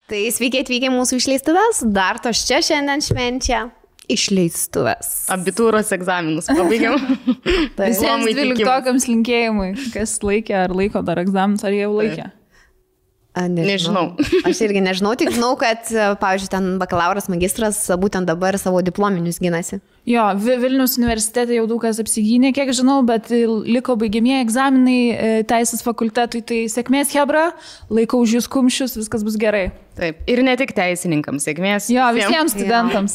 Tai sveiki atvykę mūsų išleistuvės, dar tos čia šiandien švenčia išleistuvės. Abitūros egzaminus pabaigiam. Visiems 12-okams linkėjimui, kas laikė ar laiko dar egzaminus, ar jau laikė? Nežinau. Aš irgi nežinau, tik žinau, kad, pavyzdžiui, ten bakalauras, magistras būtent dabar savo diplominius ginasi. Jo, Vilniaus universitete jau daug kas apsigynė, kiek žinau, bet liko baigiamieji egzaminai teisės fakultetui, tai sėkmės hebra, laikau už jūs kumščius, viskas bus gerai. Taip, ir ne tik teisininkams, sėkmės. Jo, visiems studentams.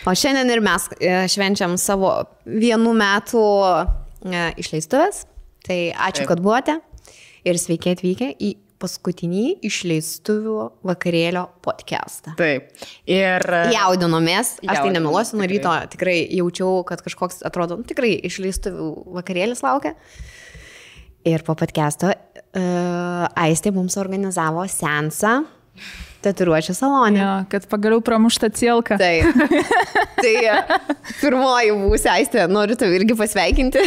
O šiandien ir mes švenčiam savo 1 metų išleistuvės, tai ačiū, kad buvote ir sveiki atvykę į paskutinį išleistuvių vakarėlio podcastą. Taip. Ir jaudinomės, aš tai nemeluosiu, nuo ryto tikrai jaučiau, kad kažkoks atrodo, tikrai išleistuvių vakarėlis laukia. Ir po podcasto Aistė mums organizavo seansą tatuiruočių salone. Jo, kad pagaliau pramušta cielka. Taip. Tai pirmoji būsi, Aistė, noriu tave irgi pasveikinti.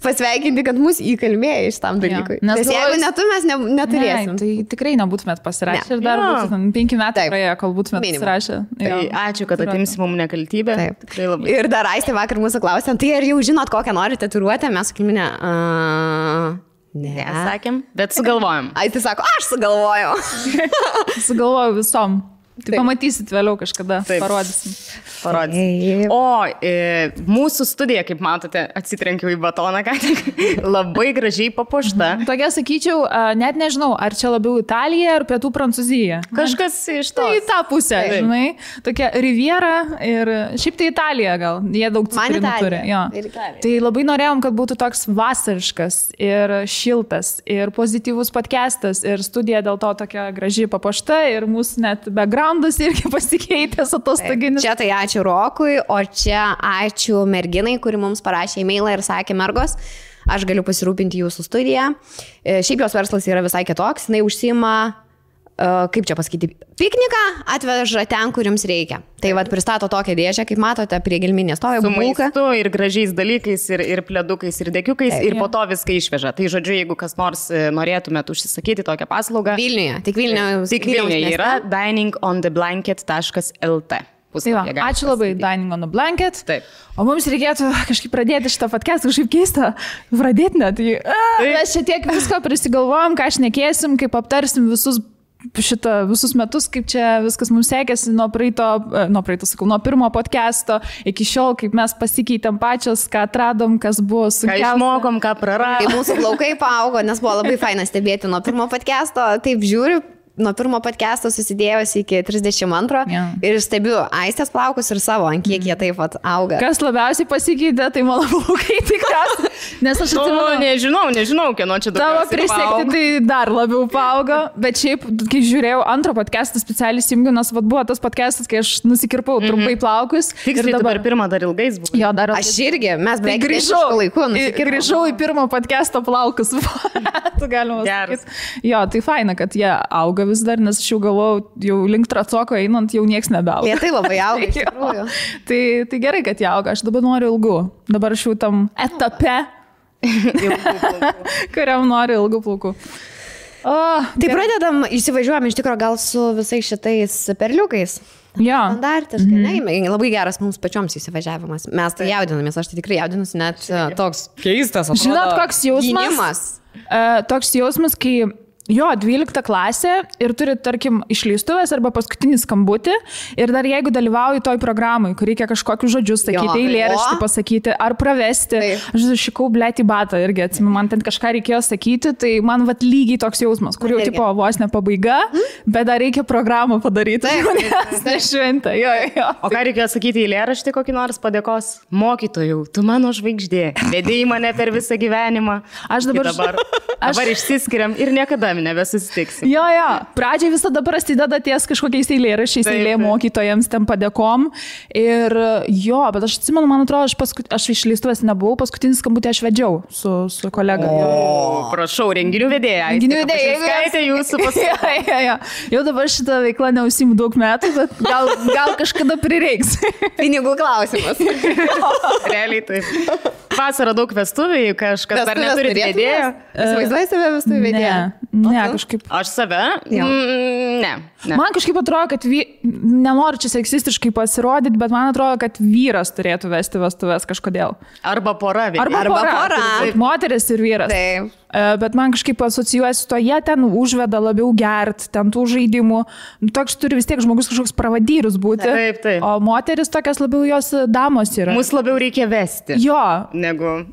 Pasveikinti, kad mus įkalbėjo iš tam dalykui. Ja, nes jeigu ne tu, mes neturėsim. Ne, tai tikrai nebūtumėt pasirašę ir dar būtų 5 metų praėjo, kol būtumėt pasirašę. Tai ačiū, kad atimsi mums nekaltybę. Taip. Ir dar Aistė vakar mūsų klausė, tai ar jau žinot, kokią nori tatuiruotę? Mes sakėme, ne. Sakėm, bet sugalvojom. Aistė sako, aš sugalvojau. Sugalvojau visom. Tai pamatysit vėliau kažkada, parodysim. O mūsų studija, kaip matote, atsitrenkiau į batoną, ką tik, labai gražiai papuošta. Tokia, sakyčiau, net nežinau, ar čia labiau Italija ar pietų Prancūzija. Kažkas iš to. Tai į tą pusę, žinai. Tokia Riviera ir šiaip tai Italija gal. Jie daug citrinų turi. Tai labai norėjom, kad būtų toks vasariškas ir šiltas ir pozityvus podcastas ir studija dėl to tokia gražiai papuošta ir mūsų net backgroundas irgi pasikeitęs atostoginis. Čia tai ačiū Rokui, o čia ačiū merginai, kuri mums parašė e-mailą ir sakė, mergos, aš galiu pasirūpinti jūsų studiją. Šiaip jos verslas yra visai kitoks, jinai užsiima, kaip čia pasakyti, pikniką atveža ten, kur jums reikia. Tai vat pristato tokią dėžę, kaip matote, prie gelminės stovi bulka. Su maistu ir gražiais dalykais, ir pledukais, ir dekiukais, ir po to viską išveža. Tai žodžiu, jeigu kas nors norėtumėt užsisakyti tokią paslaugą. Vilniuje, tik Vilniuje yra diningontheblanket.lt. Ačiū labai, Dining on the Blanket. Taip. O mums reikėtų kažkaip pradėti šitą podcastą, kažkaip keista pradėti net. Mes čia tiek visko prisigalvojom, ką šnekėsim, kaip aptarsim visus metus, kaip čia viskas mums sekėsi nuo pirmo podcasto iki šiol, kaip mes pasikeitėm pačios, ką atradom, kas buvo sunkiausia. Ką išmokom, ką praradom. Kai mūsų plaukai paaugo, nes buvo labai faina stebėti nuo pirmo podcasto, taip žiūriu. Nuo pirmo podcast'o susidėjusi iki 32 ir stebiu Aistės plaukus ir savo, ant kiek jie taip pat auga. Kas labiausiai pasikeitė, tai mano plaukai tikras. Nes aš atsimenu, nežinau, kieno čia dabar. Tavo prisekti tai dar labiau paaugo, bet šiaip, kai žiūrėjau antrą podcast'ą specialiai įsijungiau, nes buvo tas podcast'as, kai aš nusikirpau trumpai plaukus. Tiksliai dabar pirmą dar ilgais buvo. Jo, dar aš irgi, mes beveik grįžau į pirmo podcast'o plaukus. Tu galima sakyti. Jo, tai faina, kad jie auga vis dar, nes aš jau galvojau, jau link tracoko einant, jau nieks nebeauga. Jie tai labai auga, iš tikrųjų. Tai gerai, kad jie auga, aš dabar noriu ilgų. Dabar aš jau tam etape, kuriam noriu ilgų plaukų. Tai pradedam, įsivažiuojam iš tikrųjų gal su visais šitais perliukais. Jo. Standartiškai, labai geras mums pačioms įsivažiavimas. Mes tai jaudinamės, aš tai tikrai jaudinusi, net toks keistas atrodo. Žinot, koks jausmas? Gynimas. Toks jausmas, kai 12 klasė ir turi, tarkim, išleistuvės arba paskutinį skambutį ir dar jeigu dalyvauji toj programai, kur reikia kažkokius žodžius sakyti, eilėraštį pasakyti ar pravesti. Aš šikau blėti batą irgi, atsimenu, man ten kažką reikėjo sakyti, tai man vat lygiai toks jausmas, kur jau tipo vos ne pabaiga, bet dar reikia programą padaryti. Tai šventė. O ką reikėjo sakyti eilėraštį kokį nors padėkos? Mokytojau, tu mano žvaigždė, vedėjai mane per visą gyvenimą. Aš dabar išsiskiriam ir niekada nebesusitiksim. Jo. Pradžiai visada prasideda ties kažkokiais eilėraščiais, eilė mokytojams, ten padėkom. Ir bet aš atsimenu, man atrodo, aš išleistuvės nebuvau, paskutinį skambutį aš vedžiau su kolega. Prašau, renginių vedėja. Skaitė jūsų paskutinį. Jau dabar šitą veiklą neužsiimu daug metų, bet gal kažkada prireiks. Pinigų klausimas. Realiai taip. vasarą daug vestuvių, kažkas dar neturi vedėjo. Įsivaizduoji save vestuvių vedėją? Ne, kažkaip. Aš save? Ne. Man kažkaip atrodo, kad nenoriu čia seksistiškai pasirodyti, bet man atrodo, kad vyras turėtų vesti vestuves kažkodėl. Arba pora. Arba pora. Moteris ir vyras. Taip. Bet man kažkaip asocijuojasi to, jie ten užveda labiau gert, ten tų žaidimų. Toks turi vis tiek žmogus kažkoks pravadyrius būti. Taip. O moteris tokias labiau jos damos yra. Mus labiau reikia vesti. Jo. Negu...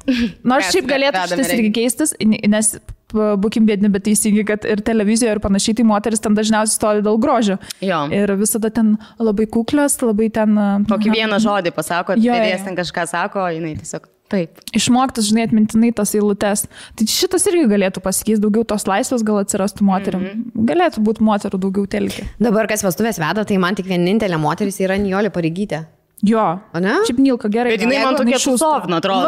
Nors šiaip galėtų šitas irgi keistis, nes būkim bėdini, bet teisingi, kad ir televizijoje ir panašiai, tai moteris ten dažniausiai stovi dėl grožio. Jo. Ir visada ten labai kuklios, labai ten... Kokį vieną žodį pasako, vedėjas ten kažką sako, jinai tiesiog taip. Išmoktas, žinai, atmintinai tas eilutes. Tai šitas irgi galėtų pasikeisti, daugiau tos laisvės gal atsirastų moterim. Galėtų būti moterų daugiau telkė. Dabar kas vestuvės veda, tai man tik vienintelė moteris yra Nijolė Pareigytė. Jo, o ne? Šiaip Nilka gerai. Bet jinai man tokia šusovna, atrodo.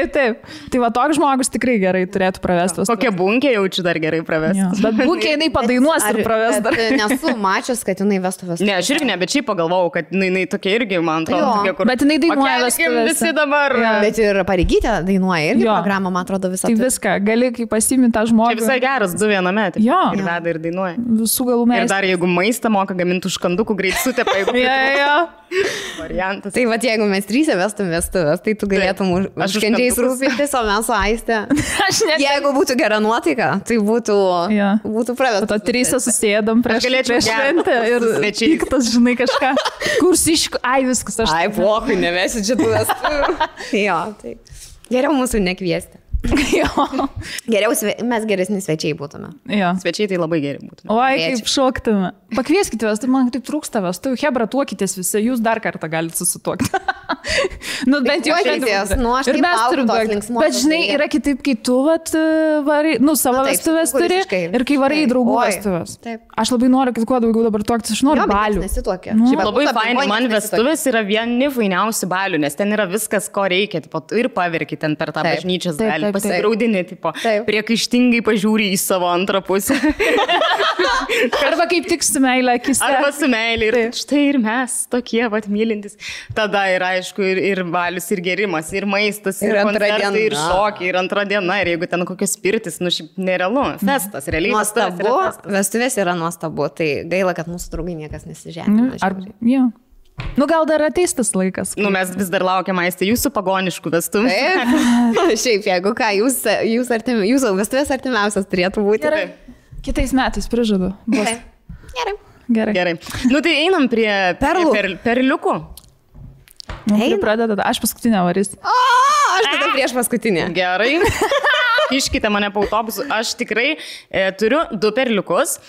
Taip. Tai va toks žmogus tikrai gerai turėtų pravestas. Kokia bunkė jaučiu dar gerai pravestas. Bet bunkė jinai padainuos ir praves dar. Nesu mačius, kad jinai vestų vestuvės. Ne, aš irgi ne, bet šiaip pagalvojau, kad jinai tokia irgi, man atrodo, kur... Bet jinai dainuoja vestuvės. Visi dabar. Bet ir Pareigytė dainuoja irgi programą, man atrodo, visą. Tai viską, gali, kai pasiimi tą žmogų. Čia visai geras, 2 viename. Ir veda ir dainuoja. Visų galų meistras. Ir dar jeigu maistą moka gaminti užkandukų greit sutė. Variantas. Tai va, jeigu mes 3 vestum vestuvės, tai tu galėtum užkandžiais rūpintis, o mes su Aiste. Jeigu būtų gera nuotaika, tai būtų pravestas. To 3 susėdam prieš šventę ir piktas, žinai, kažką. Kursiškų, viskas aš. Pohui, nevesi čia tų vestuvių. Jo, tai geriau mūsų nekviesti. Geriau mes geresni svečiai būtume. Svečiai tai labai geri būtume. Oi, kaip šoktume. Pakvieskite vestuvių, man taip trūksta vestuvių. Hebra, tuokitės visi, jūs dar kartą galite susituokti. Bent jau šiandien. Ir mes turim tuokti. Bet žinai, yra kitaip, kai tu varai, savo vestuvės turi ir kai varai draugų vestuvės. Aš labai noriu, kad kuo daugiau dabar tuoktis, aš noriu balių. Šiaip labai fainai, man vestuvės yra vieni fainiausių balių, nes ten yra viskas, ko reikia. Ir paverki ten per tą bažnyčios dalį. Pasigraudini, priekaištingai pažiūri į savo antrą pusę. Arba kaip tik su meilė akise. Arba su meilė. Ir štai ir mes tokie mylintis. Tada yra, aišku, ir balius, ir gerimas, ir maistas, ir koncertai, ir šokiai, ir antra diena. Ir jeigu ten kokios pirtis, šiaip nerealu. Festas, realiai. Nuostabu, vestuvės yra nuostabu. Tai gaila, kad mūsų draugai niekas nesižemina. Gal dar ateis tas laikas. Mes vis dar laukiam, Aiste, jūsų pagoniškų vestuvių. Šiaip, jeigu ką, jūsų vestuvės artimiausias turėtų būti. Gerai. Kitais metais prižadu. Gerai. Tai einam prie perliukų. Pradeda, aš paskutinę varys. Aš tada prieš paskutinę. Gerai. Iškite mane po autobusu. Aš tikrai turiu 2 perliukus.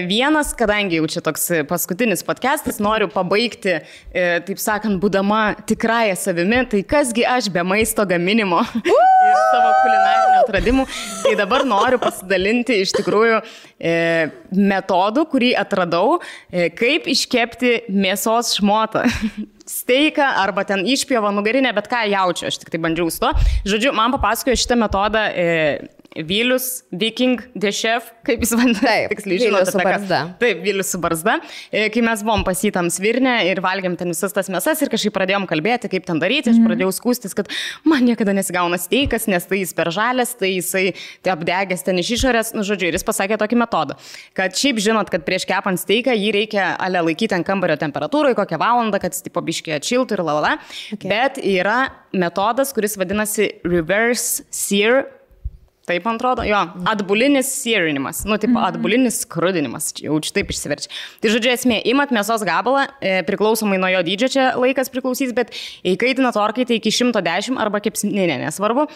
Vienas, kadangi jau čia toks paskutinis podcastas, noriu pabaigti, taip sakant, būdama tikrąją savimi, tai kasgi aš be maisto gaminimo ir savo kulinarinių atradimų. Tai dabar noriu pasidalinti iš tikrųjų metodų, kurį atradau, kaip iškepti mėsos šmotą. Steiką arba ten išpjovą nugarinę, bet ką jaučiu, aš tik tai bandžiau su to. Žodžiu, man papasakojo šitą metodą Vilius, Viking, The Chef, kaip jis vadinasi, tiksliai žinote. Vilius su barzda. Taip, Vilius su barzda. Kai mes buvom pasitam svirnę ir valgėm ten visas tas mėsas ir kažkaip pradėjom kalbėti, kaip ten daryti, aš pradėjau skūstis, kad man niekada nesigauna steikas, nes tai jis per žalės, tai jisai apdegęs ten iš išorės, žodžiu, ir jis pasakė tokį metodą, kad šiaip žinot, kad prieš kepant steiką jį reikia laikyti ant kambario temperatūrai kokią valandą, kad jis tipo biškį atšiltų ir lalala. Okay. Bet yra metodas, kuris vadinasi reverse sear. Taip, man atrodo, atbulinis searinimas, atbulinis skrudinimas, jau čia taip išsiverčia. Tai žodžiu, esmė, imat mėsos gabalą, priklausomai nuo jo dydžio čia laikas priklausys, bet įkaitinat orkaitę iki 110 arba kepsninė, nesvarbu,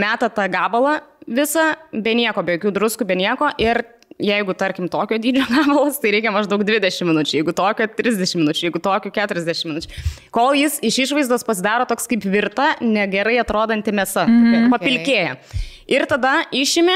metat tą gabalą visą, be nieko, be jokių druskų, be nieko ir jeigu, tarkim, tokio dydžio gabalas, tai reikia maždaug 20 minučių, jeigu tokio 30 minučių, jeigu tokio 40 minučių. Kol jis iš išvaizdos pasidaro toks kaip virta, negerai atrodanti mėsa, papilkėja. Ir tada išimi,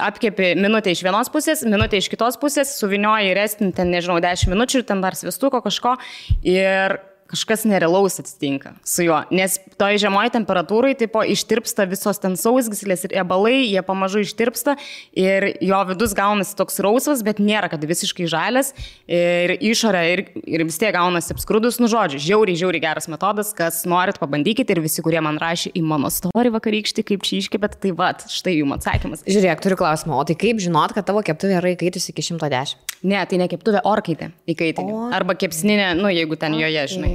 apkepi minutę iš vienos pusės, minutę iš kitos pusės, suvinioji restinį ten, nežinau, 10 minučių ir ten dar svistuko kažko ir kažkas nerealaus atsitinka su juo, nes toj žemoji temperatūrai tipo ištirpsta visos ten sausgyslės ir riebalai, jie pamažu ištirpsta ir jo vidus gaunasi toks rausvas, bet nėra, kad visiškai žalias ir išorė ir vis tiek gaunasi apskrudus, nu žodžiu, žiauriai geras metodas, kas norit pabandykite ir visi, kurie man rašė į mano story vakarykštį, kaip čia iškepėt, tai vat, štai jums atsakymas. Žiūrėk, turiu klausimą, o tai kaip žinot, kad tavo keptuvė yra įkaitusi iki 110? Ne, tai ne keptuvė, orkaitė įkaitinė. Arba kepsninė, nu jeigu ten joje, žinai.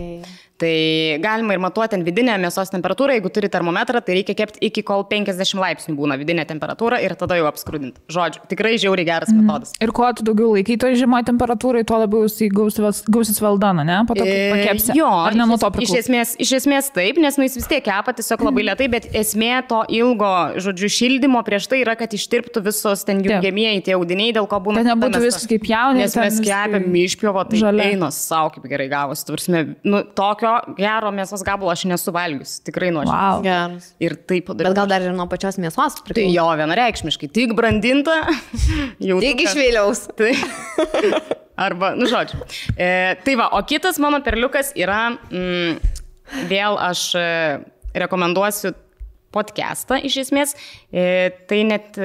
Tai galima ir matuoti ten vidinę mėsos temperatūrą, jeigu turi termometrą, tai reikia kepti iki kol 50 laipsnių būna vidinė temperatūra ir tada jau apskrudinti. Žodžiu, tikrai žiauriai geras metodas. Ir kuo tu daugiau laikai toj žemoje temperatūrai, tuo labiau jisai gausis valdoną, ne? Po to pakepsi. Jo, ar ne nuo to priklauso? Iš esmės taip, nes jis vis tiek kepa tiesiog labai lėtai, bet esmė to ilgo, žodžiu, šildymo prieš tai yra, kad ištirptų visos ten jungiamieji tie audiniai, dėl ko būna. Tai nebūtų viskas kaip jaunė. Nes mes kepėm išpjovo, tai einos savo kaip gerai gavosi. Nu, tokio gero mėsos gabalo aš nesu valgius, tikrai nuoširdžiai. Wow. Geras. Ir taip padaryti. Bet gal dar ir nuo pačios mėsos priklauso. Tai jo, vienareikšmiškai, tik brandinta. Tik iš vėliaus. Tai. Arba, nu žodžiu. Tai va, o kitas mano perliukas yra, vėl aš rekomenduosiu podcastą iš esmės, tai net...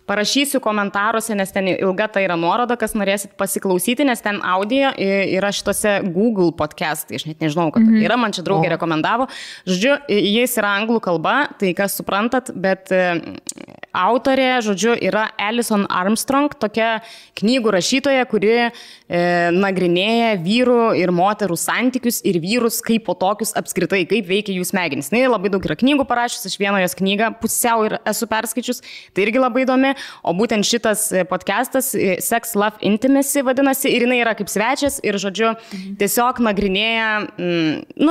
Parašysiu komentaruose, nes ten ilga tai yra nuoroda, kas norėsit pasiklausyti, nes ten audio yra šitose Google podcastai, aš net nežinau, kad yra, man čia draugė rekomendavo. Žodžiu, jis yra anglų kalba, tai kas suprantat, bet autorė, žodžiu, yra Alison Armstrong, tokia knygų rašytoja, kuri nagrinėja vyrų ir moterų santykius ir vyrus kaip po tokius apskritai, kaip veikia jų smegenys. Na, labai daug yra knygų parašęs, aš vieną jos knygą pusiau ir esu perskaičius, tai irgi labai įdomi. O būtent šitas podcastas Sex, Love, Intimacy vadinasi ir jinai yra kaip svečias ir, žodžiu, tiesiog nagrinėja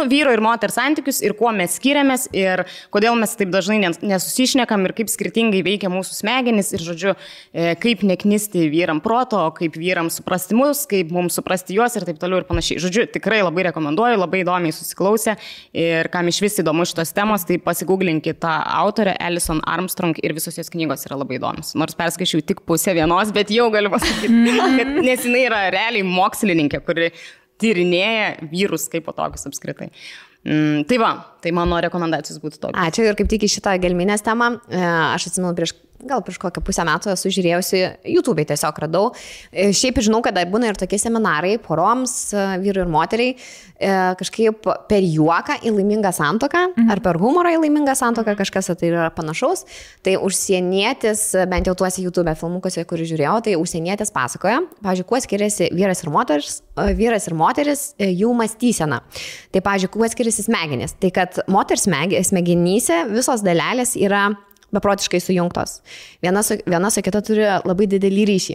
vyro ir moters santykius ir kuo mes skiriamės ir kodėl mes taip dažnai nesusišnekam ir kaip skirtingai veikia mūsų smegenys ir, žodžiu, kaip neknisti vyram proto, kaip vyram suprasti mus, kaip mums suprasti juos ir taip toliau ir panašiai. Žodžiu, tikrai labai rekomenduoju, labai įdomiai susiklausę ir kam iš vis įdomu šitos temos, tai pasigūglinkit tą autorę Alison Armstrong ir visos jos knygos yra labai įdomios. Nors perskaičiau tik pusę vienos, bet jau galiu pasakyti, kad nes jinai yra realiai mokslininkė, kuri tyrinėja vyrus kaip po tokius apskritai. Tai va, tai mano rekomendacijos būtų tokios. Ačiū ir kaip tik į šitą gelminės temą, aš atsimenu prieš kokią pusę metų esu žiūrėjusi, YouTube'ai tiesiog radau. Šiaip žinau, kad būna ir tokie seminarai poroms, vyrui ir moteriai, kažkaip per juoką į laimingą santuoką, ar per humorą į laimingą santuoką, kažkas tai yra panašaus. Tai užsienietis, bent jau tuose YouTube filmukuose, kurį žiūrėjau, tai užsienietis pasakoja, pavyzdžiui, kuo skiriasi vyras ir moteris jų mąstysena. Tai, pavyzdžiui, kuo skiriasi smegenys. Tai, kad moters smegenyse visos dalelės yra beprotiškai sujungtos. Viena su kita turi labai didelį ryšį.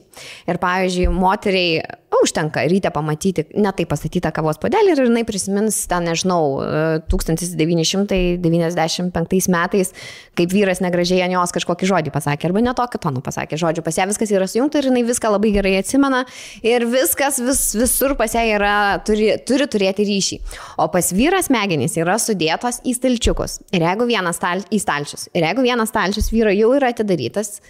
Ir, pavyzdžiui, moteriai užtenka ryte pamatyti netai pastatytą kavos puodelį ir jinai prisimins, ten, nežinau, 1995 metais, kaip vyras negražiai ant jos kažkokį žodį pasakė, arba ne tokį toną pasakė. Žodžiu, pas ją viskas yra sujungta ir jinai viską labai gerai atsimena ir viskas visur pas ją yra, turi turėti ryšį. O pas vyras smegenys yra sudėtos į stalčiukus. Ir jeigu vienas stalčius vyro jau yra atidarytas,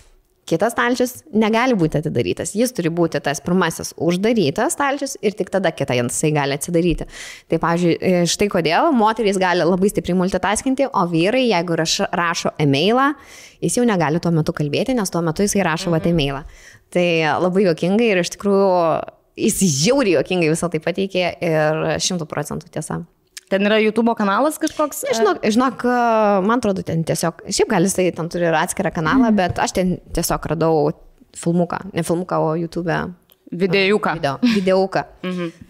kitas stalčius negali būti atidarytas. Jis turi būti tas pirmasis uždarytas stalčius ir tik tada kitą jisai gali atsidaryti. Tai, pavyzdžiui, štai kodėl moterys gali labai stipriai multitaskinti, o vyrai, jeigu rašo e-mailą, jis jau negali tuo metu kalbėti, nes tuo metu jisai rašo e-mailą. Tai labai juokingai ir iš tikrųjų jis žiauriai juokingai visą tai pateikė ir 100% tiesa. Ten yra YouTube kanalas kažkoks? Žinok, man atrodo, ten tiesiog, šiaip gal jisai ten turi atskirą kanalą, bet aš ten tiesiog radau filmuką, ne filmuką, o YouTube. Videuką.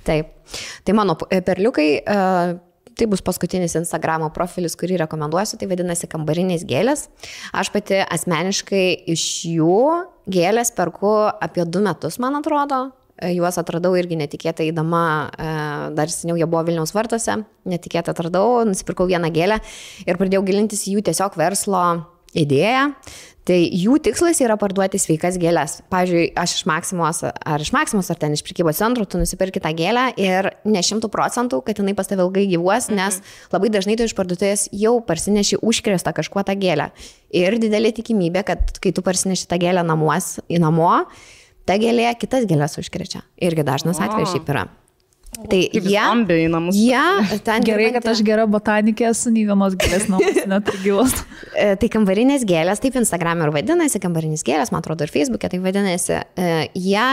Taip. Tai mano perliukai, tai bus paskutinis Instagramo profilis, kurį rekomenduosiu, tai vadinasi kambarinės gėlės. Aš pati asmeniškai iš jų gėlės perku apie 2 metus, man atrodo. Juos atradau irgi netikėtai eidama, dar seniau jie buvo Vilniaus vartuose, netikėtai atradau, nusipirkau vieną gėlę ir pradėjau gilintis jų tiesiog verslo idėją. Tai jų tikslas yra parduoti sveikas gėlės. Pavyzdžiui, aš iš Maksimos ar ten iš prekybos centro, tu nusipirki tą gėlę ir ne 100%, kad jinai pas tave ilgai gyvuos, nes labai dažnai tu iš parduotuvės jau parsineši užkrėstą kažkuo tą gėlę. Ir didelė tikimybė, kad kai tu parsineši tą gėlę namo, ta gėlė kitas gėlės užkrečia. Irgi dažnas atvejis šiaip yra. Tai jie ten gerai, kad aš gera botanikė esu, nei vienos gėlės namus neturgilos. Tai kambarinės gėlės, taip Instagram ir vadinasi, kambarinės gėlės, man atrodo, ir Facebook'e tai vadinasi. Jie,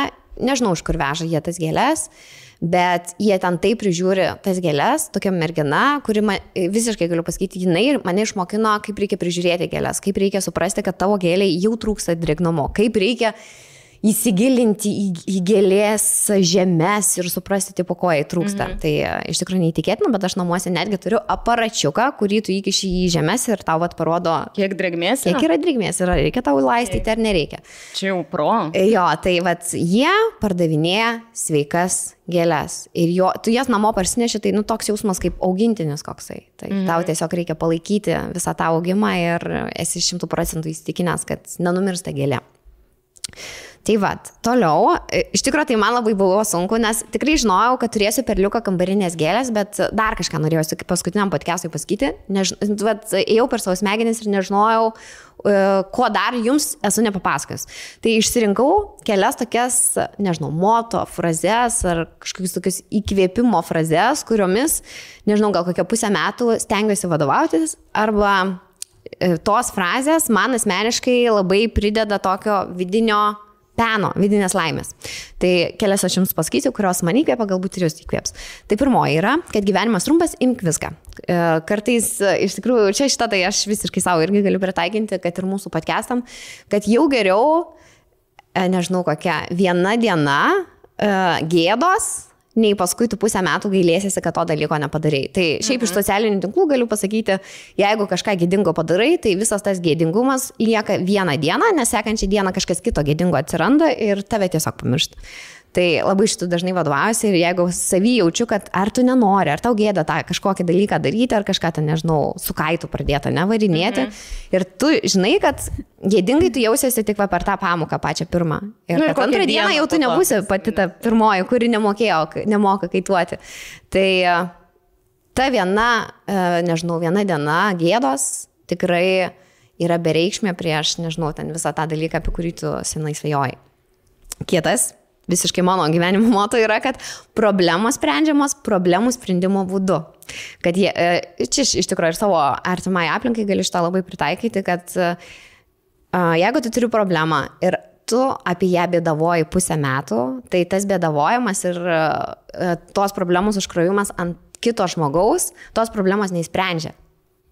nežinau, iš kur veža jie tas gėlės, bet jie ten taip prižiūri tas gėlės, tokia mergina, kuri visiškai galiu pasakyti, jinai mane išmokino, kaip reikia prižiūrėti gėlės, kaip reikia suprasti, kad tavo gėlė jau trūksta drėgnumo, kaip reikia įsigilinti į gėlės žemes ir suprasti, tipo, ko jai trūksta. Tai iš tikrųjų neįtikėtina, bet aš namuose netgi turiu aparačiuką, kurį tu įkiši į žemes ir tau parodo, kiek drėgmės yra. Kiek yra drėgmės, reikia tau laistyti ar nereikia. Čia jau pro. Jo, tai jie pardavinėja sveikas gėlės. Ir tu jas namo parsineši, tai toks jausmas kaip augintinis koksai. Tai tau tiesiog reikia palaikyti visą tą augimą ir esi 100% įsitikinęs, kad nenumirsta gėlė. Tai toliau, iš tikrųjų tai man labai buvo sunku, nes tikrai žinojau, kad turėsiu perliuką kambarinės gėlės, bet dar kažką norėjau paskutiniam podcast'ui pasakyti. Ėjau per savo smegenis ir nežinojau, ko dar jums esu nepapasakojęs. Tai išsirinkau kelias tokias, nežinau, moto frazes ar kažkokius tokius įkvėpimo frazes, kuriomis, nežinau, gal kokią pusę metų stengiuosi vadovautis, arba tos frazės man asmeniškai labai prideda tokio vidinės laimės. Tai kelias aš jums pasakysiu, kurios man įkvėpia, galbūt ir jūs įkvėps. Tai pirmoji yra, kad gyvenimas trumpas, imk viską. Kartais, iš tikrųjų, čia šitą tai aš visiškai savo irgi galiu pritaikinti, kad ir mūsų podcastam, kad jau geriau, nežinau kokia, viena diena gėdos, nei paskui tu pusę metų gailėsiesi, kad to dalyko nepadarei. Tai šiaip iš socialinių tinklų galiu pasakyti, jeigu kažką gėdingo padarai, tai visas tas gėdingumas lieka vieną dieną, nes sekančią dieną kažkas kito gėdingo atsiranda ir tave tiesiog pamiršta. Tai labai šitų dažnai vadovaujuosi ir jeigu savy jaučiu, kad ar tu nenori, ar tau gėda tą kažkokį dalyką daryti, ar kažką ten, nežinau, su kaitu pradėta nevarinėti. Ir tu žinai, kad gėdingai tu jausiesi tik per tą pamoką pačią pirmą. Ir kad antrą dieną jau tu nebūsi pati ta pirmoji, kuri nemoka kaituoti. Tai ta viena diena gėdos tikrai yra bereikšmė prieš, nežinau, ten visą tą dalyką, apie kurį tu senai svajojai. Kitas. Visiškai mano gyvenimo moto yra, kad problemos sprendžiamos problemų sprendimo būdu. Kad čia iš tikrųjų ir savo artimai aplinkai gali šitą labai pritaikyti, kad jeigu tu turi problemą ir tu apie ją bėdavoji pusę metų, tai tas bėdavojimas ir tos problemos užkrovimas ant kito žmogaus, tos problemos neįsprendžia.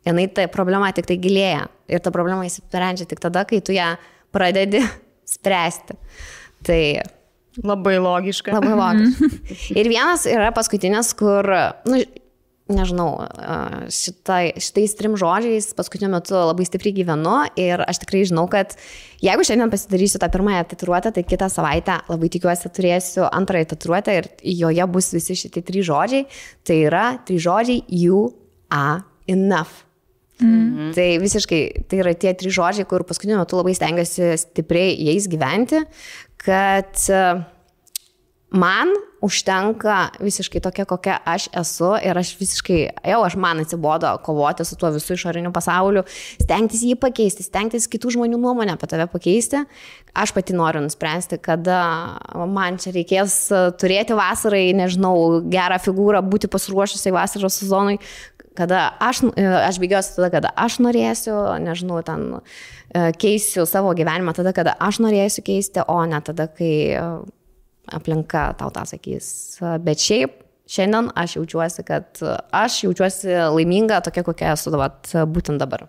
Jinai ta problema tik tai gilėja ir ta problema įsprendžia tik tada, kai tu ją pradedi spręsti. Tai labai logiška. Labai logiška. Ir vienas yra paskutinis, kur, nežinau, šitais 3 žodžiais paskutiniu metu labai stipriai gyvenu ir aš tikrai žinau, kad jeigu šiandien pasidarysiu tą pirmąją tatuiruotę, tai kitą savaitę labai tikiuosi turėsiu antrąją tatuiruotę ir joje bus visi šitie 3 žodžiai. Tai yra 3 žodžiai you are enough. Tai visiškai, tai yra tie 3 žodžiai, kur paskutiniu metu labai stengiuosi stipriai jais gyventi, kad man užtenka visiškai tokia, kokia aš esu ir aš visiškai, man atsibodo kovoti su tuo visų išoriniu pasauliu, stengtis jį pakeisti, stengtis kitų žmonių nuomonę apie tave pakeisti. Aš pati noriu nuspręsti, kada man čia reikės turėti vasarai, nežinau, gerą figūrą, būti pasiruošusiai vasaros sezonui, kada aš bėgiosiu tada, kada aš norėsiu, nežinau, ten keisiu savo gyvenimą tada, kada aš norėsiu keisti, o ne tada, kai aplinka tau tą sakys. Bet šiaip šiandien aš jaučiuosi laiminga tokia, kokia esu būtent dabar.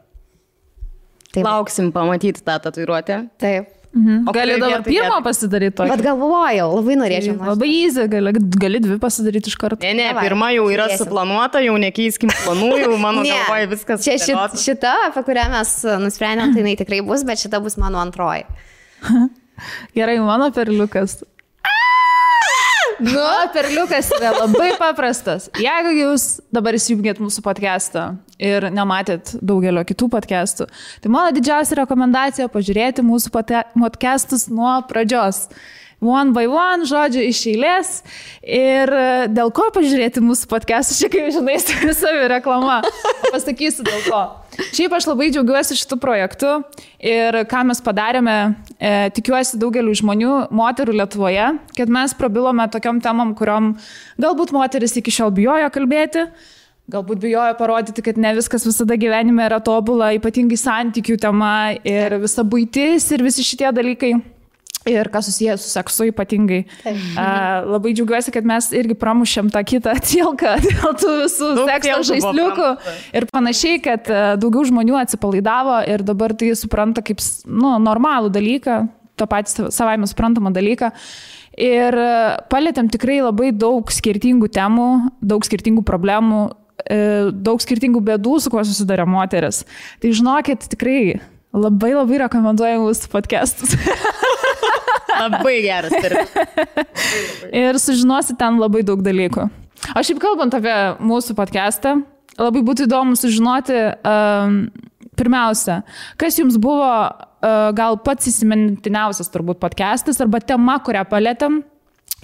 Taip. Lauksim pamatyti tą tatuiruotę. Taip. O gali dabar pirmą pasidaryti tokį? Bet galvojau, labai norėčiau. Labai easy, gali 2 pasidaryti iš karto. Ne, pirma jau yra suplanuota, jau nekeiskim planų, jau mano galvoje viskas. Čia šita, apie kurią mes nusprendėm, tai jinai tikrai bus, bet šita bus mano antroji. Gerai, mano perliukas. Perliukas yra labai paprastas. Jeigu jūs dabar įsijungėt mūsų podcastą ir nematėt daugelio kitų podcastų, tai mano didžiausia rekomendacija pažiūrėti mūsų podcastus nuo pradžios. one by one, žodžiu, iš eilės. Ir dėl ko pažiūrėti mūsų podcast'ą, čia kaip žinai, savi reklama. Pasakysiu dėl ko. Šiaip aš labai džiaugiuosi šitų projektų ir ką mes padarėme, tikiuosi daugeliu žmonių, moterų Lietuvoje, kad mes prabilome tokiom temom, kuriom galbūt moteris iki šiol bijojo kalbėti, galbūt bijojo parodyti, kad ne viskas visada gyvenime yra tobula, ypatingai santykių tema ir visa buitis ir visi šitie dalykai. Ir kas susiję su seksu ypatingai. Labai džiaugiuosi, kad mes irgi pramušėm tą kitą tilką dėl tų visų sekso žaisliukų ir panašiai, kad daugiau žmonių atsipalaidavo ir dabar tai supranta kaip normalų dalyką, tą patį savaime suprantamą dalyką. Ir palėtėm tikrai labai daug skirtingų temų, daug skirtingų problemų, daug skirtingų bėdų, su kuo susiduria moteris. Tai žinokit, tikrai labai rekomenduoju mūsų podcastus. Labai geras. Ir sužinosi ten labai daug dalykų. O šiaip kalbant apie mūsų podcastą, labai būtų įdomu sužinoti, pirmiausia, kas jums buvo gal pats įsimintiniausias turbūt podcastas arba tema, kurią palėtėm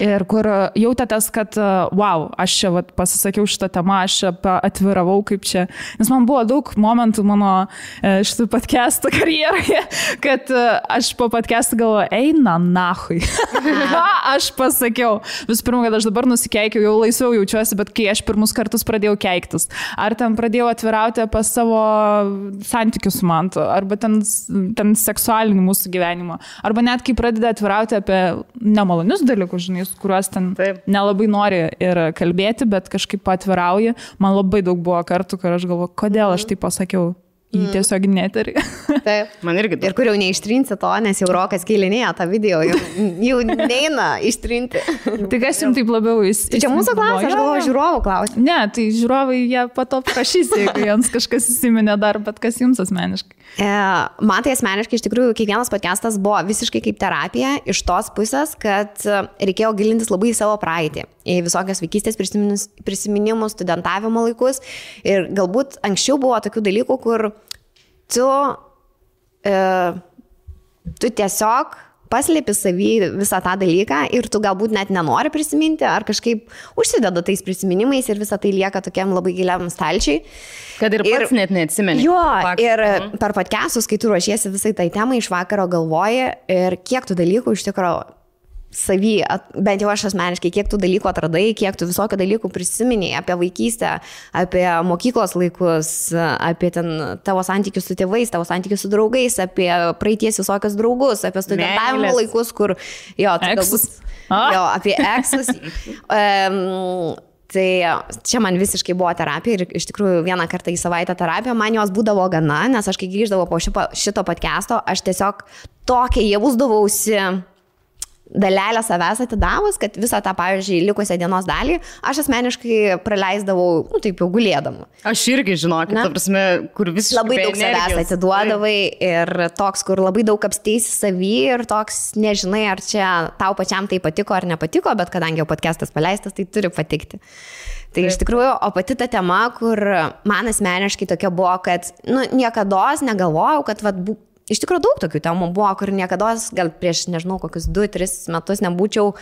ir kur jautėtės, kad wow, aš čia pasisakiau šitą temą, aš čia atviravau kaip čia. Nes man buvo daug momentų mano šitų podcastų karjeroje, kad aš po podcastų galvoju, eina nahui. Ką aš pasakiau? Visų pirma, kad aš dabar nusikeikiau, jau laisviau jaučiuosi, bet kai aš pirmus kartus pradėjau keiktis, ar ten pradėjau atvirauti apie savo santykius su mantu, arba ten seksualinį mūsų gyvenimą, arba net kai pradeda atvirauti apie nemalonius dalykus, žinai, kuriuos ten nelabai nori ir kalbėti, bet kažkaip atvirauji. Man labai daug buvo kartų, kur aš galvoju, kodėl aš tai pasakiau į tiesiog neterį. Taip. Man irgi daug. Ir kur jau neištrinsi to, nes jau Rokas kėlinėja tą video, jau neina ištrinti. Tai kas jums taip labiau įsivaizduoja? Čia mūsų klausia, aš galvoju, žiūrovų klausia. Ne, tai žiūrovai jie pato prašys, jeigu jiems kažkas įsiminė dar, bet kas jums asmeniškai? Man tai asmeniškai iš tikrųjų kiekvienas podcastas buvo visiškai kaip terapija iš tos pusės, kad reikėjo gilintis labai į savo praeitį, į visokias vaikystės prisiminimus, studentavimo laikus ir galbūt anksčiau buvo tokių dalykų, kur tu tiesiog paslėpi savį visą tą dalyką ir tu galbūt net nenori prisiminti ar kažkaip užsideda tais prisiminimais ir visą tai lieka tokiam labai giliam stalčiai. Kad ir pats net neatsimeni. Jo, ir per podcastus, kai tu ruošiesi visai tai temai, iš vakaro galvoji ir kiek tų dalykų iš tikrųjų savy, bent jau aš asmeniškai, kiek tų dalykų atradai, kiek tų visokių dalykų prisiminiai apie vaikystę, apie mokyklos laikus, apie ten tavo santykius su tėvais, tavo santykius su draugais, apie praeities visokius draugus, apie studentavimo laikus, kur, jo, tai galbūt, jo, apie eksus. Tai čia man visiškai buvo terapija ir iš tikrųjų vieną kartą į savaitę terapija, man jos būdavo gana, nes aš kai grįždavau po šito podcast'o, aš tiesiog tokia jausdavausi dalelę savęs atidavus, kad visą tą, pavyzdžiui, likusią dienos dalį aš asmeniškai praleisdavau, taip jau gulėdama. Aš irgi žinokit, ta prasme, kur visiškai labai daug savęs atiduodavai ir toks, kur labai daug apsteisi savį ir toks, nežinai, ar čia tau pačiam tai patiko ar nepatiko, bet kadangi jau podcastas paleistas, tai turi patikti. Tai iš tikrųjų, o pati ta tema, kur man asmeniškai tokia buvo, kad niekados negalvojau, kad iš tikrųjų daug tokių temų buvo, kur niekados, gal prieš, nežinau, kokius 2-3 metus nebūčiau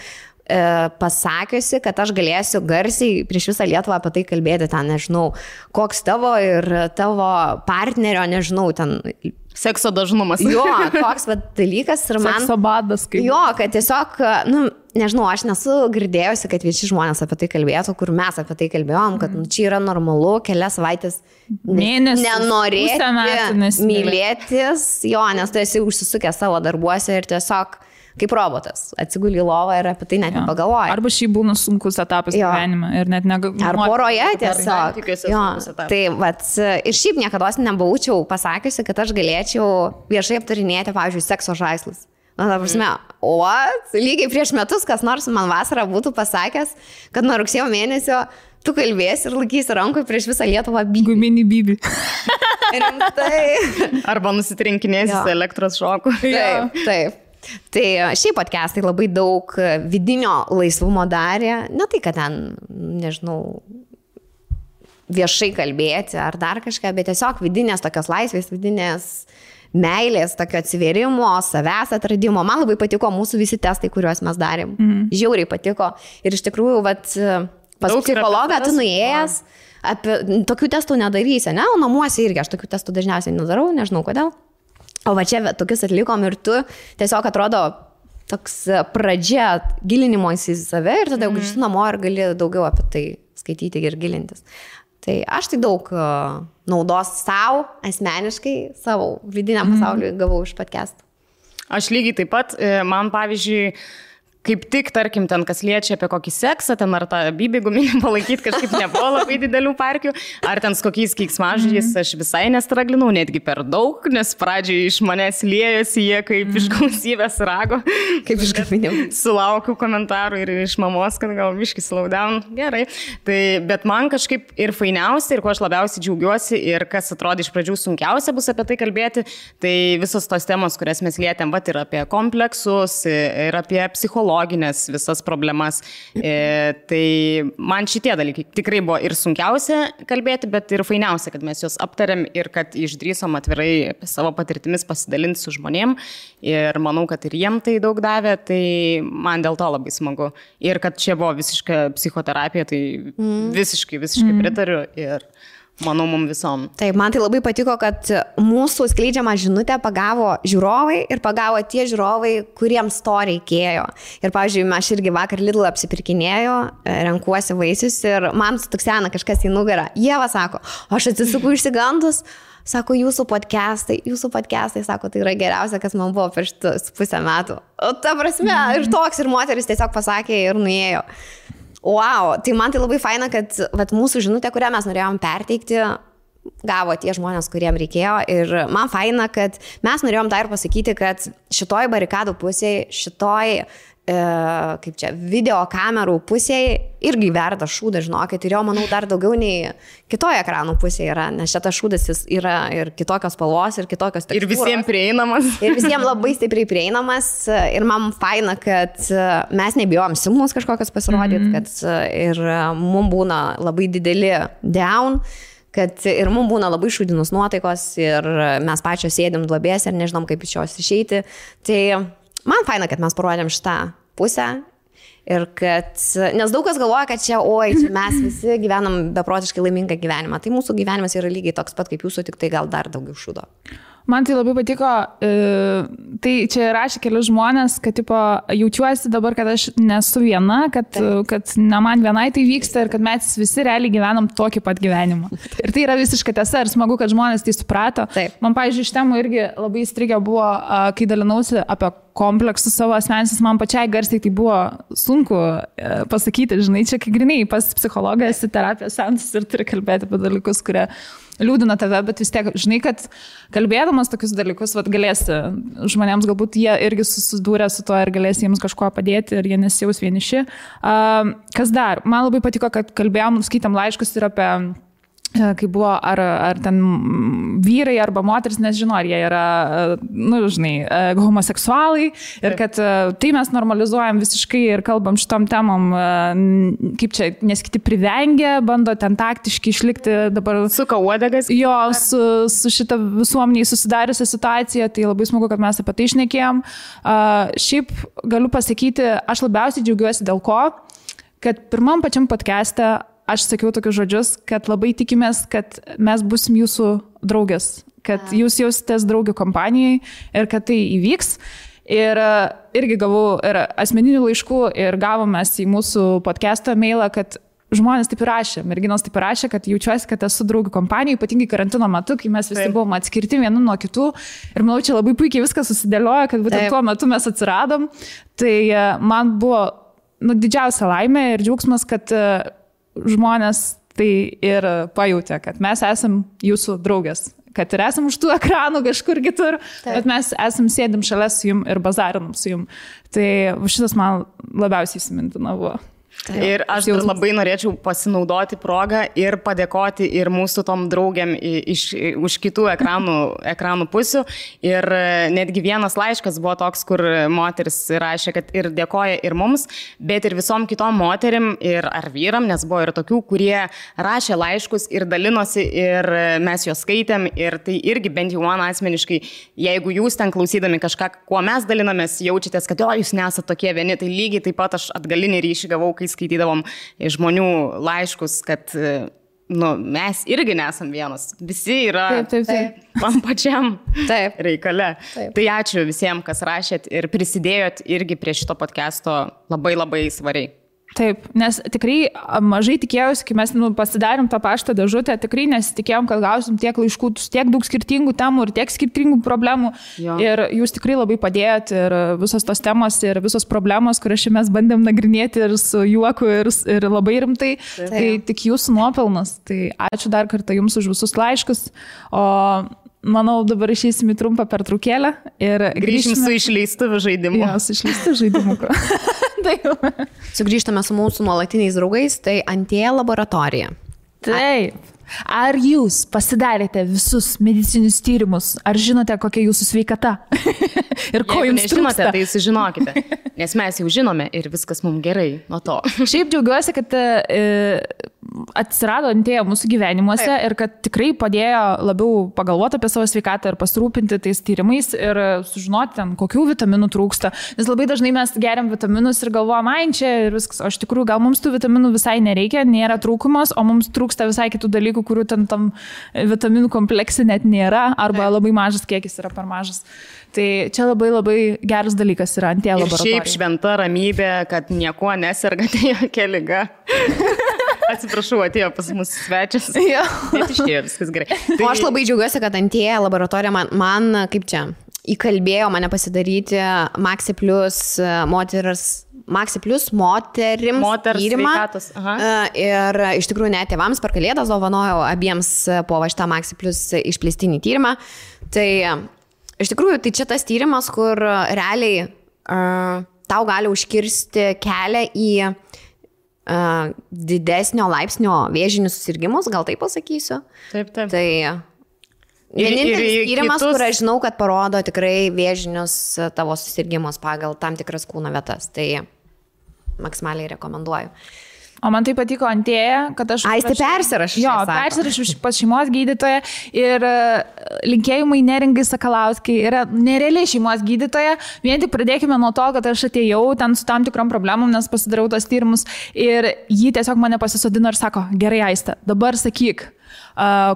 pasakiusi, kad aš galėsiu garsiai prieš visą Lietuvą apie tai kalbėti, ten, nežinau, koks tavo ir tavo partnerio, nežinau, ten sekso dažnumas. Jo, toks dalykas ir man... Sekso badas, kaip... Jo, kad tiesiog, nežinau, aš nesu girdėjusi, kad visi žmonės apie tai kalbėtų, kur mes apie tai kalbėjom, kad čia yra normalu, kelias savaitės nenorėti mylėtis, jo, nes tu esi užsisukęs savo darbuose ir tiesiog kaip robotas, atsiguli į lovą ir apie tai net nepagalvoji. Arba šiaip būna sunkus etapas gyvenime ir net negalvoji. Ar poroje tiesiog. Tai ir šiaip niekada nebūčiau pasakiusi, kad aš galėčiau viešai aptarinėti, pavyzdžiui, sekso žaislus. Na, ta prasme, lygiai prieš metus kas nors man vasarą būtų pasakęs, kad nuo rugsėjo mėnesio tu kalbėsi ir laikysi rankoje prieš visą Lietuvą bybį. Guminį bybį. Rimtai. Arba nusitrinkinėsi su elektros šoku. Taip. Tai šiaip podcastai labai daug vidinio laisvumo darė, ne tai, kad ten, nežinau, viešai kalbėti ar dar kažką, bet tiesiog vidinės tokios laisvės, vidinės meilės, tokio atsivėrimo, savęs atradimo. Man labai patiko mūsų visi testai, kuriuos mes darėm. Žiauriai patiko. Ir iš tikrųjų, pas psichologą tu nuėjęs, tokių testų nedarysi, ne? O namuose irgi aš tokių testų dažniausiai nedarau, nežinau kodėl. O va čia tokius atlikom ir tu tiesiog atrodo toks pradžia gilinimo į save ir tada jau grįžti namo ir gali daugiau apie tai skaityti ir gilintis. Tai aš tai daug naudos savo, asmeniškai, savo vidiniam pasauliui gavau iš podcastų. Aš lygiai taip pat, man pavyzdžiui, kaip tik, tarkim, ten kas liečia apie kokį seksą, ten ar tą bybį guminį palaikyti kažkaip nebuvo labai didelių parkių, ar ten su kokiais keiksmažodžiais aš visai nestraglinau, netgi per daug, nes pradžiai iš manęs liejosi jie kaip iš gausybės rago. Kaip iš gaminimo. Sulaukiu komentarų ir iš mamos, kad gal biškį slow down, gerai. Tai, bet man kažkaip ir fainiausia, ir ko aš labiausiai džiaugiuosi, ir kas atrodė iš pradžių sunkiausia bus apie tai kalbėti, tai visos tos temos, kurias mes lietėm, ir apie kompleksus, ir apie psichologiją, visas problemas. Tai man šitie dalykai tikrai buvo ir sunkiausia kalbėti, bet ir fainiausia, kad mes juos aptarėm ir kad išdrįsom atvirai savo patirtimis pasidalinti su žmonėm. Ir manau, kad ir jiem tai daug davė, tai man dėl to labai smagu. Ir kad čia buvo visiška psichoterapija, tai visiškai pritariu ir manau, mums visom. Taip, man tai labai patiko, kad mūsų skleidžiamą žinutę pagavo žiūrovai ir pagavo tie žiūrovai, kuriems to reikėjo. Ir, pavyzdžiui, aš irgi vakar Lidl apsipirkinėjau, renkuosi vaisius ir man stuksena kažkas į nugarą. Ieva sako, aš atsisuku išsigandus, sako, jūsų podcastai, sako, tai yra geriausia, kas man buvo per šitus pusę metų. O ta prasme, ir toks, ir moteris tiesiog pasakė ir nuėjo. Wow, tai man tai labai faina, kad mūsų žinutė, kurią mes norėjom perteikti, gavo tie žmonės, kuriem reikėjo. Ir man faina, kad mes norėjom dar ir pasakyti, kad šitoj barikadų pusėje, šitoj video kamerų pusėje irgi verda šūdas, žinokit. Ir jo, manau, dar daugiau nei kitoje ekranų pusėje yra, nes šitas šūdas jis yra ir kitokios spalvos, ir kitokios tekstūros. Ir visiems prieinamas. Ir visiems labai stipriai prieinamas. Ir man faina, kad mes nebijom silpnus kažkokios pasirodyti, kad ir mums būna labai dideli down, kad ir mums būna labai šūdinus nuotaikos ir mes pačios sėdim duobės ir nežinom, kaip iš jos išeiti. Tai man faina, kad mes parodėm šitą pusę ir kad, nes daug kas galvoja, kad čia mes visi gyvenam beprotiškai laimingą gyvenimą. Tai mūsų gyvenimas yra lygiai toks pat kaip jūsų, tik tai gal dar daugiau šūdo. Man tai labai patiko, tai čia rašė keli žmonės, kad tipo, jaučiuosi dabar, kad aš nesu viena, kad ne man vienai tai vyksta ir kad mes visi realiai gyvenam tokį pat gyvenimą. Ir tai yra visiškai tiesa ir smagu, kad žmonės tai suprato. Taip. Man, pavyzdžiui, iš temų irgi labai įstrigę buvo, kai dalinausi apie kompleksus savo asmenis, man pačiai garsiai tai buvo sunku pasakyti, žinai, čia kai grinai pas psichologą esi terapijos seansas ir turi kalbėti apie dalykus, kurie liūdina tave, bet vis tiek, žinai, kad kalbėdamas tokius dalykus, galėsi žmonėms, galbūt jie irgi susidūrė su to ir galėsi jiems kažko padėti ir jie nesijaus vieniši. Kas dar? Man labai patiko, kad kalbėjom, skaitam laiškus ir apie kai buvo, ar ten vyrai arba moteris, nežinau, ar jie yra, homoseksualai ir kad tai mes normalizuojam visiškai ir kalbam šitom temom, kaip čia, nes kiti privengia, bando ten taktiškai išlikti dabar. Suka uodegas. Jo, su šita visuomeniai susidariusią situaciją, tai labai smagu, kad mes apie tai šnekėjom. Šiaip galiu pasakyti, aš labiausiai džiaugiuosi dėl ko, kad pirmam pačiam podcast'e aš sakiau tokius žodžius, kad labai tikimės, kad mes busim jūsų draugės, kad jūs jausitės draugių kompanijai ir kad tai įvyks. Ir irgi gavau ir asmeninių laiškų ir gavom mes į mūsų podcast'o mailą, kad žmonės taip ir rašė, merginos taip ir rašė, kad jaučiuosi, kad esu draugių kompanijai, ypatingai karantino metu, kai mes visi buvom atskirti vieni nuo kitų. Ir manau, čia labai puikiai viskas susidėliojo, kad būtent tuo metu mes atsiradom. Tai man buvo didžiausia laimė ir džiaugsmas, kad žmonės tai ir pajutė, kad mes esam jūsų draugės, kad ir esam už tų ekranų kažkur kitur, bet mes esam sėdim šalia su jum ir bazarinam su jum. Tai šitas man labiausiai įsimintina buvo. Ir aš dar labai norėčiau pasinaudoti progą ir padėkoti ir mūsų tom draugiam už kitų ekranų pusių. Ir netgi vienas laiškas buvo toks, kur moteris rašė, kad ir dėkoja ir mums, bet ir visom kitom moterim ir ar vyram, nes buvo ir tokių, kurie rašė laiškus ir dalinosi ir mes juos skaitėm. Ir tai irgi bent jau man asmeniškai, jeigu jūs ten klausydami kažką, kuo mes dalinamės, jaučiatės, kad jūs nesate tokie vieni, tai lygiai taip pat aš atgalinį ryšį gavau, kai skaitydavom žmonių laiškus, kad mes irgi nesam vienas. Visi yra tam pačiam reikale. Taip. Tai ačiū visiems, kas rašėt ir prisidėjot irgi prie šito podcast'o labai labai svariai. Taip, nes tikrai mažai tikėjausi, kai mes pasidarėm tą paštą dėžutę, tikrai nesitikėjom, kad gausim tiek laiškų, tiek daug skirtingų temų ir tiek skirtingų problemų. Jo. Ir jūs tikrai labai padėjot ir visos tos temos ir visos problemos, kurias mes bandėm nagrinėti ir su juoku ir labai rimtai, tai tik jūsų nuopelnas. Tai ačiū dar kartą jums už visus laiškus. O manau, dabar išeisim į trumpą pertraukėlę ir grįšim su išleistuvių žaidimu. Jo, su išleistuvių žaidimu. Sugrįžtame su mūsų nuolatiniais draugais, tai Antėja laboratorija. Taip. Ar jūs pasidarėte visus medicinius tyrimus? Ar žinote, kokia jūsų sveikata? Ir ko jums nežinote, tai sužinokite. Nes mes jau žinome ir viskas mums gerai nuo to. Šiaip džiaugiuosi, kad atsirado Antėja mūsų gyvenimuose ir kad tikrai padėjo labiau pagalvoti apie savo sveikatą ir pasirūpinti tais tyrimais ir sužinoti ten, kokių vitaminų trūksta. Nes labai dažnai mes geriam vitaminus ir galvojam, čia ir viskas. O iš tikrųjų gal mums tų vitaminų visai nereikia, nėra trūkumas, o mums trūksta visai kitų dalykų, kurių ten tam vitaminų komplekse net nėra arba labai mažas kiekis yra per mažas. Tai čia labai labai geras dalykas yra Antėja laboratorija. Ir šiaip šventa ramybė, kad niekuo nesergate jokia liga. Atsiprašau, atėjo pas mus svečias. Bet išėjo viskas gerai. Tai... O aš labai džiaugiuosi, kad Antėja laboratorija man kaip čia įkalbėjo mane pasidaryti Maxi Plus moterims tyrimą. Ir iš tikrųjų net tėvams per Kalėdas dovanojau abiems po šitą Maxi Plus išplėstinį tyrimą. Tai iš tikrųjų tai čia tas tyrimas, kur realiai tau gali užkirsti kelią į didesnio laipsnio vėžinius susirgymus, gal taip pasakysiu. Taip. Tai vienintelis tyrimas, kur aš žinau, kad parodo tikrai vėžinius tavo susirgymus pagal tam tikras kūno vietas. Tai maksimaliai rekomenduoju. O man tai patiko Antėja, kad aš... Tai persirašau. Jo, persirašau pas šeimos gydytoją ir linkėjimai Neringai Sakalauskai yra nerealiai šeimos gydytoja. Vien tik pradėkime nuo to, kad aš atėjau ten su tam tikrom problemom, nes pasidariau tos tyrimus ir jį tiesiog mane pasisodino ir sako, gerai Aiste, dabar sakyk,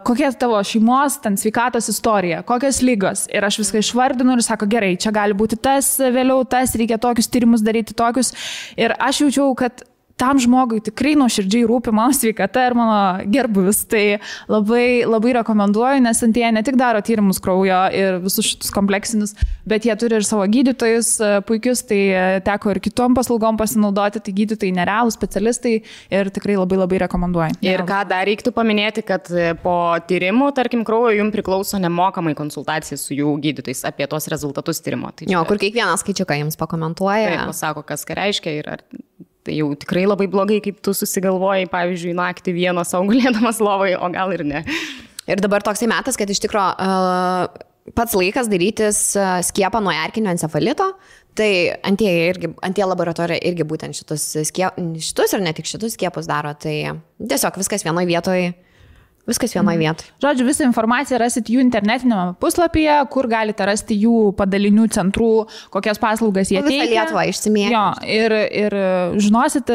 kokia tavo šeimos, ten sveikatos istorija, kokios lygos. Ir aš viską išvardinu ir sako, gerai, čia gali būti tas, vėliau tas, reikia tokius tyrimus daryti, tokius. Ir aš jaučiau, kad tam žmogui tikrai nuoširdžiai rūpi mano sveikata ir mano gerbuvis. Tai labai, labai rekomenduoju, nes Antėja ne tik daro tyrimus kraujo ir visus šitus kompleksinius, bet jie turi ir savo gydytojus puikius, tai teko ir kitom paslaugom pasinaudoti, tai gydytojai nerealūs specialistai ir tikrai labai, labai rekomenduoju. Ir ką dar reiktų paminėti, kad po tyrimų, tarkim, kraujo jums priklauso nemokamai konsultacija su jų gydytojais apie tos rezultatus tyrimo. Tai čia... kur kiekvieną skaičiuką jums pakomentuoja. Taip, pasako, kas ką reiškia ir ar... Tai jau tikrai labai blogai, kaip tu susigalvojai, pavyzdžiui, naktį vieną sau gulėdamas lovai, o gal ir ne. Ir dabar toksai metas, kad iš tikro pats laikas darytis skiepą nuo erkinio encefalito. Tai Antėja laboratorija irgi būtent šitus ir ne tik šitus skiepus daro. Tai tiesiog viskas vienoje vietoje. Žodžiu, visą informaciją rasit jų internetinėme puslapyje, kur galite rasti jų padalinių centrų, kokias paslaugas jie teikia. Visą Lietuvą išsimėti. Jo, ir žinosit,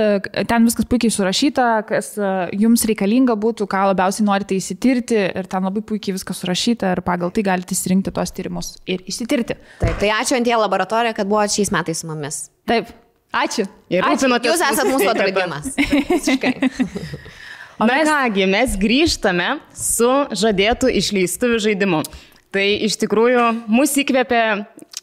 ten viskas puikiai surašyta, kas jums reikalinga būtų, ką labiausiai norite įsitirti ir ten labai puikiai viskas surašyta ir pagal tai galite įsirinkti tuos tyrimus ir įsitirti. Taip, tai ačiū Antėja laboratorija, kad buvo šiais metais su mumis. Taip, ačiū. Jūs esate mūsų atradimas. Visiškai. Na kągi, mes grįžtame su žadėtų išleistuvių žaidimu. Tai iš tikrųjų mus įkvėpė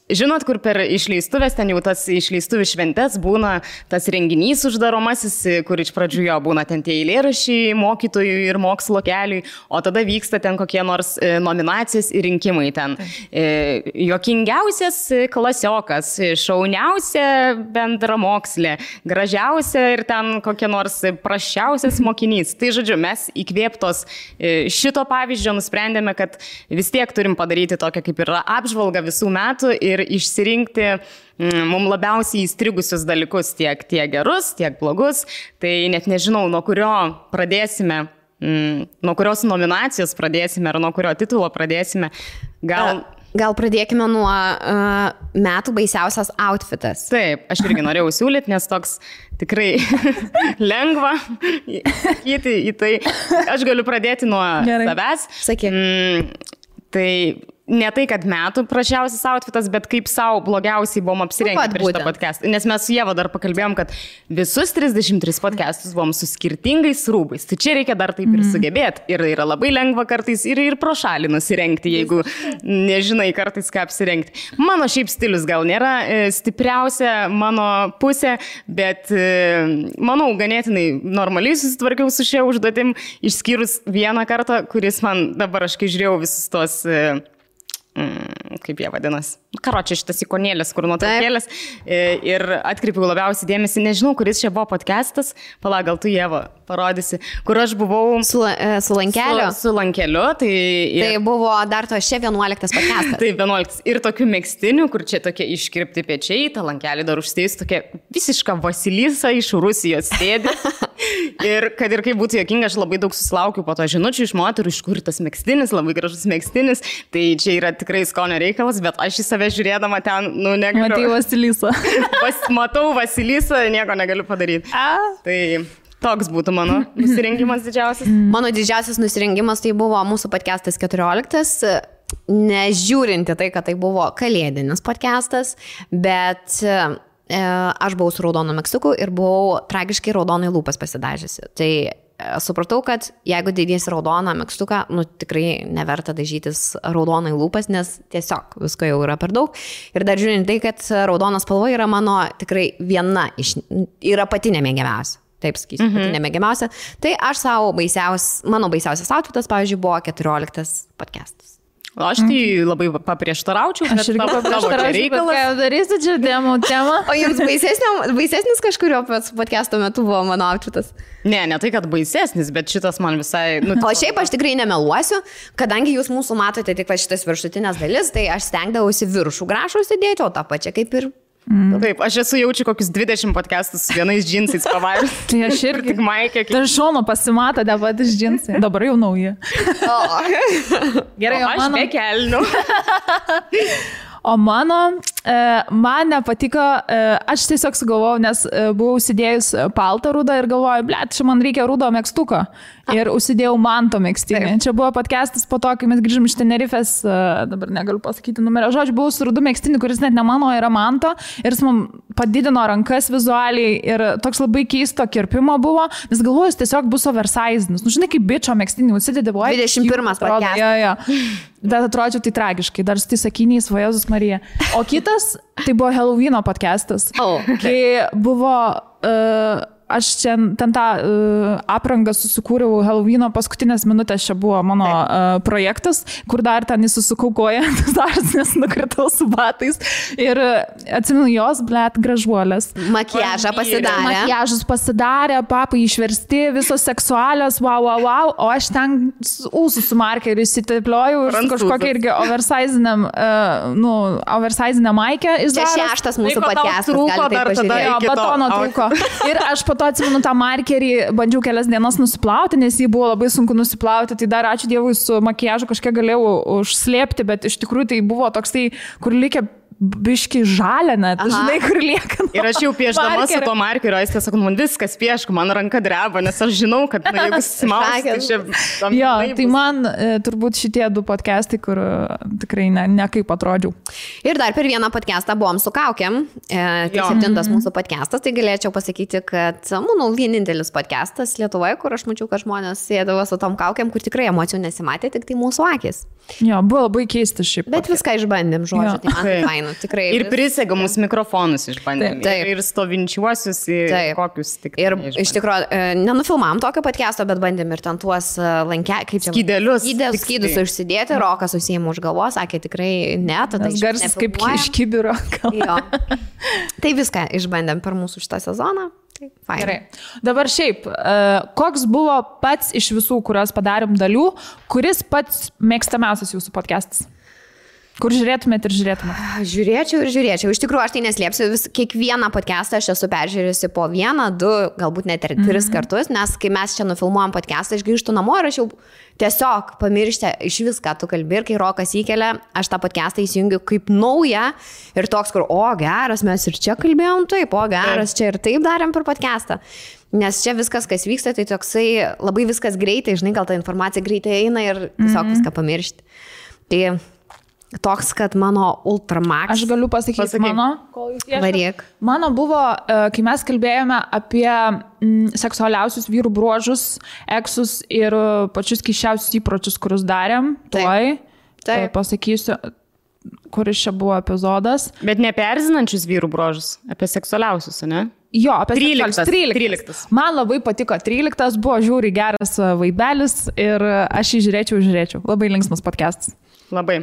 žinot, kur per išleistuvės, ten jau tas išleistuvių šventės būna tas renginys uždaromasis, kur iš pradžių jo būna ten tie eilėraščiai mokytojų ir mokslo keliui, o tada vyksta ten kokie nors nominacijos ir rinkimai ten. Juokingiausias klasiokas, šauniausia bendramokslė, gražiausia ir ten kokie nors prasčiausias mokinys. Tai žodžiu, mes įkvėptos šito pavyzdžio nusprendėme, kad vis tiek turim padaryti tokią kaip ir apžvalgą visų metų ir išsirinkti mums labiausiai įstrigusius dalykus, tiek gerus, tiek blogus. Tai net nežinau, nuo kurio pradėsime, nuo kurios nominacijos pradėsime ar nuo kurio titulo pradėsime. Gal pradėkime nuo metų baisiausias outfitas. Taip, aš irgi norėjau siūlyti, nes toks tikrai lengva sakyti į tai. Aš galiu pradėti nuo savęs. Sakyk. Tai ne tai, kad metų prašiausias outfitas, bet kaip savo blogiausiai buvom apsirengę prieš šitą podcastą. Nes mes su Ieva dar pakalbėjom, kad visus 33 podcastus buvom su skirtingais rūbais. Tai čia reikia dar taip ir sugebėti. Ir yra labai lengva kartais ir pro šalį nusirengti, jeigu nežinai kartais ką apsirengti. Mano šiaip stilius gal nėra stipriausia mano pusė, bet manau, ganėtinai normaliai susitvarkiau su šia užduotim, išskyrus vieną kartą, kuris man dabar aš kai žiūrėjau visus tos... kaip jie vadinasi. Karočią šitas ikonėlės, kur nuotraukėlės. Ir atkreipiau labiausiai dėmesį, nežinau, kuris čia buvo podcastas, gal tu Ieva parodysi, kur aš buvau su lankeliu. Su lankeliu. Tai buvo dar to šia 11 podcastas. Tai 11. Ir tokių megstinių, kur čia tokie iškirpti pečiai, tą lankelį dar užstėjus, tokia visiška Vasilisa iš Rusijos sėdi. Ir kad ir kaip būtų jokinga, aš labai daug susilaukiu po to žinučių iš moterų, iš kur tas megstinis, labai gražus megstinis. Tai čia yra tikrai skonio reikalas, bet aš į save žiūrėdama ten, negaliu. Matai Vasilisą. Matau Vasilisą, nieko negaliu padaryti. Tai toks būtų mano nusirengimas didžiausias. Mano didžiausias nusirengimas tai buvo mūsų podcastas 14, nežiūrinti tai, kad tai buvo kalėdinis podcastas, bet aš buvau su raudonu megztuku ir buvau tragiškai raudonai lūpas pasidažysi. Tai supratau, kad jeigu dėdėsi raudoną megztuką, tikrai neverta dažytis raudonai lūpas, nes tiesiog visko jau yra per daug. Ir dar žiūrint tai, kad raudonas spalva yra mano tikrai viena yra pati nemėgiamiausia. Taip sakysiu, pati nemėgiamiausia. Tai aš mano baisiausias outfitas, pavyzdžiui, buvo 14 podcastas. Aš tai labai paprieštaraučiau. Aš irgi paprieštaraučiau, ką darysiu čia temą. O jums baisesnis kažkurio podcast'o metu buvo mano outfitas? Ne tai, kad baisesnis, bet šitas man visai... O šiaip aš tikrai nemeluosiu, kadangi jūs mūsų matote tik šitas viršutinės dalis, tai aš stengdavausi viršų grašų sėdėti, o tą pačią kaip ir... Taip, aš esu jaučiu kokius 20 podcastus su vienais džinsais pavairus. Tai aš irgi. Tik maikė. Tai šono pasimato patys džinsai. Dabar jau nauji. Gerai, o aš be kelnių. O man nepatiko, aš tiesiog sugalvojau, nes buvau užsidėjus paltą rudą ir galvoju, čia man reikia rudo megztuko. Ir užsidėjau manto megztinį. Čia buvo podcastas po to, kai mes grįžom iš Tenerifės, dabar negaliu pasakyti numerio. Žodžiu, buvau su rudu megztinį, kuris net ne mano, yra manto. Ir jis man padidino rankas vizualiai ir toks labai keisto kirpimo buvo. Nes galvoju, jis tiesiog bus oversizinis. Žinai, kaip bičio megztinį užsidėdė, buvo 21 podcastas. Bet atrodžiau tai tragiškai, dar su tai sakiniais, va Jėzus Marija. O kitas, tai buvo Halloweeno podcastas. Kai buvo... Aš čia ten tą aprangą susikūriau Halloweeno paskutinės minutės, čia buvo mano projektas, kur dar ten įsusukau koją, nes nukritau su batais. Ir atsimenu jos, gražuolės. Makiažą pasidarė. Makiažus pasidarė, papai išversti, visos seksualios, wow. O aš ten ūsų su markeriu įsitepliojau ir kažkokią irgi oversizinę maikę. Čia 6 mūsų podcastas. Batono trūko. Ir aš po to atsimenu tą markerį, bandžiau kelias dienas nusiplauti, nes jį buvo labai sunku nusiplauti, tai dar ačiū Dievui su makiažu kažkiek galėjau užslėpti, bet iš tikrųjų tai buvo toks tai, kur likę biški žalia net, žinai, kur lieka. Ir aš jau pieždama su to markeriu, jis tiesiog, man viskas pieško, man ranka dreba, nes aš žinau, kad jeigu smaus, tai čia... Tai man turbūt šitie 2 podcastai, kur tikrai ne kaip atrodžiau. Ir dar per vieną podcastą buvom su kaukėm, tai 7 mūsų podcastas, tai galėčiau pasakyti, kad manau vienintelis podcastas Lietuvoje, kur aš mačiau, kad žmonės sėdavo su tom kaukėm, kur tikrai emocijų nesimatė, tik tai mūsų akis. Jo, buvo labai keistas šiaip. Bet viską išbandėm, žodžiu, tai man tai faina. faina, tikrai. Ir prisegamus mikrofonus išbandėm. Taip. Ir stovinčiuosius, kokius tik. Ir iš tikrųjų, nenufilmavom tokio podcast'o, bet bandėm ir ten tuos kaip čia. Skydus užsidėti, Rokas susiėmė už galvos, sakė tikrai ne, tada garsas kaip iš kibiro. Tai viską išbandėm per mūsų šitą sezoną. Gerai. Dabar šiaip, koks buvo pats iš visų, kuriuos padarėm dalių, kuris pats mėgstamiausias jūsų podcastas? Kur žiūrėtumėt ir žiūrėtumėt? Žiūrėčiau ir žiūrėčiau. Iš tikrųjų, aš tai neslėpsiu, kiekvieną podcastą aš esu peržiūrėjusi po 1, 2, galbūt net ir 3 kartus, nes kai mes čia nufilmuojam podcastą, aš grįžtu namo ir aš jau tiesiog pamirštę iš viską, tu kalbi ir kai Rokas įkelia, aš tą podcastą įsijungiu kaip naują ir toks, kur, geras, mes ir čia kalbėjom taip, geras, čia ir taip darėm per podcastą. Nes čia viskas, kas vyksta, tai toksai labai viskas greitai, žinai, gal ta informacija greitai eina ir tiesiog viską pamiršti. Tai toks, kad mano Ultramax. Aš galiu pasakyti mano. Varyk. Mano buvo, kai mes kalbėjome apie seksualiausius vyrų bruožus, eksus ir pačius keisčiausius įpročius, kuriuos darėm. Taip. Pasakysiu, kuris čia buvo epizodas. Bet ne apie erzinančius vyrų bruožus, apie seksualiausius, ne? Jo, apie 13. Man labai patiko 13, buvo žiūri geras vaibelis ir aš jį žiūrėčiau. Labai linksmas podcastas. Labai.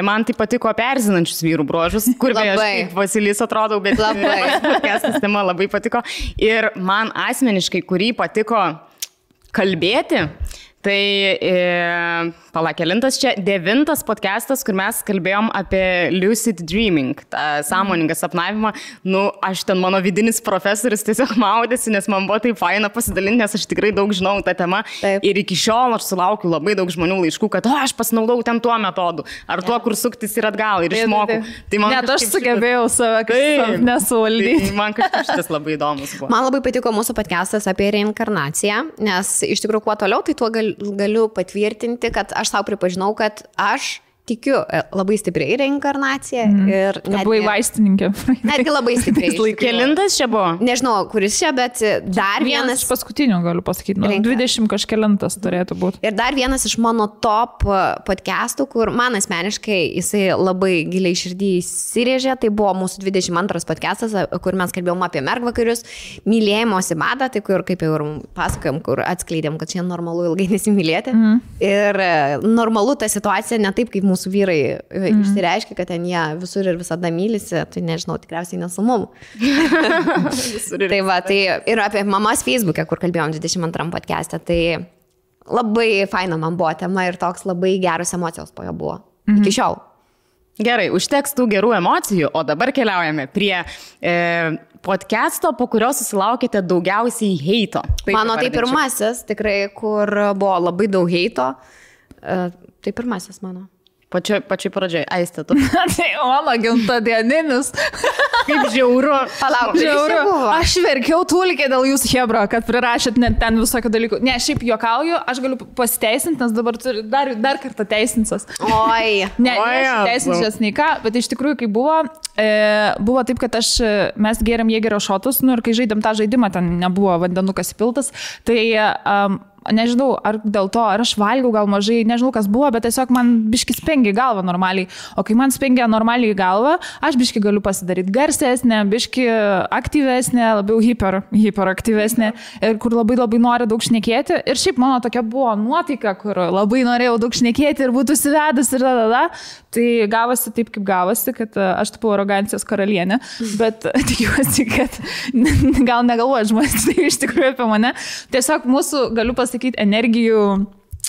Man tai patiko apie erzinančius vyrų bruožus, kur aš kaip Vasilis atrodau, bet podcastas tema labai patiko. Ir man asmeniškai, kurį patiko kalbėti, tai kelintas čia 9 podcastas, kur mes kalbėjom apie lucid dreaming, tą sąmoningą sapnavimą. Aš ten mano vidinis profesorius tiesiog maudėsi, nes man buvo taip faina pasidalinti, nes aš tikrai daug žinau tą temą. Taip. Ir iki šiol aš sulaukiu labai daug žmonių laiškų, kad aš pasinaudau ten tuo metodu, ar tuo, kur suktis ir atgal, ir išmokau. Tai net aš sugebėjau save kažkaip nesuvaldyti. Tai man kažkaip šitas labai įdomus buvo. Man labai patiko mūsų podcastas apie reinkarnaciją, nes iš tikrųjų kuo toliau, tai tuo galiu patvirtinti, kad aš savo pripažinau, kad aš tikiu labai stipriai reinkarnaciją ir buvai vaistininkė. Netgi labai stipriai. Kelintas čia buvo? Nežinau, kuris čia, bet dar vienas. Paskutinių galiu pasakyti. 20 kažkelintas turėtų būti. Ir dar vienas iš mano top podcastų, kur man asmeniškai jisai labai giliai širdį įsirėžė, tai buvo mūsų 22 podcastas, kur mes kalbėjom apie mergvakarius, mylėjimosi madą, tai kur, kaip jau ir pasakojom, kur atskleidėm, kad čia normalu ilgai nesimylėti. Ir normalu ta situacija ne taip, kaip mūsų vyrai išsireiškia, kad ten jie visur ir visada mylisi, tai nežinau, tikriausiai nesu mum. Tai va, tai ir apie mamas Facebook'e, kur kalbėjom 22 podcast'e, tai labai faina man buvo tema ir toks labai geros emocijos po jo buvo. Iki šiol. Gerai, užteks tų gerų emocijų, o dabar keliaujame prie podcast'o, po kurio susilaukėte daugiausiai heito. Mano tai pirmasis, tikrai, kur buvo labai daug heito. Tai pirmasis mano. Pačioj pradžioj, Aiste, tu. Tai mano gimtadieninis. Kaip žiauru. Palauk, žiauru. Aš verkiau tūlikė dėl jūsų hebro, kad prirašėt net ten visokių dalykų. Ne, šiaip juokauju, aš galiu pasiteisinti, nes dabar turiu dar kartą teisinsas. Oi. Ne, teisinsias nei ką, bet iš tikrųjų, kai buvo taip, kad mes gėrėm Jėgerio šotus, ir kai žaidėm tą žaidimą, ten nebuvo vandenukas įpiltas, tai nežinau, ar dėl to, ar aš valgiau gal mažai, nežinau, kas buvo, bet tiesiog man biški spengia galvą normaliai. O kai man spengia normaliai galvą, aš biški galiu pasidaryti garsesnė, biški aktyvesnė, labiau hiperaktyvesnė, ir kur labai nori daug šnekėti. Ir šiaip mano tokia buvo nuotaika, kur labai norėjau daug šnekėti ir būtų užsivedus ir Tai gavosi taip, kaip gavosi, kad aš tapau arogancijos karalienė, bet tikiuosi, kad gal negalvoja žmonės tai iš tikrųjų apie mane. Tiesiog mūsų, galiu pasakyti, energijų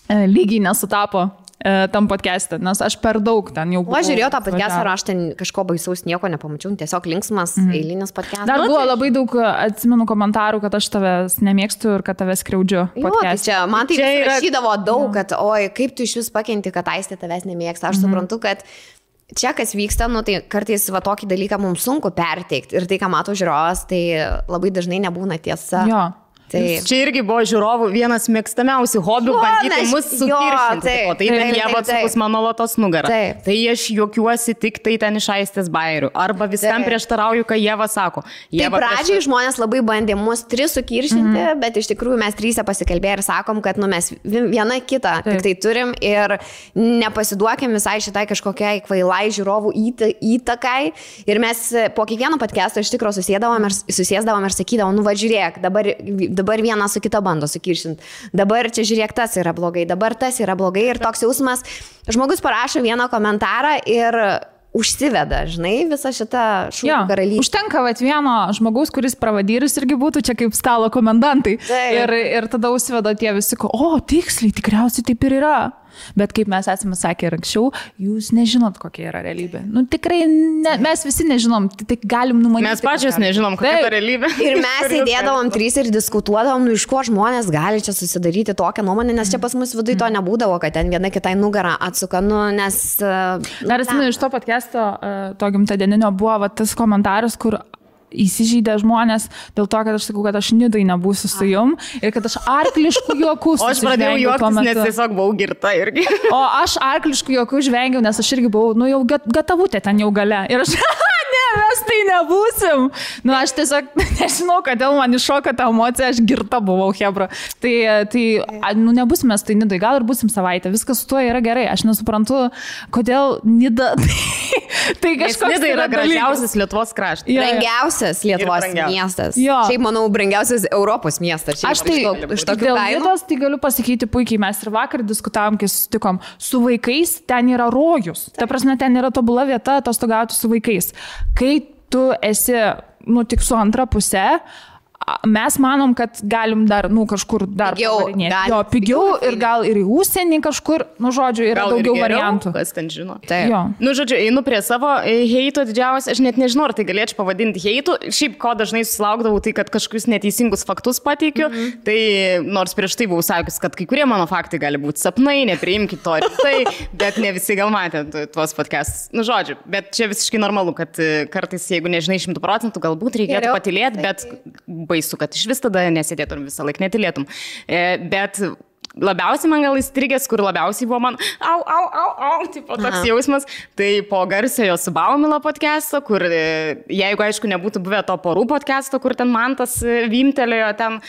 lygiai nesutapo tam podcast'e, nes aš per daug ten jau buvau. Aš žiūrėjau tą podcast'ą ir aš ten kažko baisaus nieko nepamačiau, tiesiog linksmas eilinis podcast'as. Dar buvo labai daug, atsimenu, komentarų, kad aš tavęs nemėgstu ir kad tavęs skriaudžiu podcast'e. Tai man tai rašydavo daug, kad oi, kaip tu iš vis pakenti, kad Aistė tavęs nemėgsta. Aš suprantu, kad čia kas vyksta, tai kartais va tokį dalyką mums sunku perteikti ir tai, ką mato žiūrovas, tai labai dažnai nebūna tiesa. Jo. Čia irgi buvo žiūrovų vienas mėgstamiausių hobių bandyti mus sukiršinti. O tai ten jie atsukus mano lotos nugarą. Tai aš juokiuosi tik tai ten iš Aistės bairių. Arba viskam prieštarauju, ką Ieva sako. Tai pradžiai žmonės labai bandė mus 3 sukiršinti, bet iš tikrųjų mes 3 pasikalbėję ir sakom, kad mes viena kitą tik tai turim ir nepasiduokim visai šitai kažkokiai kvailai žiūrovų įtakai. Ir mes po kiekvieno podcast'o iš tikrųjų susėsdavom ir sakydavom, nu va žiūrėk, dabar vieną su kita bando sukiršinti. Dabar čia žiūrėk, tas yra blogai, dabar tas yra blogai ir toks jausmas. Žmogus parašo vieną komentarą ir užsiveda, žinai, visą šitą šūkių karalystę. Užtenka vieno žmogaus, kuris pravadyrus irgi būtų čia kaip stalo komendantai. Ir tada užsiveda tie visi, tiksliai, tikriausiai taip ir yra. Bet kaip mes esame sakę ir anksčiau, jūs nežinot, kokia yra realybė. Nu tikrai, mes visi nežinom, tai galim numanyti. Mes pačios nežinom, kokia yra realybė. Ir mes sėdėdavom 3 ir diskutuodavom, iš ko žmonės gali čia susidaryti tokią nuomonę, nes čia pas mus viduje to nebūdavo, kad ten viena kitai nugarą atsuka, nes... Dar atsimenu, iš to podcast'o, to gimtadieninio buvo tas komentaras, kur įsižeidė žmonės dėl to, kad aš sakau, kad aš Nidai nebūsiu su jum ir kad aš arkliškų juokų O aš pradėjau juoktis, nes tiesiog buvau girta irgi. O aš arkliškų juokų žvengiau, nes aš irgi buvau, jau gatavutė ten jau gale. Ir aš, mes tai nebūsim. Aš tiesiog nežinau, kodėl man iššoka ta emocija, aš girta buvau, hebra. Tai nebūsim mes tai Nidai, gal ir būsim savaitę, viskas su tuo yra gerai. Aš nesuprantu, kodėl Nida... Tai kažkoks Nida yra gražiausias Lietuvos kraštas. Brangiausias Lietuvos miestas. Šiaip, manau, brangiausias Europos miestas. Aš tai iš dėl Nidos tai galiu pasakyti puikiai. Mes ir vakar diskutavom, kai susitikom. Su vaikais ten yra rojus. Ta prasme, ten yra tobula vieta atostogauti su vaikais. Kai tu esi, tik su antra pusė, mes manom, kad galim dar, kažkur dar pavarinėti. Pigiau ir gal ir į užsienį kažkur, žodžiu, yra gal daugiau variantų. Kas ten žino. Žodžiu, einu prie savo heito didžiausias, aš net nežinau, ar tai galėčiau pavadinti heitų. Šiaip, ko dažnai susilaukdavau, tai kad kažkokius neteisingus faktus pateikiu. Tai nors prieš tai buvau sakius, kad kai kurie mano faktai gali būti sapnai, nepriimkit to rimtai, bet ne visi gal matė tuos podcastus. Žodžiu, bet čia visiškai normalu, kad kartais, jeigu nežinai 100%, galbūt reikėtų patylėti, bet baisu, kad iš vis tada nesėdėtum visą laiką, netylėtum. Bet labiausiai man gal įstrigęs, kur labiausiai buvo man tipo toks jausmas, tai po garsiojo su Baumila podcast'o, kur jeigu aišku nebūtų buvę to porų podcast'o, kur ten Mantas vimtelėjo ten,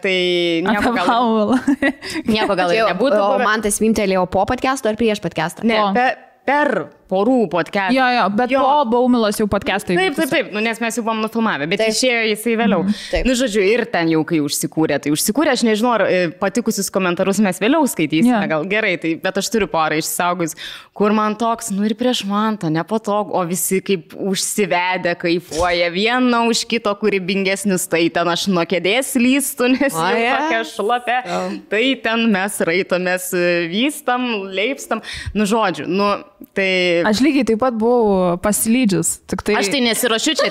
tai nieko gal ir nebūtų. O Mantas vimtelėjo po podcast'o ar prieš podcast'ą? Ne, per porų podcast'ą. Jo, bet po Baumilos jau podcast'ai. Taip, nes mes jau buvom nufilmavę, bet išėjo jisai vėliau. Žodžiu, ir ten jau kai užsikūrė, aš nežinau, ar patikusius komentarus mes vėliau skaitysime, gal gerai, bet aš turiu porą išsaugus, kur man toks, ir prieš Mantą, nepatogu, o visi kaip užsivedę, kaifuoja, viena už kito kūrybingesnis, tai ten aš nuo kėdės lystu, nes jau tokia šlapė, tai ten mes raitomės, vystam, leipstam, žodžiu, tai... Aš lygiai taip pat buvau pasilydžius. Aš tai nesiruošiu čia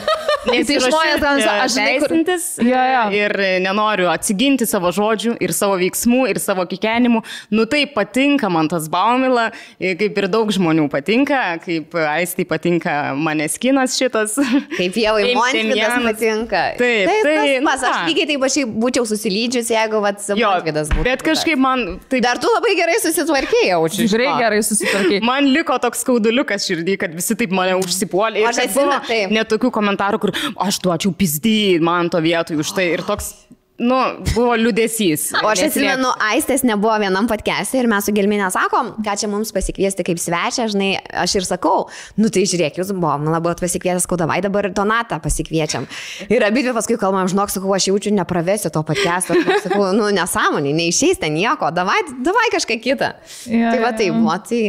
teisintis ir nenoriu atsiginti savo žodžių ir savo veiksmų ir savo kikenimų. Tai patinka man tas Baumila, kaip ir daug žmonių patinka, kaip Aistai patinka Maneskinas šitas. Kaip Ievai Montvydas patinka. Taip. Aš lygiai taip aš būčiau susilydžius, jeigu Montvydas būtų. Bet kažkaip man... Dar tu labai gerai susitvarkėjai, jaučiu. Tikrai gerai susitvarkėjai. Man liko toks skauduliukas širdį, kad visi taip mane užsipuolė. Ir kad buvo net tokių komentarų, kur aš duočiau pizdį man to vietoj už tai. Ir toks, buvo liūdesys. O aš atsimenu, Aistės nebuvo vienam podcast'e ir mes su Gelminė sakom, ką čia mums pasikviesti kaip svečią, žinai, aš ir sakau, tai žiūrėk, jūs buvot pasikvietęs, davai dabar Donatą pasikviečiam. Ir abidvi paskui kalbam, žinok, sakau, aš jaučiu, nepravesiu to podcast'o. Sakau, nesąmonė, neišeis ten nieko, davai kažką kitą. Tai va taip, tai...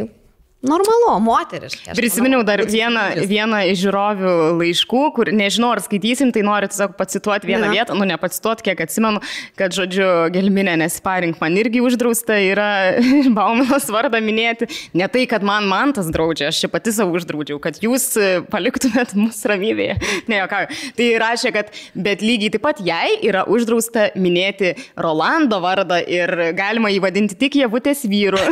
Normalu, moteriškai. Prisiminiau dar vieną iš žiūrovių laiškų, kur nežinau, ar skaitysim, tai noriu tiesiog pacituoti vieną vietą, nepacituoti, kiek atsimenu, kad, žodžiu, Gelminė nesiparink, man irgi uždrausta yra Baumilos vardą minėti. Ne tai, kad man tas draudžia, aš čia pati savo uždraudžiau, kad jūs paliktumėt mus ramybėje. Ne, jokauju. Tai rašė, kad bet lygiai taip pat jai yra uždrausta minėti Rolando vardą ir galima jį vadinti tik Ievutės vyru.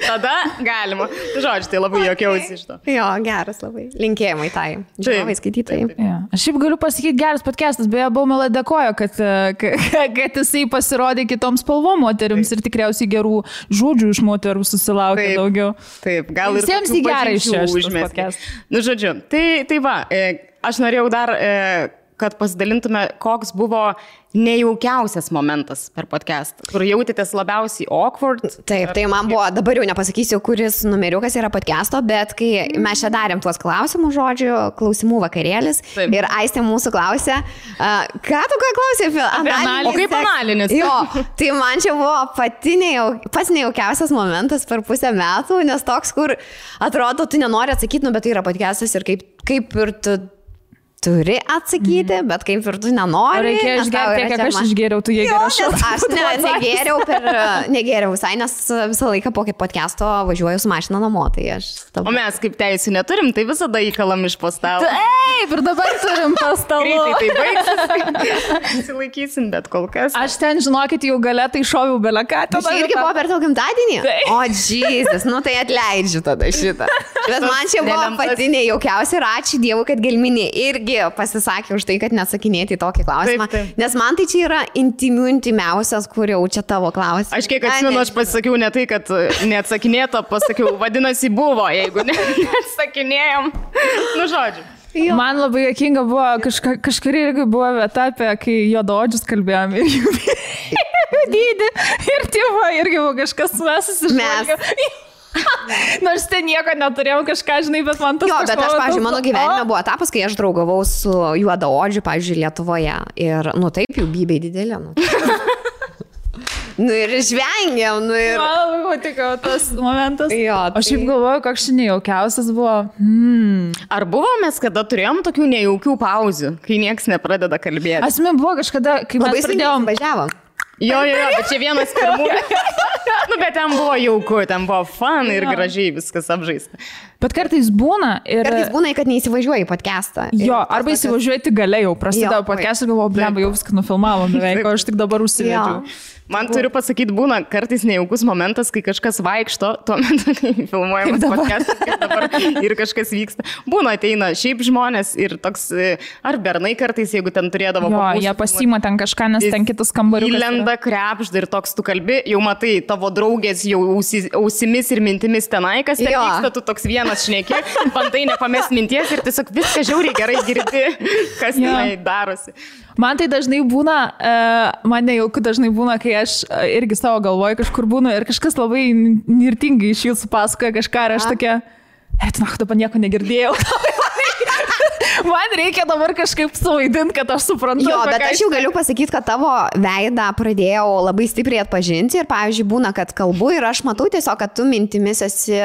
Tada galima. Žodžiu, tai labai jokiausi iš to. Jo, geras labai. Linkėjimai tai. Žiūrovai, skaitytojai. Ja. Aš šiaip galiu pasakyti, geras podcastas, beje, Baumela dėkojo, kad jisai pasirodė kitoms spalvom moterims ir tikriausiai gerų žodžių iš moterų susilaukė daugiau. Taip, gal ir visiems į gerą išėjęs. Nu, žodžiu, tai va, aš norėjau dar, kad pasidalintume, koks buvo nejaukiausias momentas per podcastą, kur jautėtės labiausiai awkward. Taip, tai man buvo, dabar jau nepasakysiu, kuris numeriukas yra podcasto, bet kai mes čia darėm tuos klausimų žodžių, klausimų vakarėlis, taip. Ir Aistė mūsų klausė, ką tu ką klausė apie analinis? O kaip analinis? Jo, tai man čia buvo pats nejaukiausias momentas per pusę metų, nes toks, kur atrodo, tu nenori atsakyti, bet tai yra podcastas ir kaip ir tu turi atsakyti, bet kaip ir tu nenori. Reikia išgerti, kiek aš išgėriau, tu jie geriau. Aš negėriau visai, nes visą laiką po podcast'o važiuoju su mašina namo. Tai o mes kaip teisų neturim, tai visada įkalam iš postalo. Taip, ir dabar turim postalo. Greitai tai baigsis. Įsilaikysim, bet kol kas. Aš ten, žinokit, jau gale tai šoviau beleką. Tai irgi buvo per tau gimtadienį? O, Jesus, nu tai atleidžiu tada šitą. Bet man čia buvo pati nejaukiausia ir ačiū Dievui, kad Gelminė irgi pasisakė už tai, kad neatsakinėti į tokį klausimą. Taip. Nes man tai čia yra intimiausias, kur jau čia tavo klausimas. Aš kiek atsimenu, aš pasakiau ne tai, kad neatsakinėto, pasakiau, vadinasi buvo, jeigu neatsakinėjom. Nu, žodžiu. Jo. Man labai jokinga buvo, kažkuri irgi buvo vieta, apie kai juodaodžius kalbėjom ir jų dydį. Ir tėvo irgi buvo kažkas mes. Nors ten nieko neturėjau kažką, žinai, bet man tas... Jo, bet aš, pavyzdžiui, mano gyvenime buvo etapas, kai aš draugavau su juodaodžiu, pavyzdžiui, Lietuvoje. Ir, nu taip, jų bybiai didelė. Nu ir žvengiam, nu ir... Man labai patiko tas momentas. Jo, tai... Aš šiaip galvoju, koks nejaukiausias buvo. Ar buvo mes, kada turėjom tokių nejaukių pauzių, kai nieks nepradeda kalbėti? Asmė buvo kažkada, kai mes pradėjom... Važiavom. Jo, bet čia vienas pirmų. Nu, bet ten buvo jauku, ten buvo fun ir gražiai viskas apžaista. Bet kartais būna ir... Kartais būna, kad neįsivažiuoji į podcastą. Jo, arba įsivažiuoji tik gale jau, prasidėjo podcastą ir galvoju, bleba, jau viską nufilmavom beveik, o aš tik dabar užsivedžiau. Man turiu pasakyti, būna kartais nejaukus momentas, kai kažkas vaikšto, tuo metu, kai filmuojamas podcastas, kaip dabar ir kažkas vyksta. Būna ateina šiaip žmonės ir toks, ar bernai kartais, jeigu ten turėdavo... Jo, jie pasiima ten kažką, nes ten kitas kambariukas. Įlenda krepžda ir toks tu kalbi, jau matai, tavo draugės jau ausimis ir mintimis tenai, kas ten vyksta, tu toks vienas šneki, bandai nepamest minties ir tiesiog viską žiauriai gerai girdi, kas tenai darosi. Man tai dažnai būna, man nejauku dažnai būna, kai aš irgi savo galvoju kažkur būnu ir kažkas labai nirtingai iš jūsų pasakoja kažką ir aš tokia, dabar nieko negirdėjau. Man reikia dabar kažkaip suvaidinti, kad aš suprantu. Jo, bet aš jau galiu pasakyti, kad tavo veidą pradėjau labai stipriai atpažinti ir, pavyzdžiui, būna, kad kalbu ir aš matau tiesiog, kad tu mintimis esi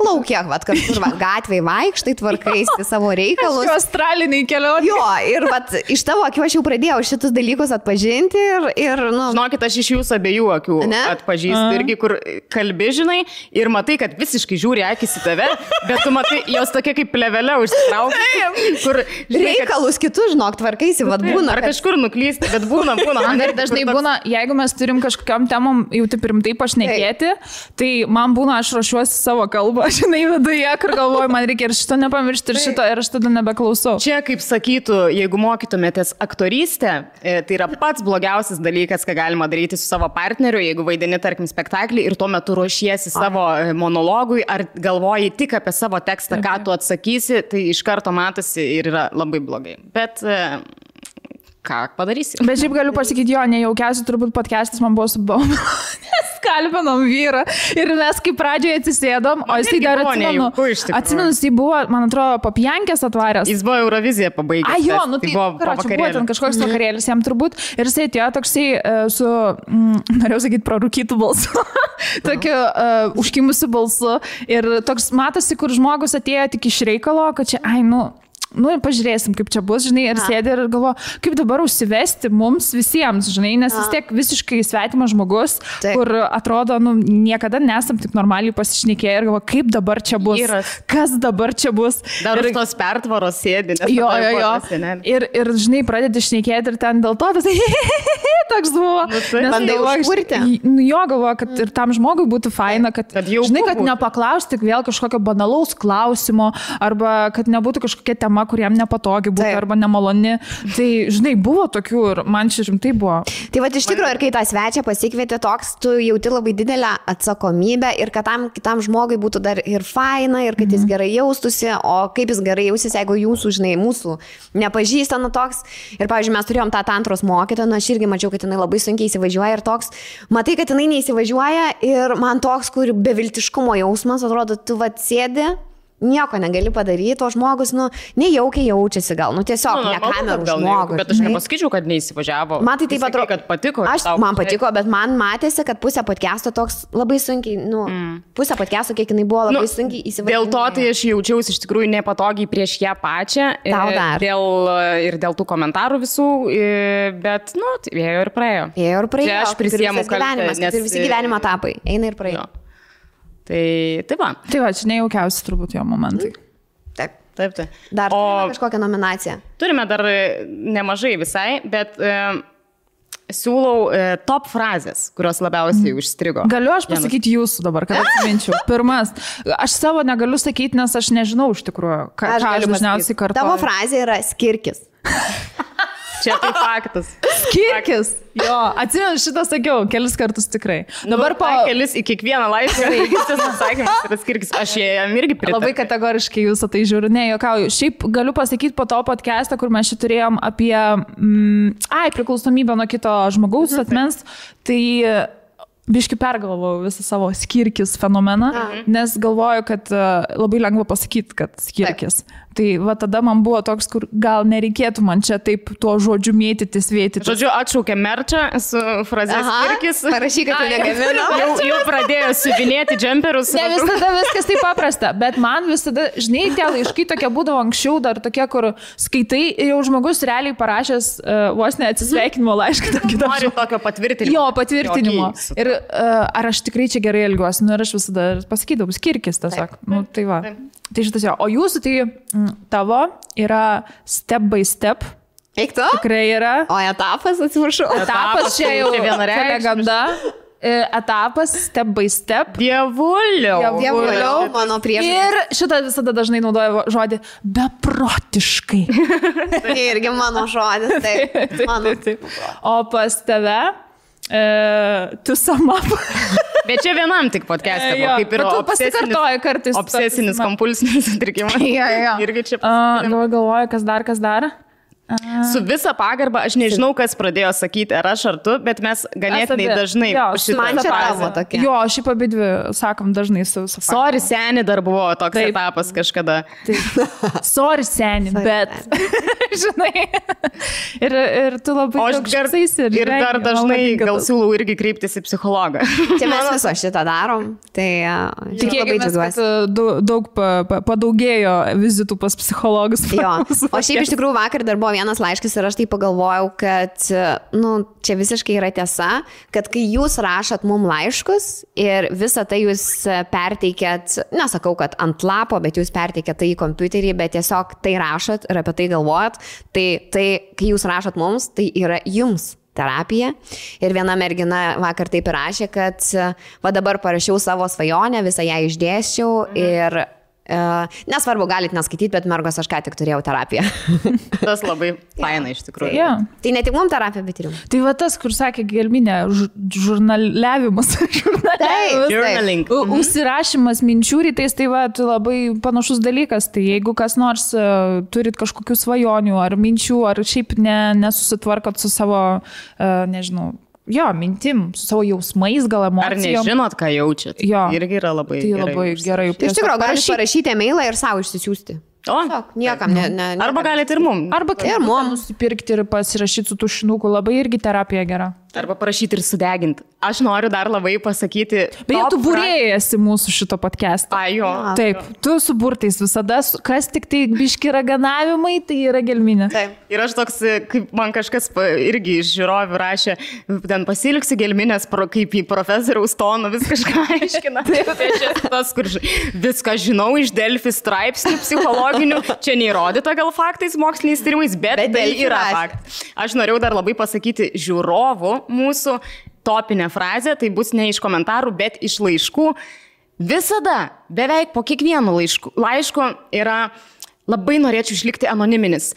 laukia, kažkur gatvėje vaikštai, tvarkaisi savo reikalus. Australiniai kelionė. Jo, ir iš tavo akių aš jau pradėjau šitus dalykus atpažinti ir nu... Žinokit, aš iš jūsų abiejų akių atpažįstu irgi, kur kalbi, žinai, ir matai, kad visiškai žiūri akis į tave, bet tu matai, jos tokia kaip plevelė užsitraukia, kur... Žinai, reikalus kitus, žinok, tvarkaisi, vad būna. Ar kažkur nuklysti, bet būna. Man ir dažnai būna, jeigu mes turim kažkokiam temom jau taip rimtai pašnekėti, tai man būna, aš ruošiuosi savo kalbą, žinai, viduje, kur galvoju, man reikia ir šito nepamiršti, ir šito, ir aš tada nebeklausau. Čia, kaip sakytų, jeigu mokytumėtės aktorystę, tai yra pats blogiausias dalykas, ką galima daryti su savo partneriu, jeigu vaidini, tarkim, spektaklį ir tuo metu ruošiesi savo monologui, ar galvoji tik apie savo tekstą, ką tu atsakysi, tai iš karto matosi ir yra labai blogai. Bet ką padarysi? Bet šiaip galiu pasakyti, jo, nejaukiausiai turbūt podcastas man buvo su Baumela, nes kalbinom vyrą ir mes kaip pradžioje atsisėdom, o jisai dar atsimenu, jisai buvo, man atrodo, Papiankės atvaręs. Jis buvo Euroviziją pabaigęs. Jo, nu tai buvo ten kažkoks vakarėlis jam turbūt ir jisai atėjo toksai su, norėjau sakyti, prarūkytų balsu, tokiu užkimusiu balsu ir toks matosi, kur žmogus atėjo tik iš reikalo, kad čia, nu, pažiūrėsim, kaip čia bus, žinai, ir sėdė ir galvo, kaip dabar užsivesti mums visiems, žinai, nes vis tiek visiškai svetimas žmogus, kur atrodo, nu, niekada nesam taip normaliai pasišnekėję ir galvo, kaip dabar čia bus, kas dabar čia bus. Dar ir tos pertvaros sėdi. Jo. Ir, žinai, pradedi šnekėti ir ten dėl to, toks buvo. Bandai užkurti. Jo, galvo, kad ir tam žmogui būtų faina, kad žinai, kad nepaklausti vėl kažkokio banalaus klausimo, arba kad nebūtų kažkokia tema, kur jam nepatogi būtų, arba nemaloni. Tai, žinai, buvo tokių ir man čia rimtai buvo. Tai va, iš tikrųjų, ir kai tą svečią pasikvietė toks, tu jauti labai didelę atsakomybę ir kad tam kitam žmogui būtų dar ir faina, ir kad jis gerai jaustųsi, o kaip jis gerai jausis, jeigu jūsų, žinai, mūsų nepažįsta, nu toks. Ir, pavyzdžiui, mes turėjom tą tantros mokytoją, nu aš irgi mačiau, kad jinai labai sunkiai įsivažiuoja ir toks, matai, kad jinai neįsivažiuoja ir man toks, kur beviltiškumo jausmas, atrodo, tu va sėdi, nieko negali padaryti, o žmogus, nu, nejaukiai jaučiasi gal, nu, tiesiog ne kamerų žmogus. Bet aš nepasakyčiau, kad neįsivažiavo. Man tai taip atrodo, kad patiko. Man patiko, bet man matėsi, kad pusė podcast'o toks labai sunkiai, nu, pusė podcast'o, kiek jinai buvo labai sunkiai įsivažiuoja. Dėl to tai aš jaučiausi iš tikrųjų nepatogiai prieš ją pačią. Ir dėl tų komentarų visų, bet, nu, tai ėjo ir praėjo. Čia aš prisiemu kaltę. Ir visi gyvenimo etapai eina ir praėjo. Tai va. Tai va, čia nejaukiausi turbūt jo momentai. Taip. Dar turime kažkokią nominaciją. Turime dar nemažai visai, bet siūlau top frazės, kurios labiausiai užstrigo. Galiu aš pasakyti jūsų dabar, kad atsiminčiau. Pirmas, aš savo negaliu sakyti, nes aš nežinau iš tikrųjų, ką aš dažniausiai kartuoju. Tavo frazė yra skirkis. Čia tai faktas. Skirkis. Jo, atsimenu, šitą sakiau kelis kartus tikrai. Dabar kelis į kiekvieną laišką, tas atsakymas yra skirkis. Aš jam irgi pritariu. Labai kategoriškai jūsų tai žiūriu, ne, juokauju. Šiaip galiu pasakyti po to podcast'ą, kur mes čia turėjom apie priklausomybę nuo kito žmogaus atmens, tai biški pergalvojau visą savo skirkis fenomeną, nes galvoju, kad labai lengva pasakyti, kad skirkis. Tai va tada man buvo toks, kur gal nereikėtų man čia taip tuo žodžiu mėtytis, vėtytis. Žodžiu, atšaukė merčą su fraze skirkis. Parašyk, kad tu negamino. Jau pradėjo siuvinėti džemperus. Ne visada viskas taip paprasta, bet man visada, žinai, tie laiškai tokie būdavo anksčiau, dar tokie, kur skaitai ir jau žmogus realiai parašęs vos ne atsisveikinimo laišką. Nori tokio patvirtinimo. Jo, patvirtinimo. Ir ar aš tikrai čia gerai elgiuosi, nu ir aš visada pasakydavau, skirkis tiesiog. Nu, tai va. Tai šitas jo. O jūsų tai tavo yra step by step. Eik tu? Tikrai yra. O etapas, atsiprašau. Etapas čia jau legenda. Etapas, step by step. Dievuliau, mano prieš. Ir šitą visada dažnai naudoju žodį beprotiškai. Tai irgi mano žodis. Taip. O pas tave tu sama. Bet čia vienam tik podcast'e, kaip ir obsesinis kompulsinis sutrikimas. Irgi čia galvoju, kas dar. Su visa pagarba, aš nežinau, kas pradėjo sakyti, ar aš ar tu, bet mes ganėtinai dažnai man čia tavo tokia. Jo, šiaip abidvi sakom dažnai su sorry, seni dar buvo toks etapas kažkada. Sorry, seni, bet žinai. Ir tu labai toks ir dar dažnai gal siūlau irgi kreiptis į psichologą. Čia mes viso šitą darom, tai labai džiaugiuosi. Daug padaugėjo vizitų pas psichologus. Jo, o šiaip iš tikrųjų vakar dar buvo vienas laiškas ir aš tai pagalvojau, kad, nu, čia visiškai yra tiesa, kad kai jūs rašot mum laiškus ir visą tai jūs perteikėt, nesakau, kad ant lapo, bet jūs perteikėt tai į kompiuterį, bet tiesiog tai rašot ir apie tai galvojat, tai kai jūs rašot mums, tai yra jums terapija. Ir viena mergina vakar taip ir rašė, kad va dabar parašiau savo svajonę, visą ją išdėsčiau ir nesvarbu, galit neskaityti, bet mergos aš ką tik turėjau terapiją. Tas labai faina iš tikrųjų. Tai ne tik mums terapija, bet ir jums. Tai va tas, kur sakė Gelminė, žurnaliavimas. Užsirašymas minčių rytais, tai va, labai panašus dalykas. Tai jeigu kas nors turit kažkokių svajonių ar minčių, ar šiaip nesusitvarkot su savo, nežinau, jo, mintim, su savo jausmais, gal emocijom. Ar nežinot, ką jaučiat? Jo. Irgi yra labai tai gerai. Labai gerai. Tai iš tikrųjų, galite parašyti e-mailą ir savo išsisiųsti. Niekam, Arba galite ir mum. Arba ir mum nusipirkti ir pasirašyti su tušinuku. Labai irgi terapija gera. Arba parašyti ir sudeginti. Aš noriu dar labai pasakyti. Beje, tu būrėjasi mūsų šito podcast'o. Jo. Taip, tu su burtais visada, kas tik tai biški raganavimai, tai yra gelminė. Taip. Ir aš toks, kaip man kažkas irgi iš žiūrovių rašė, ten pasilgsiu gelminės, kaip į profesoriaus toną vis kažką aiškina. Tai čia tas, kur viską žinau iš Delfi straipsnių psichologinių. Čia neįrodyta gal faktais, moksliniais tyrimais, bet tai yra faktas. Aš norėjau dar labai pasakyti žiūrovų mūsų topinė frazė, tai bus ne iš komentarų, bet iš laiškų. Visada, beveik po kiekvienu laišku yra labai norėčiau išlikti anoniminis.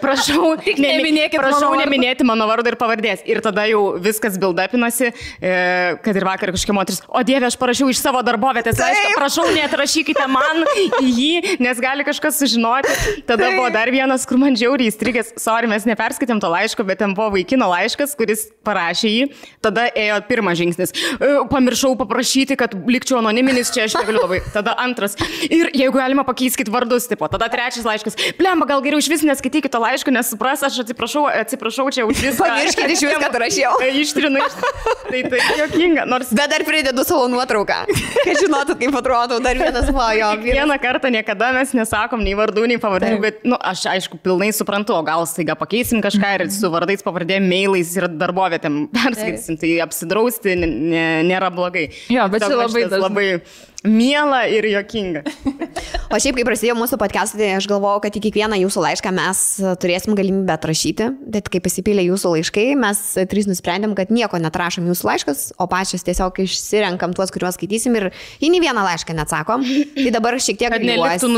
Prašau, neminėti mano vardo ir pavardės. Ir tada jau viskas build-upinasi, kad ir vakar kažkokia moteris, o Dieve, aš parašiau iš savo darbovietės laišką, prašau, neatrašykite man į jį, nes gali kažkas sužinoti. Tada buvo dar vienas, kur man žiauriai įstrigęs, sorry, mes neperskaitėm to laiško, bet ten buvo vaikino laiškas, kuris parašė jį. Tada ėjo pirmas žingsnis. Pamiršau paprašyti, kad likčiau anoniminis, čia aš negaliu labai. Tada antras. Ir jeigu galima, pakeiskit vardus, tipo. Tada trečias laiškas. Blemba, gal geriau iš vis neskaitykite to laiško, nes supras, aš atsiprašau čia už viską. Pamirškite iš viską, kad rašiau. Ištrinu. Tai juokinga. Nors... Bet dar pridedu savo nuotrauką. Kad žinotų, kaip atrodo. Dar vienas jo. Vieną kartą niekada mes nesakom nei vardų, nei pavardžių, bet, aš aišku, pilnai suprantu, o gal staiga pakeisim kažką ir su vardais, pavardėm, mailais ir darbovietėm perskaitysim. Tai apsidrausti nėra blogai. Jo, bet čia labai miela ir juokinga. O šiaip, kai prasidėjo mūsų podcast'ai, tai aš galvojau, kad į kiekvieną jūsų laišką mes turėsim galimybę atrašyti, bet kai pasipylė jūsų laiškai, mes trys nusprendėm, kad nieko netrašom jūsų laiškas, o pačios tiesiog išsirenkam tuos, kuriuos skaitysim ir į nei vieną laišką neatsakom. Tai dabar šiek tiek gailiuosi.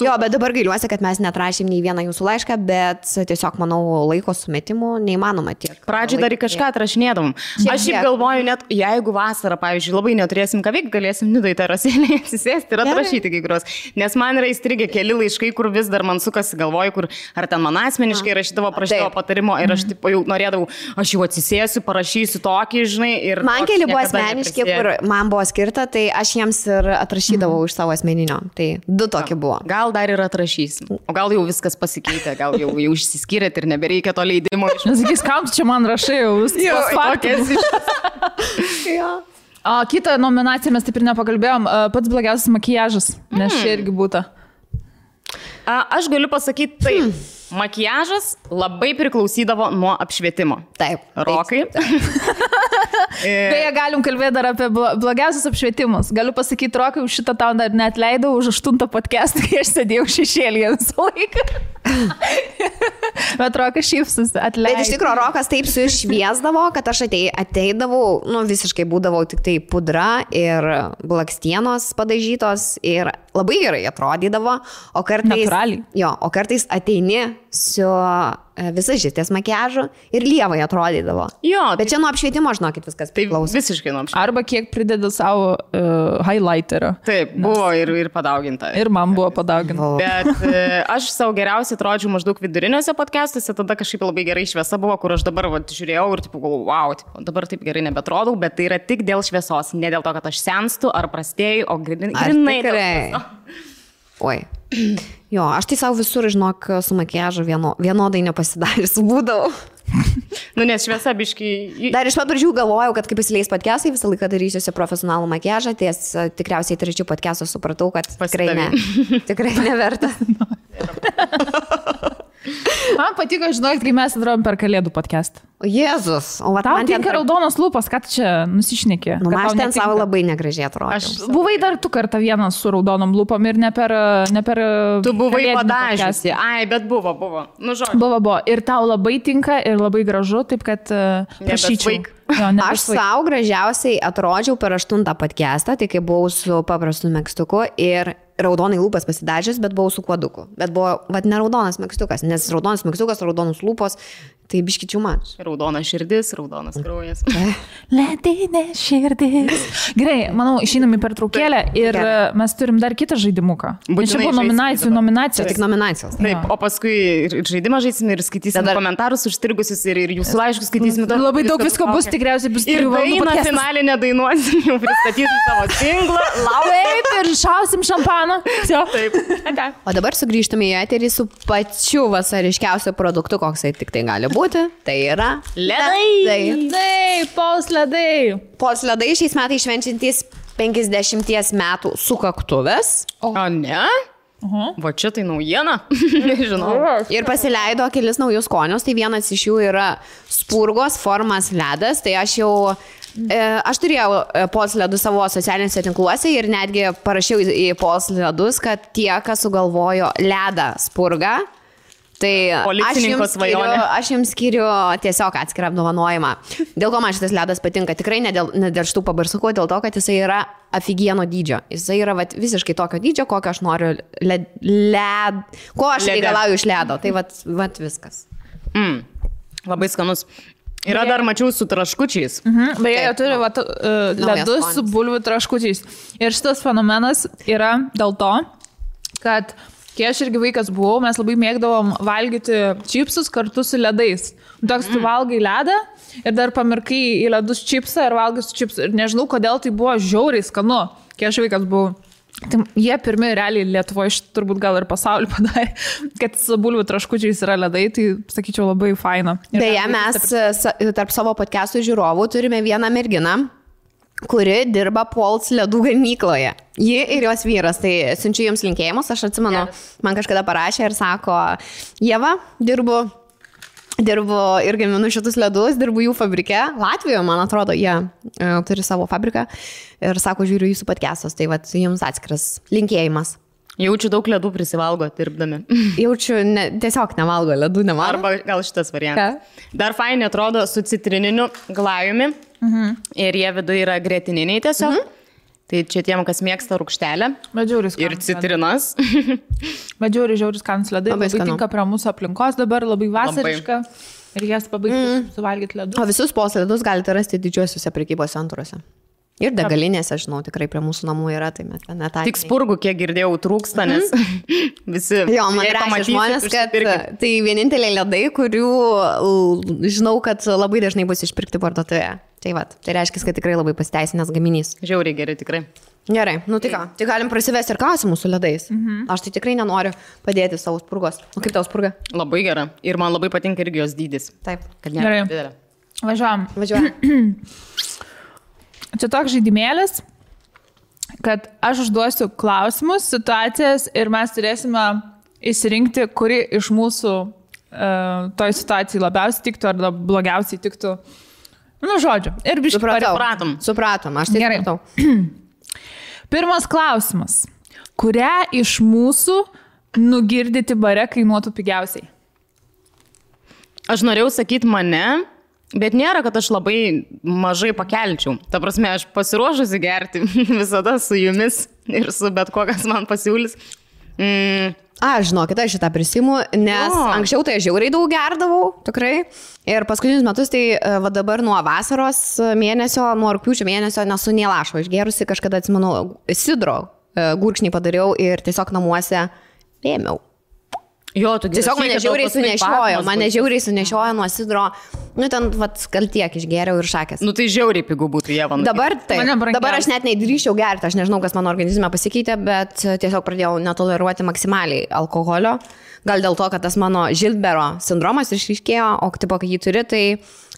Jo, bet dabar gailiuosi, kad mes netrašėm nei vieną jūsų laišką, bet tiesiog, manau, laiko sumetimų neįmanoma tiek. Pradžiai dar į kažką atrašinėdavom. Aš šiaip galvoju, net jeigu vasarą, pavyzdžiui, labai neturėsim ką veikti, galėsim Nidai terasėlėje atsisėsti ir atrašyti kai kurios. Nes man yra įstrigę keli laiškai, kur vis dar man sukasi galvoju, kur ar ten man asmeniškai rašydavo, prašydavo patarimo ir aš taip jau norėdavau, aš jau atsisėsiu, parašysiu tokį, žinai. Ir man keli buvo asmeniški, kur man buvo skirta, tai aš jiems ir atrašydavau iš savo asmeninio. Tai 2 tokie buvo. Gal dar ir atrašysim. O gal jau viskas pasikeitė, gal jau išsiskyrėt ir nebereikia to leidimo. Nesakys, kam čia man rašai jau viskas. O kitą nominaciją mes taip ir nepakalbėjom, pats blogiausias makiažas, nes čia irgi būtų. Aš galiu pasakyti taip, makiažas labai priklausydavo nuo apšvietimo. Taip. Rokai. Beje, galim kalbėti dar apie blogiausius apšvietimus. Galiu pasakyti, Rokai, už šitą tau dar neatleidau už 8 podcastą, kai aš sėdėjau šešėlyje visą laiką. Bet Rokas šypsosi, atleidau. Bet iš tikrųjų, Rokas taip sušviesdavo, kad aš ateidavau, visiškai būdavo tik tai pudra ir blakstienos padažytos ir labai gerai atrodydavo, o kartais... Natūraliai. Jo, o kartais ateini su visažistės makiažu ir lievai atrodydavo. Jo. Bet čia nuo apšvietimo, žinokit, viskas priklauso. Tai visiškai nuo apšvietimo. Arba kiek prideda savo highlighterio. Taip, buvo ir padauginta. Ir man buvo padauginta. Bet aš savo geriausiai atrodžiau maždaug viduriniuose podcastuose, tada kažkaip labai gerai šviesa buvo, kur aš dabar žiūrėjau ir tipo, wow, dabar taip gerai nebetrodau, bet tai yra tik dėl šviesos, ne dėl to, kad aš senstu ar prastėju, o grinai dėl... Oi. Jo, aš tai savo visur, žinok, su makiažu vienodai nepasidarys būdavau. Nes šviesa biškai... Dar iš pat pradžių galvojau, kad kai pasileis podcastai, visą laiką darysiuosi profesionalų makiažą, ties tikriausiai trečių podcastų supratau, kad tikrai neverta. Man patiko, žinok, kai mes atrodom per Kalėdų podcastą. O Jėzus, o va tau tinka raudonos lūpos, kad čia nusišnekė. Aš ten savo labai negražiai atrodžiau. Buvai dar tu kartą vienas su raudonom lūpom ir ne per tu buvai padažysi. Ai, bet buvo. Buvo. Ir tau labai tinka ir labai gražu, taip kad prašyčiau. Aš savo gražiausiai atrodžiau per 8 podcastą, tai kai buvau su paprastu megztuku ir raudonai lūpas pasidažęs, bet buvau su kuoduku. Bet buvo, ne raudonas megztukas, nes raudonas megztukas, raudonos lūpos, tai biškičių mač. Raudona širdis, raudonas kraujas. Ledinė širdis. Gerai, manau, išeinam į pertraukėlę ir mes turim dar kitą žaidimuką. Čia buvo nominacijos. Tik nominacijos. Taip, o paskui žaidimą žaisim ir skaitysim komentarus užstrigusius ir jūsų laiškus skaitysim. Labai daug visko bus, tikriausiai bus 3 valandų. Ir nacionalinę dainuosim, jau pristatysim savo singlą, taip, ir šausim šampaną. Taip. O dabar sugrįžtame į eterį su pačiu vasariškiausiu produktu, koksai tik tai gali būti, tai yra Ledai, Pols ledai. Pols ledai šiais metais švenčiantys 50 metų sukaktuvės. O ne? Va čia tai naujiena. Nežinau. Ir pasileido kelis naujus skonius, tai vienas iš jų yra spurgos formas ledas, tai aš turėjau Pols ledus savo socialiniuose tinkluose ir netgi parašiau į Pols ledus, kad tie, kas sugalvojo ledą spurgą, tai aš jums skiriu tiesiog atskirą apdovanojimą. Dėl ko man šitas ledas patinka? Tikrai ne dėl šitų pabarsukų, dėl to, kad jisai yra afigieno dydžio. Jisai yra visiškai tokio dydžio, kokio aš noriu ko aš reikalauju iš ledo. Tai vat viskas. Labai skanus. Yra dar mačiau su traškučiais. Beje, jie turi ledus su bulvių traškučiais. Ir šitas fenomenas yra dėl to, kad kai aš irgi vaikas buvau, mes labai mėgdavom valgyti čipsus kartu su ledais. Toks tu valgai ledą ir dar pamirkai į ledus čipsą ir valgai su čipsu. Ir nežinau, kodėl tai buvo žiauriai skanu, kai aš vaikas buvau. Tai jie pirmi realiai Lietuvoje, turbūt gal ir pasaulį padarė, kad su bulvių traškučiais yra ledai, tai sakyčiau labai faina. Beje, mes tarp savo podcastų žiūrovų turime vieną merginą, kuri dirba Pols ledų gamykloje. Ji ir jos vyras, tai siunčiu jums linkėjimus, aš atsimenu, man kažkada parašė ir sako, Ieva, dirbu ir gaminu šitus ledus, dirbu jų fabrike. Latvijoje, man atrodo, jie turi savo fabriką ir sako, žiūriu jūsų podcastus, tai vat jums atskiras linkėjimas. Jaučiu daug ledų prisivalgo, dirbdami. Jaučiu, tiesiog nevalgo ledų, nevalgo. Arba gal šitas variantas. Dar fainai atrodo su citrininiu glajumi. Ir jie viduje yra gretininiai tiesiog. Tai čia tiem, kas mėgsta rūgštelę. Ir citrinas. Žiauris skanus ledai. Labai tinka prie mūsų aplinkos dabar, labai vasariška. Ir jas pabaigti suvalgyti ledus. O visus Pols ledus galite rasti didžiuosiuose prekybos centruose. Ir degalinėse, žinau, tikrai prie mūsų namų yra, tai mes ten netai. Tik spurgų, kiek girdėjau, trūksta, nes visi... Jo, man rašė žmonės, kad tai vieninteliai ledai, kurių žinau, kad labai dažnai bus išpirkti parduotuvėje. Tai reiškia, kad tikrai labai pasiteisinęs gaminys. Žiauriai gerai, tikrai. Gerai, tai ką, tai galim prasivesti ir klausimus su ledais. Aš tai tikrai nenoriu padėti savo spurgos. O kaip tau spurga? Labai gera. Ir man labai patinka irgi jos dydis. Taip. Kad nėra didelė. Važiuojam. Čia toks žaidimėlis, kad aš užduosiu klausimus, situacijas ir mes turėsime įsirinkti, kuri iš mūsų toj situacijai labiausiai tiktų ar blogiausiai tiktų. Žodžiu. Ir biškai Supratom, aš tai gerai. Pirmas klausimas. Kurią iš mūsų nugirdyti bare kainuotų pigiausiai? Aš norėjau sakyti mane, bet nėra, kad aš labai mažai pakelčiau. Ta prasme, aš pasiruošusi gerti visada su jumis ir su bet kuo, kas man pasiūlys. Žinokit, aš šitą prisimu, nes anksčiau tai žiauriai daug gerdavau, tikrai. Ir paskutinius metus, tai va dabar nuo vasaros mėnesio, nuo rugpjūčio mėnesio nesu nei lašo išgerusi, kažkada atsimenu, sidro gurkšnį padariau ir tiesiog namuose ėmiau. Jo, tu tiesiog mane žiauriai sunešiojo nuo sidro, ten gal tiek išgėriau ir šakės. Tai žiauriai pigų būtų, Ieva. Dabar aš net neįdryščiau gerti, aš nežinau, kas mano organizme pasikeitė, bet tiesiog pradėjau netoleruoti maksimaliai alkoholio. Gal dėl to, kad tas mano Žilbero sindromas išryškėjo, o tipo, kai jį turi, tai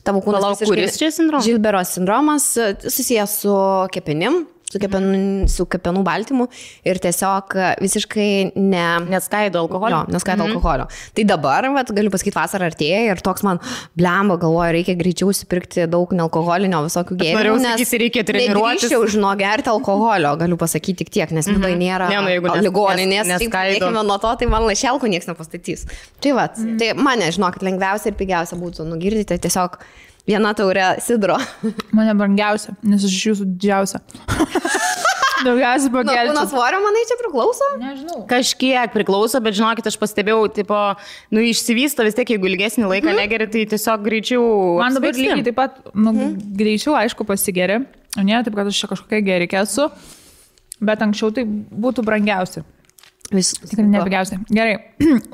tavo kūnas... Kuris čia sindromas? Žilbero sindromas susijęs su kepenim. Su kepenų baltymu ir tiesiog visiškai neskaido alkoholio. Neskaido alkoholio. Tai dabar, galiu pasakyti, vasara artėja ir toks man blemba, galvoju, reikia greičiau supirkti daug nealkoholinio visokių gėrimų, nes reikia treniruotis. Nedrįsčiau gerti alkoholio, galiu pasakyti tik tiek, nes vidai nėra ligoninės. Dėkime nuo to, tai man lašelkų niekas nepastatys. Tai mane, žinokit, lengviausia ir pigiausia būtų nugirdyti tiesiog viena taurė sidro. Mane brangiausia, nes aš iš jūsų didžiausia. Daugiausiai pakelčiau. Kūno svorio, manai, čia priklauso? Nežinau. Kažkiek priklauso, bet žinokit, aš pastebėjau, išsivysto vis tiek, jeigu ilgesnį laiką negeri, tai tiesiog greičiau. Man dabar lygiai taip pat, greičiau, aišku, pasigeri. O ne, taip, kad aš čia kažkokia gerikė esu, bet anksčiau tai būtų brangiausia. Tikrai nepigiausia. Gerai.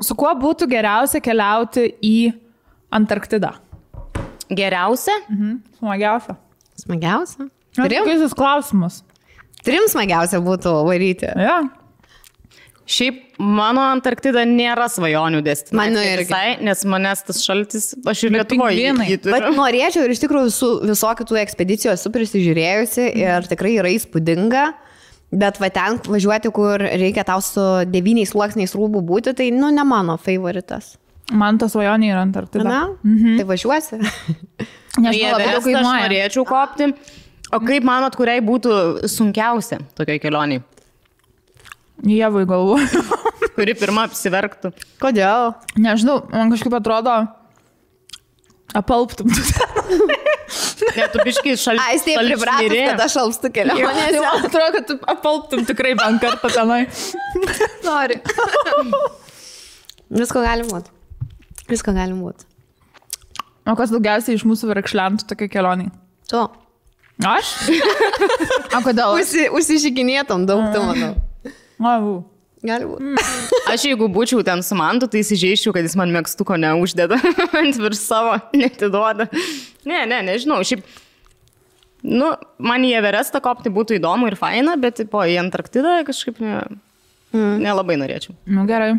Su kuo būtų geriausia keliauti į Antarktidą? Geriausia? Smagiausia. Šiaip mano Antarktida nėra svajonių destinacija. Mano irgi. Visai, nes manęs tas šaltis, aš ir Lietuvoje jį turiu. Bet norėčiau ir iš tikrųjų su visokių tų ekspedicijų esu prisižiūrėjusi ir tikrai yra įspūdinga. Bet va ten važiuoti, kur reikia tau su 9 sluoksniais rūbų būti, tai, nu, ne mano favoritas. Man ta svajonė yra Antarktida. Na, tai važiuosi. Nežinau, aš norėčiau kopti. O kaip manot, kuriai būtų sunkiausia tokiai kelioniai? Jėvai galvoju. Kuri pirma apsiverktų. Kodėl? Nežinau, man kažkaip atrodo, apalptum. Ne, tu biškai šaltis. Ai, taip pripratus, kad aš alpstu kelionėse. Man atrodo, kad tu apalptum tikrai bent kartą tenai. Nori. Visko gali būti. Visko gali būti. O kas daugiausiai iš mūsų verkšlentų tokia kelionė? Tu. Aš? O kodėl? Užsižiginėtum daug, tu manau. Gali būti. Aš jeigu būčiau ten su Mantu, tai įsižeiščiau, kad jis man megztuko neuždeda ant virš savo, netiduoda. Nežinau. Šiaip, nu, man į Everestą kopti būtų įdomu ir faina, bet po į Antarktidą kažkaip nelabai norėčiau. Nu, gerai.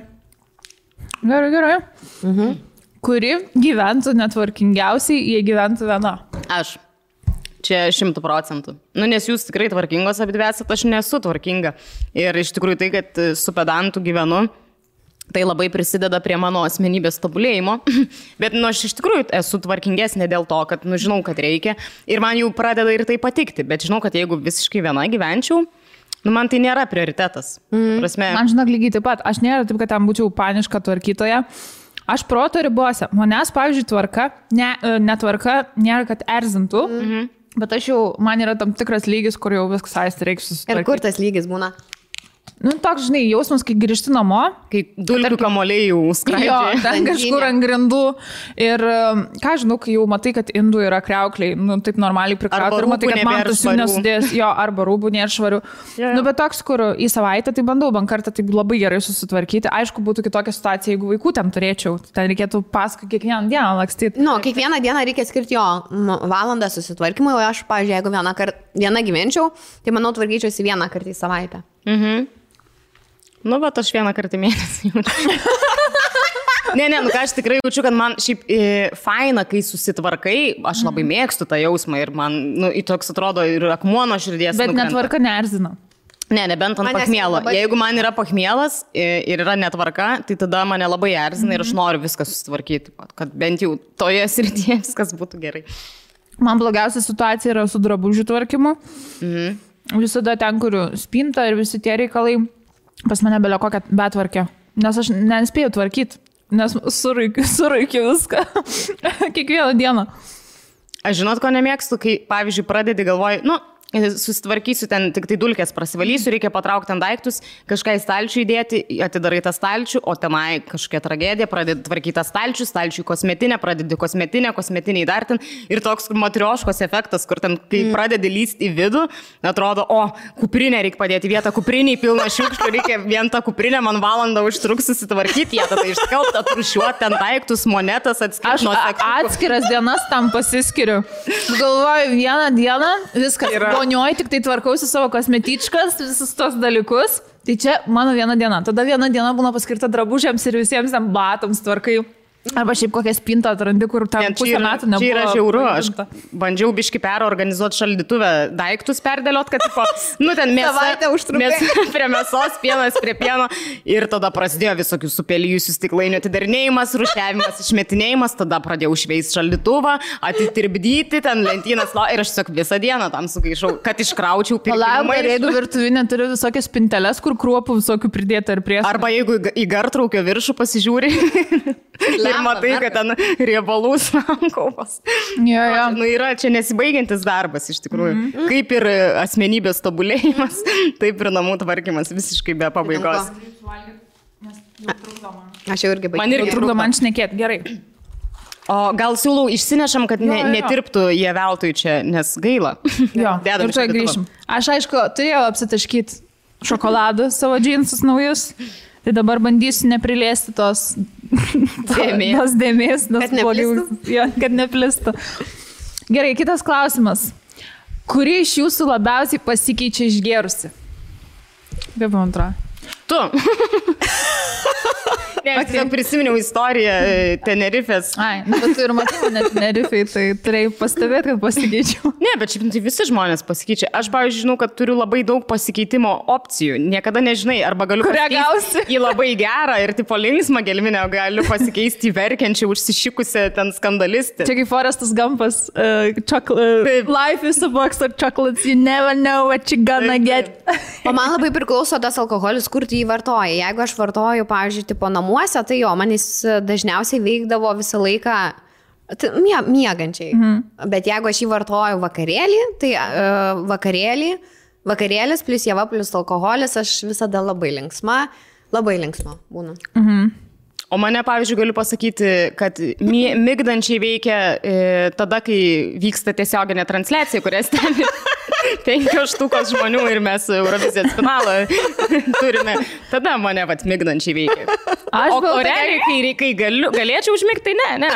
Gerai. Kuri gyventų netvarkingiausiai, jei gyventų viena? Aš. Čia 100%. Nu, nes jūs tikrai tvarkingos abidvesat, aš nesu tvarkinga. Ir iš tikrųjų tai, kad su pedantu gyvenu, tai labai prisideda prie mano asmenybės tobulėjimo. Bet, nu, aš iš tikrųjų esu tvarkingesnė dėl to, kad, nu, žinau, kad reikia. Ir man jau pradeda ir tai patikti. Bet žinau, kad jeigu visiškai viena gyvenčiau, nu, man tai nėra prioritetas. Prasme... Man žinok lygiai taip pat. Aš nėra taip, kad ten būčiau paniška tvarkytoja. Aš proto ribose. Manęs, pavyzdžiui, tvarka, netvarka nėra, kad erzintų. Bet aš jau, man yra tam tikras lygis, kur jau viskas aisti reikia susitvarkyti. Ir kur tas lygis būna? Nu, toks, žinai, jausmas, kai grįžti namo. Kai dulkių kamuoliai jau skraidžia. Jo, ten kažkur ant grindų. Ir, ką žinau, kai jau matai, kad indų yra kriaukliai, nu, taip normaliai prikrauti. Ir matai, kad man tas jų nesudės. Jo, arba rūbų nėra švarių. Nu, bet toks, kur į savaitę, tai bandau bent kartą taip labai gerai susitvarkyti. Aišku, būtų kitokia situacija, jeigu vaikų ten turėčiau. Ten reikėtų paskui kiekvieną dieną lakstyti. Nu, kiekvieną dieną reikia skirti jo valandą susitvarkymui, o aš, pavyzdžiui, jeigu vieną gyvenčiau, tai manau, tvarkyčiausi vieną kartą į savaitę. Nu, bet aš vieną kartą mėnesį jaučiu. Nu ką, aš tikrai jaučiu, kad man šiaip faina, kai susitvarkai, aš labai mėgstu tą jausmą ir man, nu, į toks atrodo ir akmuo nuo širdies. Bet netvarka neerzina. Nebent ant pachmielo. Jeigu man yra pachmielas ir yra netvarka, tai tada mane labai erzina ir aš noriu viską susitvarkyti, kad bent jau toje srityje viskas būtų gerai. Man blogiausia situacija yra su drabužių tvarkymu. Visada ten, kur spinta ir visi tie reikalai. Pas mane belio kokią betvarkę, nes aš nespėjau tvarkyti, nes suraikiu viską kiekvieną dieną. Aš žinot, ko nemėgstu, kai, pavyzdžiui, pradedi galvoji, nu, susitvarkysiu ten, tik tai dulkės prasivalysiu, reikia patraukti ant daiktus, kažką į stalčių įdėti, atidarai tą stalčių, o tenai kažkokia tragedija, pradedi tvarkyti tą stalčių kosmetinę, pradedi kosmetinį dar ten ir toks matrioškos efektas, kur ten, kai pradedi lysti į vidų, atrodo, o, kuprinę reikia padėti vietą, kupriniai pilna šiukšlių, reikia vien tą kuprinę, man valandą užtruks susitvarkyti, jie tada išskalbti, atrušiuoti ten daiktus, monetas, atskirti nuo sekundų. Aš atskiras dienas tam pasiskiriu. Galvoju, vieną dieną viskas. Vonioj tik tai tvarkausi savo kosmetičkas, visus tos dalykus. Tai čia mano viena diena. Tada viena diena būna paskirta drabužiams ir visiems ten batams tvarkai. Arba šiaip kokią spintą atrandi, kur ten pusę metų nebuvo. Čia yra žiauru. Aš bandžiau biški perorganizuoti šaldytuvę daiktus perdėliot, kad tipo, nu ten mėsa prie mėsos, pienas prie pieno. Ir tada prasidėjo visokių supelijusių stiklainių atidarinėjimas, rušiavimas, išmetinėjimas. Tada pradėjau šveist šaldytuvą, atitirpdyti ten lentynas. Ir aš tiesiog visą dieną tam sugaišau, kad iškraučiau pirkimą. Ir jeigu virtuvinė turi visokias spinteles, kur kruopų visokių pridėta ir prieš. Arba jeigu į gartraukio viršų pasižiūri. Ir matai, kad ten riebalų sankaupas. Nu, yra čia nesibaigiantis darbas iš tikrųjų. Kaip ir asmenybės tobulėjimas, taip ir namų tvarkymas visiškai be pabaigos. Aš jau irgi baigiu. Man irgi trukdo man šnekėti. Gerai. O gal siūlau išsinešam, kad netirptų jie veltui čia, nes gaila. Jo, ir čia grįšim. Aš aišku, turėjau apsitaškyti šokoladą savo džinsus naujus. Tai dabar bandysiu neprilėsti tos dėmės, kad neplistų. Gerai, kitas klausimas. Kuri iš jūsų labiausiai pasikeičia išgėrusi? Kaip man atrodo? Tu. Ne, aš tiesiog prisiminiau istoriją Tenerifės. Ai, bet tu ir matai mane Tenerifei, tai turėjai pastebėti, kad pasikeičiau. Ne, bet šiaip tai visi žmonės pasikeičia. Aš, pavyzdžiui, žinau, kad turiu labai daug pasikeitimo opcijų. Niekada nežinai, arba galiu pasikeisti į labai gerą ir tipo linksmą gelminę, o galiu pasikeisti į verkiančią, užsišikusią ten skandalistę. Čia kaip Forestas Gumpas, life is a box of chocolates, you never know what you're gonna get. O man labai priklauso tas alkoholis, kur tu jį vartoji. Jeigu aš vartoju, pavyzdžiui, tipo namuose, tai jo, man jis dažniausiai veikdavo visą laiką miegančiai. Bet jeigu aš jį vartoju vakarėlį, tai vakarėlis plus java plus alkoholis, aš visada labai linksma būna. O mane, pavyzdžiui, galiu pasakyti, kad migdančiai veikia tada, kai vyksta tiesioginė transliacija, kurias ten 5 štukos žmonių ir mes Eurovizijos finalą turime. Tada mane migdančiai veikia. O realiai, kai galėčiau užmigti, tai ne.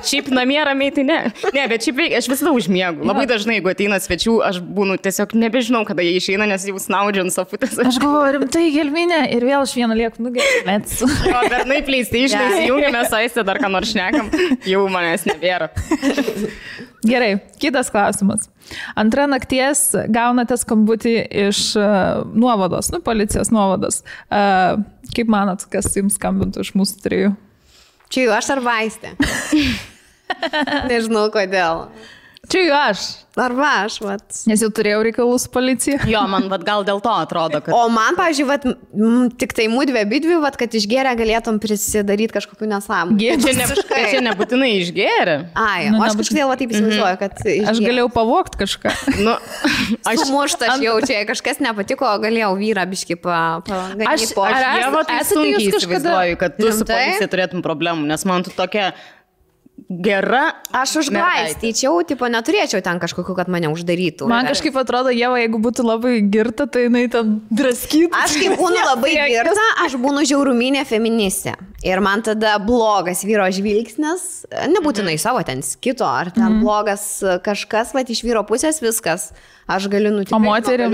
Šiaip namie ramiai, tai ne. Ne, bet šiaip veikia, aš visada užmiegu. Labai dažnai, jeigu ateina svečių, aš būnu tiesiog nebežinau, kada jie išeina, nes jau snaudžiu ant sofutės. Aš galvoju, rimtai gelminė ir vėl aš vieną lieku nugelmėts. O bernai PlayStation įsijungiame, saistę dar ką nors šnekam, jau manęs nebėra. Gerai, kitas klausimas. Antrą nakties gaunate skambutį iš nuovados, policijos nuovados. Kaip manot, kas jums skambintų iš mūsų trijų? Čia jau aš ar Vaistė? Nežinau kodėl. Čia jau aš. Arba aš, Nes jau turėjau reikalų su policija. Jo, man gal dėl to atrodo, kad... O man, pavyzdžiui, tik tai mūdvi abidvi, kad išgėrę galėtum prisidaryti kažkokių nesąmonių. Čia nebūtinai išgėrė. Ai, o aš kažkodėl taip įsivaizduoju, kad išgėrė. Aš galėjau pavogti kažką. Sumuštas jau čia, kažkas nepatiko, galėjau vyrą biškį paganyti po. Aš sunkiai įsivaizduoju, kad tu su policija turėtum problemų, nes man tu tokia... Gera. Aš užglaistyčiau, neturėčiau ten kažkokiu, kad mane uždarytų. Man kažkaip atrodo, Ieva, jeigu būtų labai girta, tai jinai ten draskytų. Aš kaip būnu labai girta, aš būnu žiauruminė feministė. Ir man tada blogas vyro žvilgsnis, nebūtinai savo ten kito, ar ten blogas kažkas, iš vyro pusės viskas. Aš galiu nutikti. O moterį?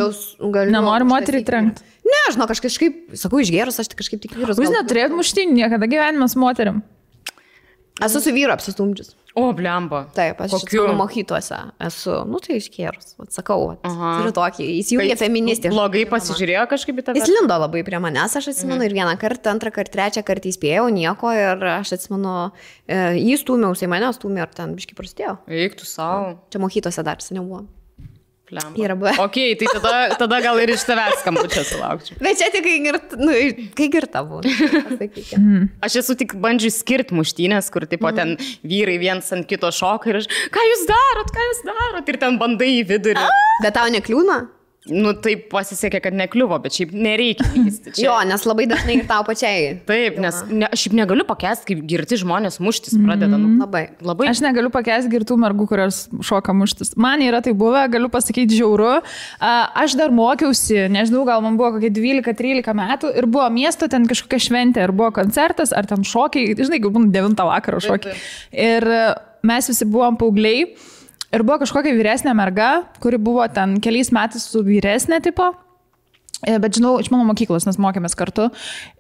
Nenori moterį trenkti? Ne, aš kažkaip, sakau, išgėrus, aš kažkaip tik vyrus. Jūs neturėjot muštynių niekada gyvenime su moterim? Esu su vyru apsistumdžius. O, blemba. Taip, aš mokyklose esu, tai iškėrus, sakau, turiu tokį, jis jungia feministį. Blogai pasižiūrėjo kažkaip į tave? Jis lindo labai prie manęs, aš atsimenu, ir vieną kartą, antrą kartą, trečią kartą įspėjau, nieko, ir aš atsimenu, jį stūmiausi, mane stūmė, ir ten biškai prasidėjo. Eik tu savo. Čia mokyklose dar seniau buvo. Ok, tai tada gal ir iš tavęs skambučio sulaukčiau. Bet čia tik kai girta buvo. Aš esu tik bandžiu skirti muštynės, kur tipo ten vyrai viens ant kito šoka ir aš, ką jūs darot, ir ten bandai į vidurį. Bet tau nekliūna? Taip pasisekė, kad nekliuvo, bet šiaip nereikia lysti. Jo, nes labai dažnai ir tau pačiai. Taip, nes šiaip negaliu pakęsti, kaip girti žmonės muštis pradeda. Labai. Aš negaliu pakęsti girtų mergų, kurios šoka muštis. Man yra tai buvę, galiu pasakyti žiauru. Aš dar mokiausi, nežinau, gal man buvo kokie 12-13 metų ir buvo miesto ten kažkokia šventė, ar buvo koncertas, ar ten šokiai, žinai, gal 9 vakaro šokiai. Ir mes visi buvom paaugliai. Ir buvo kažkokia vyresnė merga, kuri buvo ten keliais metais su vyresnė tipo, bet žinau, iš mano mokyklos, nes mokėmės kartu.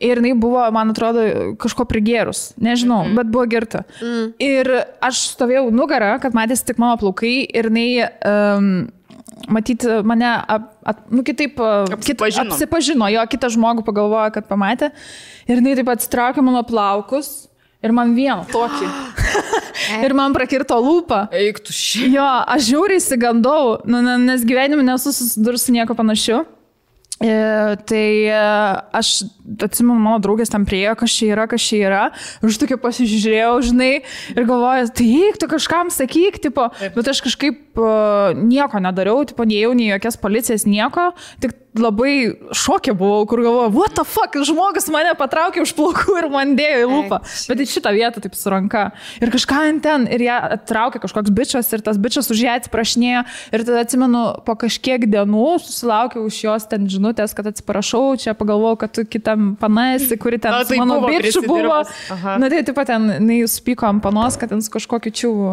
Ir jinai buvo, man atrodo, kažko prigėrus, nežinau, bet buvo girta. Ir aš stovėjau nugarą, kad matėsi tik mano plaukai ir jinai... matyti mane, kitaip apsipažino, jo, kitą žmogų pagalvojo, kad pamatė. Ir jinai taip atsitraukė mano plaukus. Ir man vieną tokį. Ir man prakirto lūpą. Eik tu šį. Jo, aš žiauriai įsigandau, nes gyvenime nesu susidurus su nieko panašiu. Tai aš atsimenu, mano draugės tam priejo, kas čia yra. Ir aš tokia pasižiūrėjau, žinai, ir galvoju, tai eik, tu kažkam sakyk, tipo, bet aš kažkaip nieko nedariau, tipo, neėjau nei jokias policijas, nieko, tik labai šokė buvau, kur galvoju, what the fuck, žmogus mane patraukė už plaukų ir man dėjo į lūpą. Bet į šitą vietą taip su ranka. Ir kažką ten, ir ją attraukė kažkoks bičas, ir tas bičas už ją atsiprašinėjo. Ir tada atsimenu, po kažkiek dienų susilaukiau iš jos ten žinutės, kad atsiprašau, čia pagalvojau, kad tu kitą tam panasi, kuri ten Tai mano buvo bičių buvo. Aha. Na tai taip pat ten, jūs pyko ant panos, kad ten su kažkokiu čiūvu,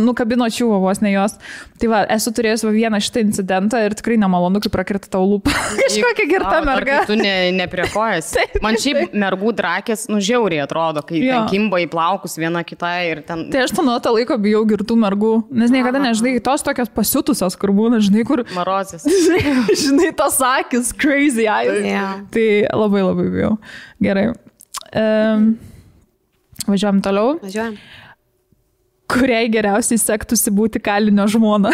nukabino čiūvo vos ne jos. Tai va, esu turėjęs vieną šitą incidentą ir tikrai nemalonu, kai prakirta tau lūpą. Kažkokia girta merga. Tu nepriekojas. Man šiaip mergų drakės, žiauriai atrodo, kai ten kimba į plaukus viena kitai ir ten... Tai aš nuo to laiko bijau girtų mergų, nes niekada nežinai, tos tokios pasiutusios, kur būna, žinai, kur... Marozės. Žinai, tos akis, crazy eyes. Yeah. Tai labai bijau. Gerai. Važiuojam toliau. Važiuojam. Kuriai geriausiai sektųsi būti kalinio žmona?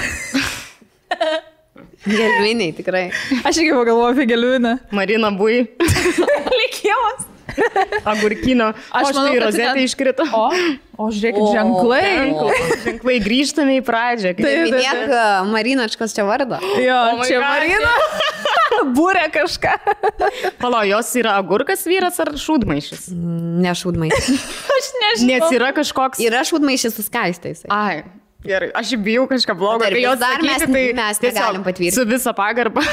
Gelviniai, tikrai. Aš irgi pagalvoju apie gelvinę. Marina Bui. Likimas. Agurkino. Aš manau, tai rozetė iškrito. O žiūrėkit, ženklai. Ženklai, grįžtame į pradžią. Minėk Marinačkos čia vardą. Jo, čia Marina. Būrė kažką. Palo, jos yra agurkas vyras ar šūdmaišis? Ne šūdmaišis. Aš nežinau. Nes yra kažkoks... Yra šūdmaišis su skaistais. Ai, gerai. Aš bijau kažką blogo. Dar Kai jos dar sakyti, mes negalim patvirtinti. Su visa pagarba.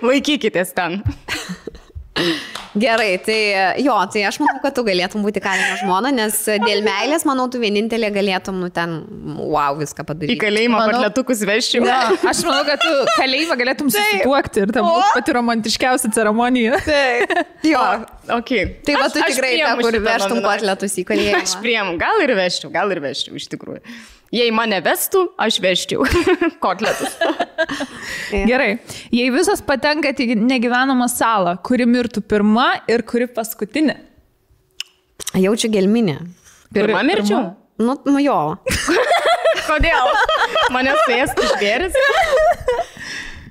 Laikykitės ten. Gerai, tai aš manau, kad tu galėtum būti kalinio žmona, nes dėl meilės, manau, tu vienintelė galėtum, ten, wow, viską padaryti. Į kalėjimą patletukus vežčiau. Ja, aš manau, kad tu kalėjimą galėtum susituokti ir tam būtų pati romantiškiausia ceremonija. Taip. Jo. Okay. Tai va, tu tikrai ta, kur vežtum patletus į kalėjimą. Aš priemu, gal ir vežčiau, iš tikrųjų. Jei mane vestų, aš vežčiau kotletus. Gerai. Jei visas patenkat į negyvenamą salą, kuri mirtų pirma ir kuri paskutinė? Jaučiu gelminę. Pirma mirčiau? Nu jo. Kodėl? Mane suėstų žvėris?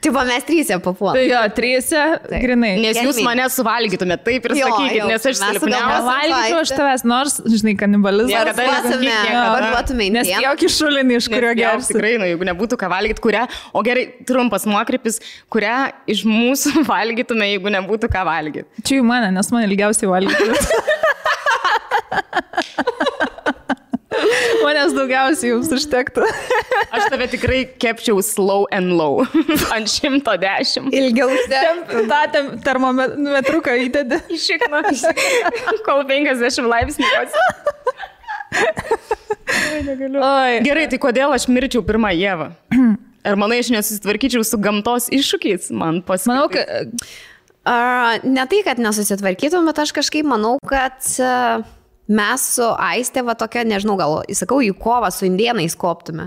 Taip, mes trysia papuolame. Tai jo, trysia, grinai. Nes jūs mane suvalgytumėte, taip ir sakykit, nes aš silpniausia. Valgyčiau aš tavęs, nors, žinai, kanibalizmas. Parduotume į nes jokį šulinį, iš kurio gersi. Tikrai, jeigu nebūtų ką valgyti, kurią, o gerai, trumpas nuokrypis, kurią iš mūsų valgytume, jeigu nebūtų ką valgyti. Čia į mane, nes man ilgiausiai valgyti. Manęs daugiausiai jums užtektų. Aš tave tikrai kepčiau slow and low. Ant 110. Ilgiau tą termometruką įdedi. Išikno. Kol 50 laipsnių. Gerai, tai kodėl aš mirčiau pirmą Ievą? Ar manai, aš nesusitvarkyčiau su gamtos iššūkiais? Man pasitikė. Manau, kad... Ne tai, kad nesusitvarkytum, bet aš kažkaip manau, kad... Mes su Aiste, va tokia, nežinau, gal, įsakau, į kovą su indėnais koptume.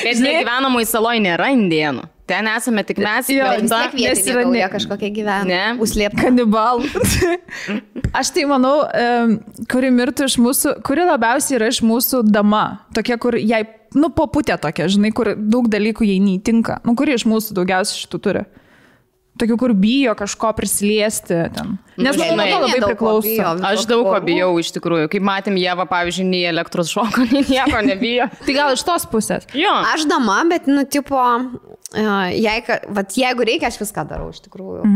Bet negyvenamoj saloj nėra indėnų. Ten esame tik mes. Jo, vis tiek vietinė kažkokia gyvena. Užslėpta. Kanibalų. Aš tai manau, kuri mirtų iš mūsų, kuri labiausiai yra iš mūsų dama. Tokia, kur jai, poputė tokia, žinai, kur daug dalykų jai neįtinka. Kuri iš mūsų daugiausiai šitų turi? Tokių, kur bijo kažko prisiliesti ten. Nes manau, to labai priklauso. Aš daug ko bijau iš tikrųjų. Kaip matėm, Ieva, pavyzdžiui, nei elektros šoko, nei nieko nebijo. Tai gal iš tos pusės? Jo. Aš dama, bet, jeigu reikia, aš viską darau iš tikrųjų.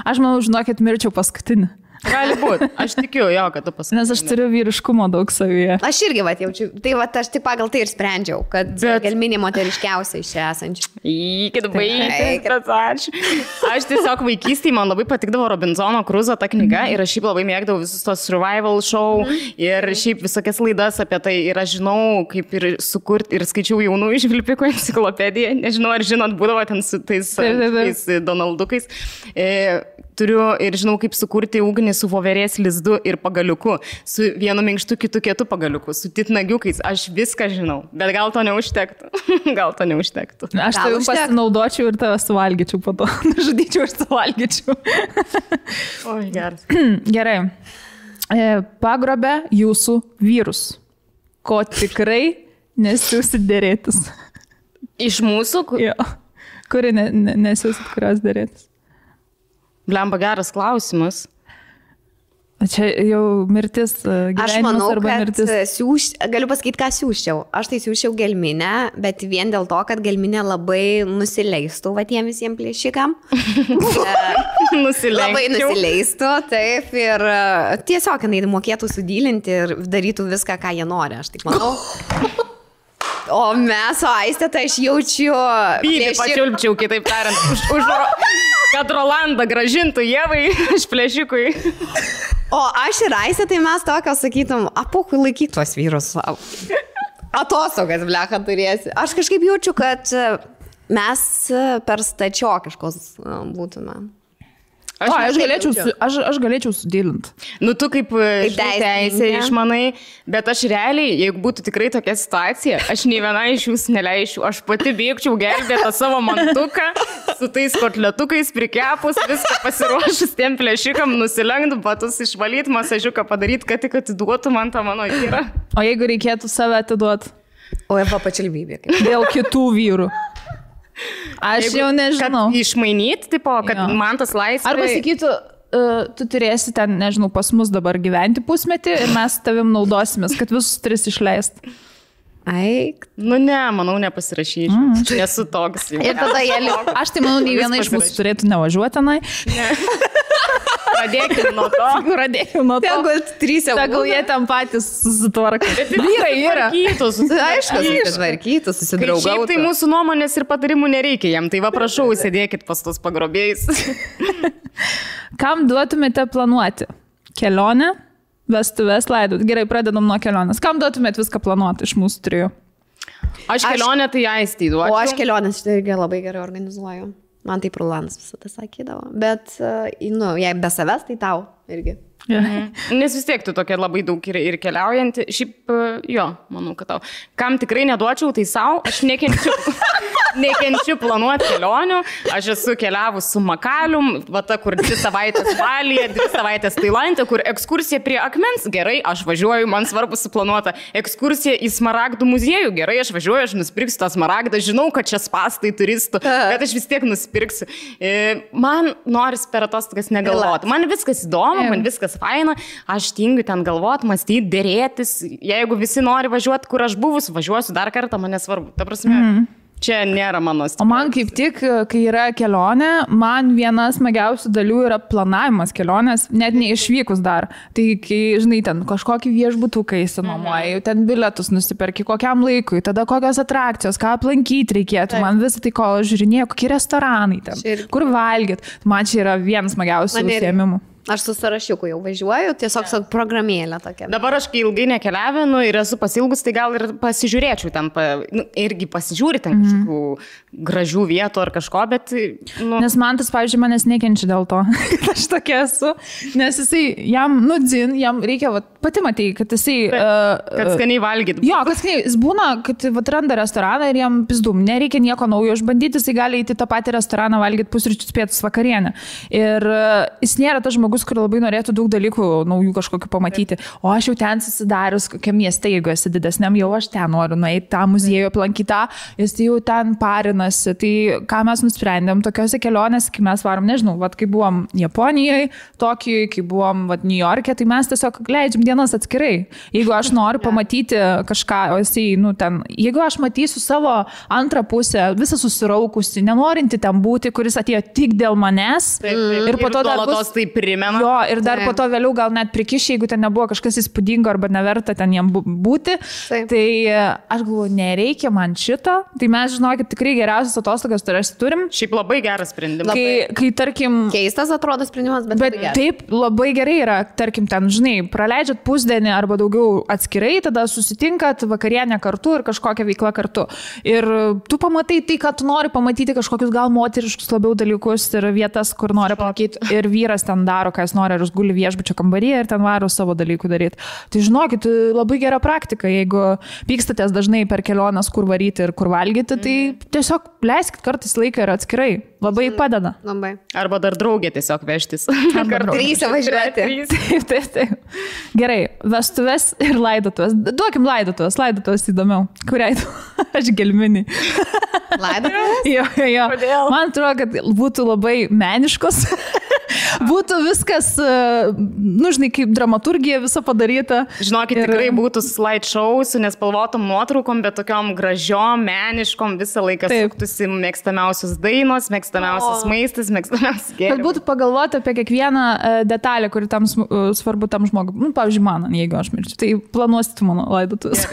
Aš manau, žinokit, mirčiau paskutinį. Gali būti. Aš tikiu jo, kad tu pasakai. Nes aš turiu vyriškumo daug savyje. Aš irgi jaučiu. Tai aš tik pagal tai ir sprendžiau, kad gelminė moteriškiausia iš čia esančių. Įkit baigti. Aš tiesiog vaikystėje man labai patikdavo Robinzono Kruzo ta knyga ir aš šiaip labai mėgdavau visus tos survival show ir šiaip visokias laidas apie tai ir aš žinau, kaip ir sukurti ir skaičiau jaunų išvilpikų enciklopediją. Nežinau, ar žinot, būdavo ten su tais Donaldukais. Turiu ir žinau, kaip sukurti ugnį su voverės lizdu ir pagaliuku, su vienu minkštu, kitu kietu pagaliuku, su titnagiukais. Aš viską žinau, bet gal to neužtektų. Aš tai jums pasinaudočiau ir tave suvalgyčiau po to. Žudyčiau ir suvalgyčiau. Oi, geras. Gerai. Pagrobė jūsų vyrus, ko tikrai nesiūsit dėrėtis. Iš mūsų? Jo. Kuri nesiūsit kurios dėrėtis? Blemba, geras klausimas. Čia jau mirtis, gyvenimas arba mirtis. Aš manau, kad galiu pasakyti, ką siūščiau. Aš tai siūščiau gelminę, bet vien dėl to, kad gelminė labai nusileistų tiem visiems plėšikam. Labai nusileistų, taip. Ir tiesiog jinai mokėtų sudylinti ir darytų viską, ką jie nori. Aš taip manau. O mes su Aiste, tai aš jaučiu... Pylį pačiulpčiau, kitaip tariant, kad Rolandą gražintų Ievai iš plėšikui. O aš ir Aiste, tai mes tokio sakytum, apukui laikyk tuos vyrus savo. Atostogas, blecha, turėsi. Aš kažkaip jaučiu, kad mes per stačiokiškos būtume. Aš galėčiau sudėlinti. Nu, tu kaip teisė išmanai, bet aš realiai, jeigu būtų tikrai tokia situacija, aš nei viena iš jūsų neleičiau, aš pati bėgčiau gelbėtą savo mantuką, su tais kotletukais prikepus, viską pasiruošus tiem plėšikam, nusilenkti, batus išvalyti, masažiuką padaryti, kad tik atiduotų man tą mano vyrą. O jeigu reikėtų save atiduoti? O Eva pačilbybė. Dėl kitų vyrų. Aš jau nežinau. Kad išmainyti, tipo, kad man tas laisvė... Arba sakytų, tu turėsi ten, nežinau, pas mus dabar gyventi pusmetį ir mes tavim naudosimės, kad visus 3 išleist. Aik. Nu ne, manau, nepasirašyčiau. Esu toks. Ir tada jie liko. Aš tai manau, nei viena iš mūsų turėtų nevažiuoti tenai. Ne. Pradėkime nuo to. Tegul 3 jau. Tegul jie ten patys susitvarka. Vyrai yra. Aišku, susitvarkytų, susidraugautų. Šiaip tai mūsų nuomonės ir patarimų nereikia jam. Tai va, prašau, sėdėkit pas tos pagrobėjais. Kam duotumėte planuoti? Kelionę, vestuves, laidot. Gerai, pradedam nuo kelionės. Kam duotumėte viską planuoti iš mūsų 3? Aš kelionę tai Aistei duočiau. O aš kelionės šitą irgi labai gerai organizuoju. Man tai Rolandas visada sakydavo. Bet, nu, jei be savęs, tai tau irgi. Nes vis tiek tu tokia labai daug ir keliaujanti. Šiaip, jo, manau, kad tau. Kam tikrai neduočiau, tai savo. Aš nekenčiu planuoti kelionių. Aš esu keliavus su Makalium, va ta, kur 2 savaitės Balyje, 2 savaitės Tailande, kur ekskursija prie akmens, gerai, aš važiuoju, man svarbu suplanuota. Ekskursija į Smaragdų muziejų, gerai, aš važiuoju, aš nusipirksiu tą Smaragdą, žinau, kad čia spastai turistų, bet aš vis tiek nusipirksiu. Man noris per atostogas negalvoti. Man viskas įdomu, man viskas faina, aš tingiu ten galvoti, mąstyti, dėrėtis. Jeigu visi nori važiuoti, kur aš buvus, važiuosiu dar kartą, man nesvarbu. Ta prasme, čia nėra mano stipriausias. O man kaip tik, kai yra kelionė, man vienas smagiausių dalių yra planavimas kelionės, net neišvykus dar. Tai kai, žinai, ten kažkokį viešbutuką įsinuomoji, ten bilietus nusiperki kokiam laikui, tada kokios atrakcijos, ką aplankyti reikėtų. Man visą tai, ko žiūrinėjau, kokie restoranai ten, kur valgyt. Man čia yra vienas smagiausių užsiėmimų. Aš su sąrašiuku jau važiuoju, tiesiog programėlė tokia. Dabar aš, kai ilgai nekeliavinu ir esu pasilgus, tai gal ir pasižiūrėčiau ten, irgi pasižiūri ten kažkokių gražių vietų ar kažko, bet... Nu... Nes man tas, pavyzdžiui, manęs nekenčia dėl to, kad aš tokia esu, nes jisai, jam reikia, pati matei, kad jisai... kad skaniai valgyt. Jo, kad skaniai, jis būna, kad randa restoraną ir jam pizdum, nereikia nieko naujo išbandyti, jisai gali įti tą patį restoraną valgyti pusryčius, pietus, vakarienę. Ir jis nėra tas žmogus, kur labai norėtų daug dalykų naujų kažkokių pamatyti. O aš jau ten susidarius kokiam mieste, jeigu esi didesniam, jau aš ten noriu nueiti tą muziejų aplankyti, jis jau ten parinasi. Tai ką mes nusprendėm tokiose kelionėse, kai mes varom, nežinau, kai buvom Japonijoje, Tokijoje, kai buvom New York'e, tai mes tiesiog leidžiam dienas atskirai. Jeigu aš noriu pamatyti kažką, o jisai, ten, jeigu aš matysiu savo antrą pusę, visą susiraukusi, nenorinti ten būti, kuris atėjo tik dėl manęs. Ir po to dar bus... tai primena. Jo, ir dar po to vėliau gal net prikiši, jeigu ten nebuvo kažkas įspūdingo arba neverta ten jam būti. Tai aš galvoju, nereikia man šito. Tai mes, žinokit, tikrai geriausias atostogas turim. Šiaip labai geras sprendimas. Kai tarkim... Keistas atrodo sprendimas, bet taip, labai gerai yra, tarkim, ten, žinai, praleidžiat pusdienį arba daugiau atskirai, tada susitinkat vakarienę kartu ir kažkokią veiklą kartu. Ir tu pamatai tai, kad tu nori pamatyti kažkokius gal moteriškus labiau dalykus ir vietas, kur nori pamatyti. Ir vyras ten daro, ką jis nori, ar jis guli viešbučio kambaryje ir ten varo savo dalykų daryti. Tai žinokit, labai gera praktika, jeigu pykstatės dažnai per keliones, kur varyti ir kur valgyti, tai tiesiog leiskit kartais laiką ir atskirai. Labai padeda. Labai. Arba dar draugė tiesiog vežtis. Kartu 3 važiuoti. Taip. Gerai, vestuves ir laidotuvės. Duokim laidotuvės įdomiau. Kuriai tu? Aš gelminį. Laidotuvės? Jo. Man atrodo, kad būtų labai meniškos. būtų viskas, nu, žinai, kaip dramaturgija visa padaryta. Žinokit, tikrai būtų slideshow su nespalvotom nuotraukom, bet tokiom gražiom, meniškom, visą laiką suktųsi mėgstamiausios dainos, mėgstamiausias maistas, mėgstamiausias gėrimas. Kad būtų pagalvoti apie kiekvieną detalę, kuri tam svarbu tam žmogui. Nu, pavyzdžiui, man, jeigu aš mirčiu, tai planuosit mano laidotuvės.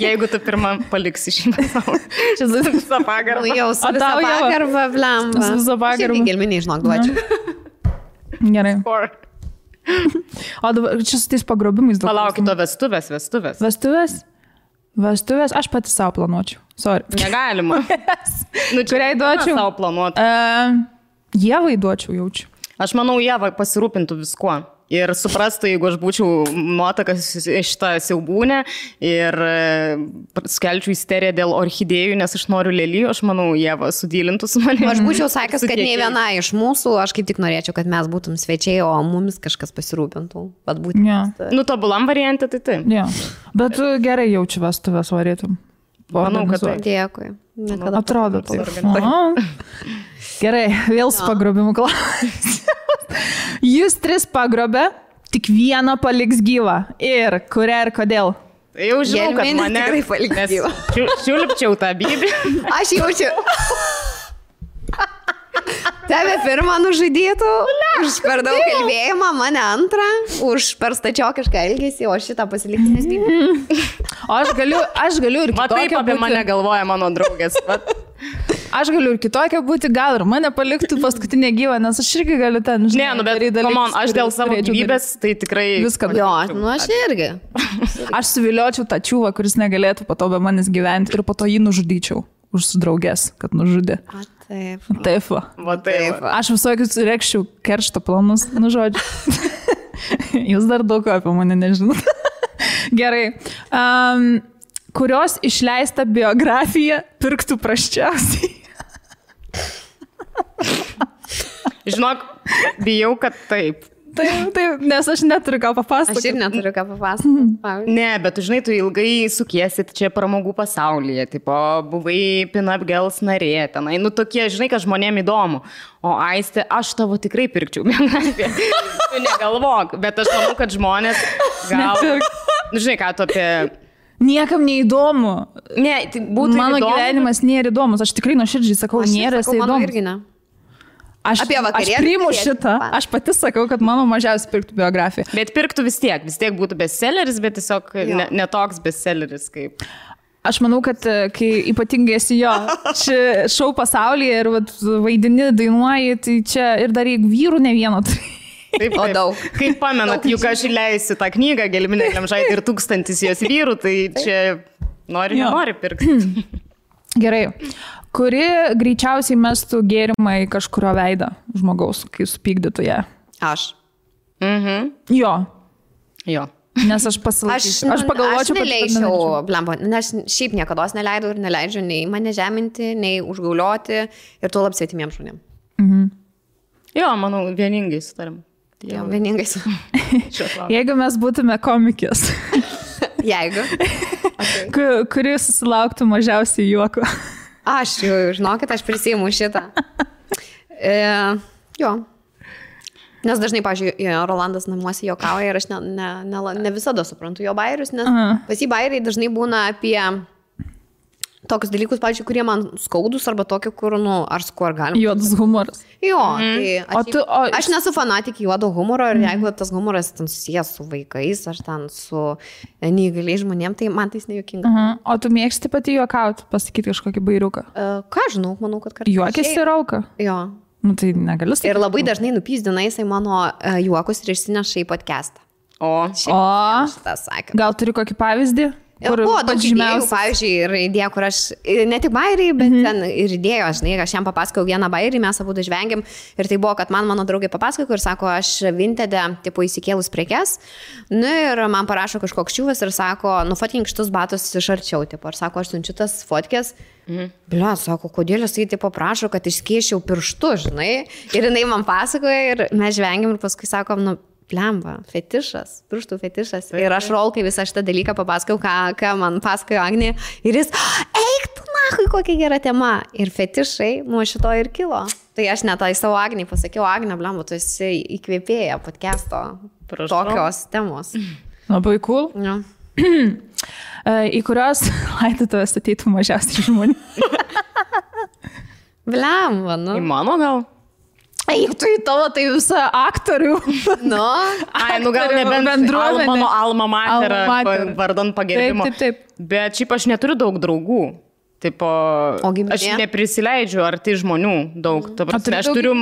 Jeigu tu pirmą paliksi šį pasaulį. Čia visą pagarbą. Jau su visą pagarbą, blemba. Su visą pagarbą. Šiaip gelminiai, žinok, duočiau. Gerai. O dabar čia su tais pagrobimais daug. Palaukit, o vestuvės. Vestuvės aš pati savo planuočiau. Sorry. Negalima. Kuriai duočiau? Savo planuoti. Ievai duočiau, jaučiu. Aš manau, Ieva pasirūpintų viskuo. Ir suprastų, jeigu aš būčiau nuotakas šitą siaubūnę ir skelčiau isteriją dėl orchidėjų, nes aš noriu lelijų, aš manau, Ieva sudylintų su manimi. Aš būčiau sakęs, kad nei viena iš mūsų, aš kaip tik norėčiau, kad mes būtum svečiai, o mumis kažkas pasirūpintų. Nu, tobulam variantė, tai taip. Ja. Bet tu gerai jaučiu vestuvės varytum. Manau, kad tai. Dėkui. Atrodo taip. Gerai, vėl su pagrobimu klausimas. Jūs 3 pagrobė, tik vieną paliks gyvą. Ir kurią ir kodėl? Jau žinau, kad mane tikrai paliks gyvą. Čiulpčiau tą bybį. Aš jaučiu. Tave pirmą nužudytų, už per daug kalbėjimą, mane antrą, už per stačiokišką elgesį, o šitą pasilikti nesbybį. O aš galiu ir kitokią. Taip apie mane galvoja mano draugės. Aš galiu ir kitokią būti, gal ir mane paliktų paskutinę gyvą, nes aš irgi galiu ten, žinai, ne, nu, bet aš dėl savo gyvybės, tai tikrai viską. Jo, nu aš irgi. Aš suviliočiau tą čiūvą, kuris negalėtų po to be manęs gyventi ir po to jį nužudyčiau už draugės, kad nužudė. Taip. Taip. Taip. Aš visokius rekščiau keršto planus, nu žodžiu. Jūs dar daug apie mane nežinot. Gerai. Kurios išleista biografija pirktų prasčiausiai? Žinok, bijau, kad taip. Taip, nes aš neturiu ką papasakoti. Aš ir neturiu ką papasakoti. Ne, bet tu žinai, tu ilgai sukiesit čia pramogų pasaulyje, tipo, buvai Pin-Up Girls narė, tenai, nu tokie, žinai, kad žmonėm įdomu. O Aistė, aš tavo tikrai pirkčiau biografiją. Tu negalvok, bet aš manau, kad žmonės gal... Žinai, ką tu apie... Niekam neįdomu. Ne, tai būtų mano įdomu. Gyvenimas nėra įdomus, aš tikrai nuoširdžiai sakau, nėra įdomus. Aš priimu šitą, aš pati sakau, kad mano mažiausiai pirktų biografiją. Bet pirktų vis tiek būtų bestselleris, bet tiesiog netoks bestselleris kaip. Aš manau, kad kai ypatingai esi šou pasaulyje ir vaidini, dainuoji, tai čia ir dar jeigu vyrų ne vieno tai. Taip, o daug. Kaip pamenat, juk aš įleisiu tą knygą, Gelminė Glemžaitė ir 1000 jos vyrų, tai čia nori pirkti. Gerai. Kuri greičiausiai mestų gėrimą į kažkurio veidą žmogaus, kai supykdytų ją? Aš. Jo. Nes aš pasilaikysiu. Aš pagalvočiau, kad neleidžiau, blemba, nes šiaip niekada neleidau ir neleidžiu nei mane žeminti, nei užgaulioti ir tuo lab svetimiems žmonėms. Jo, manau, vieningai sutarim. Jo, vieningai sutarim. Jeigu mes būtume komikės. Jeigu. Kuri susilauktų mažiausiai juoko. Aš jau, žinokit, aš prisiimu šitą. Jo. Nes dažnai, pavyzdžiui, Rolandas namuose juokauja ir aš ne visada suprantu jo bairius, nes pas jį bairiai dažnai būna apie tokius dalykus, pavyzdžiui, kurie man skaudus arba tokie, kur, ar galima. Juodas humoras. Jo, tai aš nesu fanatikė juodo humoro ir jeigu tas humoras ten susijęs su vaikais ar ten su neįgaliais žmonėm, tai man tai nejuokinga. O tu mėgsti pati juokauti, pasakyti kažkokį bairiuką? Ką žinau, manau, kad kartais. Juokėsi ir auka? Jo. Nu tai negaliu sakyti. Ir labai dažnai nupyzdina jisai mano juokus ir išsineša į podcastą. Gal turi kokį pavyzdį? Buvo daug idėjų, pavyzdžiui, ir idėja, kur aš, ne tik bairiai, bet ten ir idėjo, žinai, aš jam papasakau vieną bairį, mes abu žvengiam ir tai buvo, kad mano draugė papasako ir sako, aš Vintede, tipo, įsikėlus prekes, nu ir man parašo kažkoks čiūvas ir sako, nufotkink šitus batus iš arčiau, tipo, ir sako, aš siunčiu tas fotkės, blia, sako, kodėl jisai, tipo, prašo, kad išskėsčiau pirštu, žinai, ir jinai man pasakoja ir mes žvengiam ir paskui sakom, nu, plemba, fetišas, pirštų fetišas. Ir aš Rolkai visą šitą dalyką papasakau, ką man pasakojo Agnė. Ir jis, eik tu nahui, kokia gera tema. Ir fetišai nuo šito ir kilo. Tai aš net tai savo Agniai pasakiau, Agne, blemba, tu esi įkvėpėja podcast'o tokios temos. Labai cool. Ja. Į kurios laidotuvės ateitų mažiausiai žmonių. Blemba, nu. Į mano gal? Eik, tu į tavo tai visą aktorių. Nu. Ai, nu gal nebent mano alma mater vardan pagerbimo. Taip. Bet šiaip aš neturiu daug draugų. Tipo, aš neprisileidžiu arti žmonių daug. Aš turiu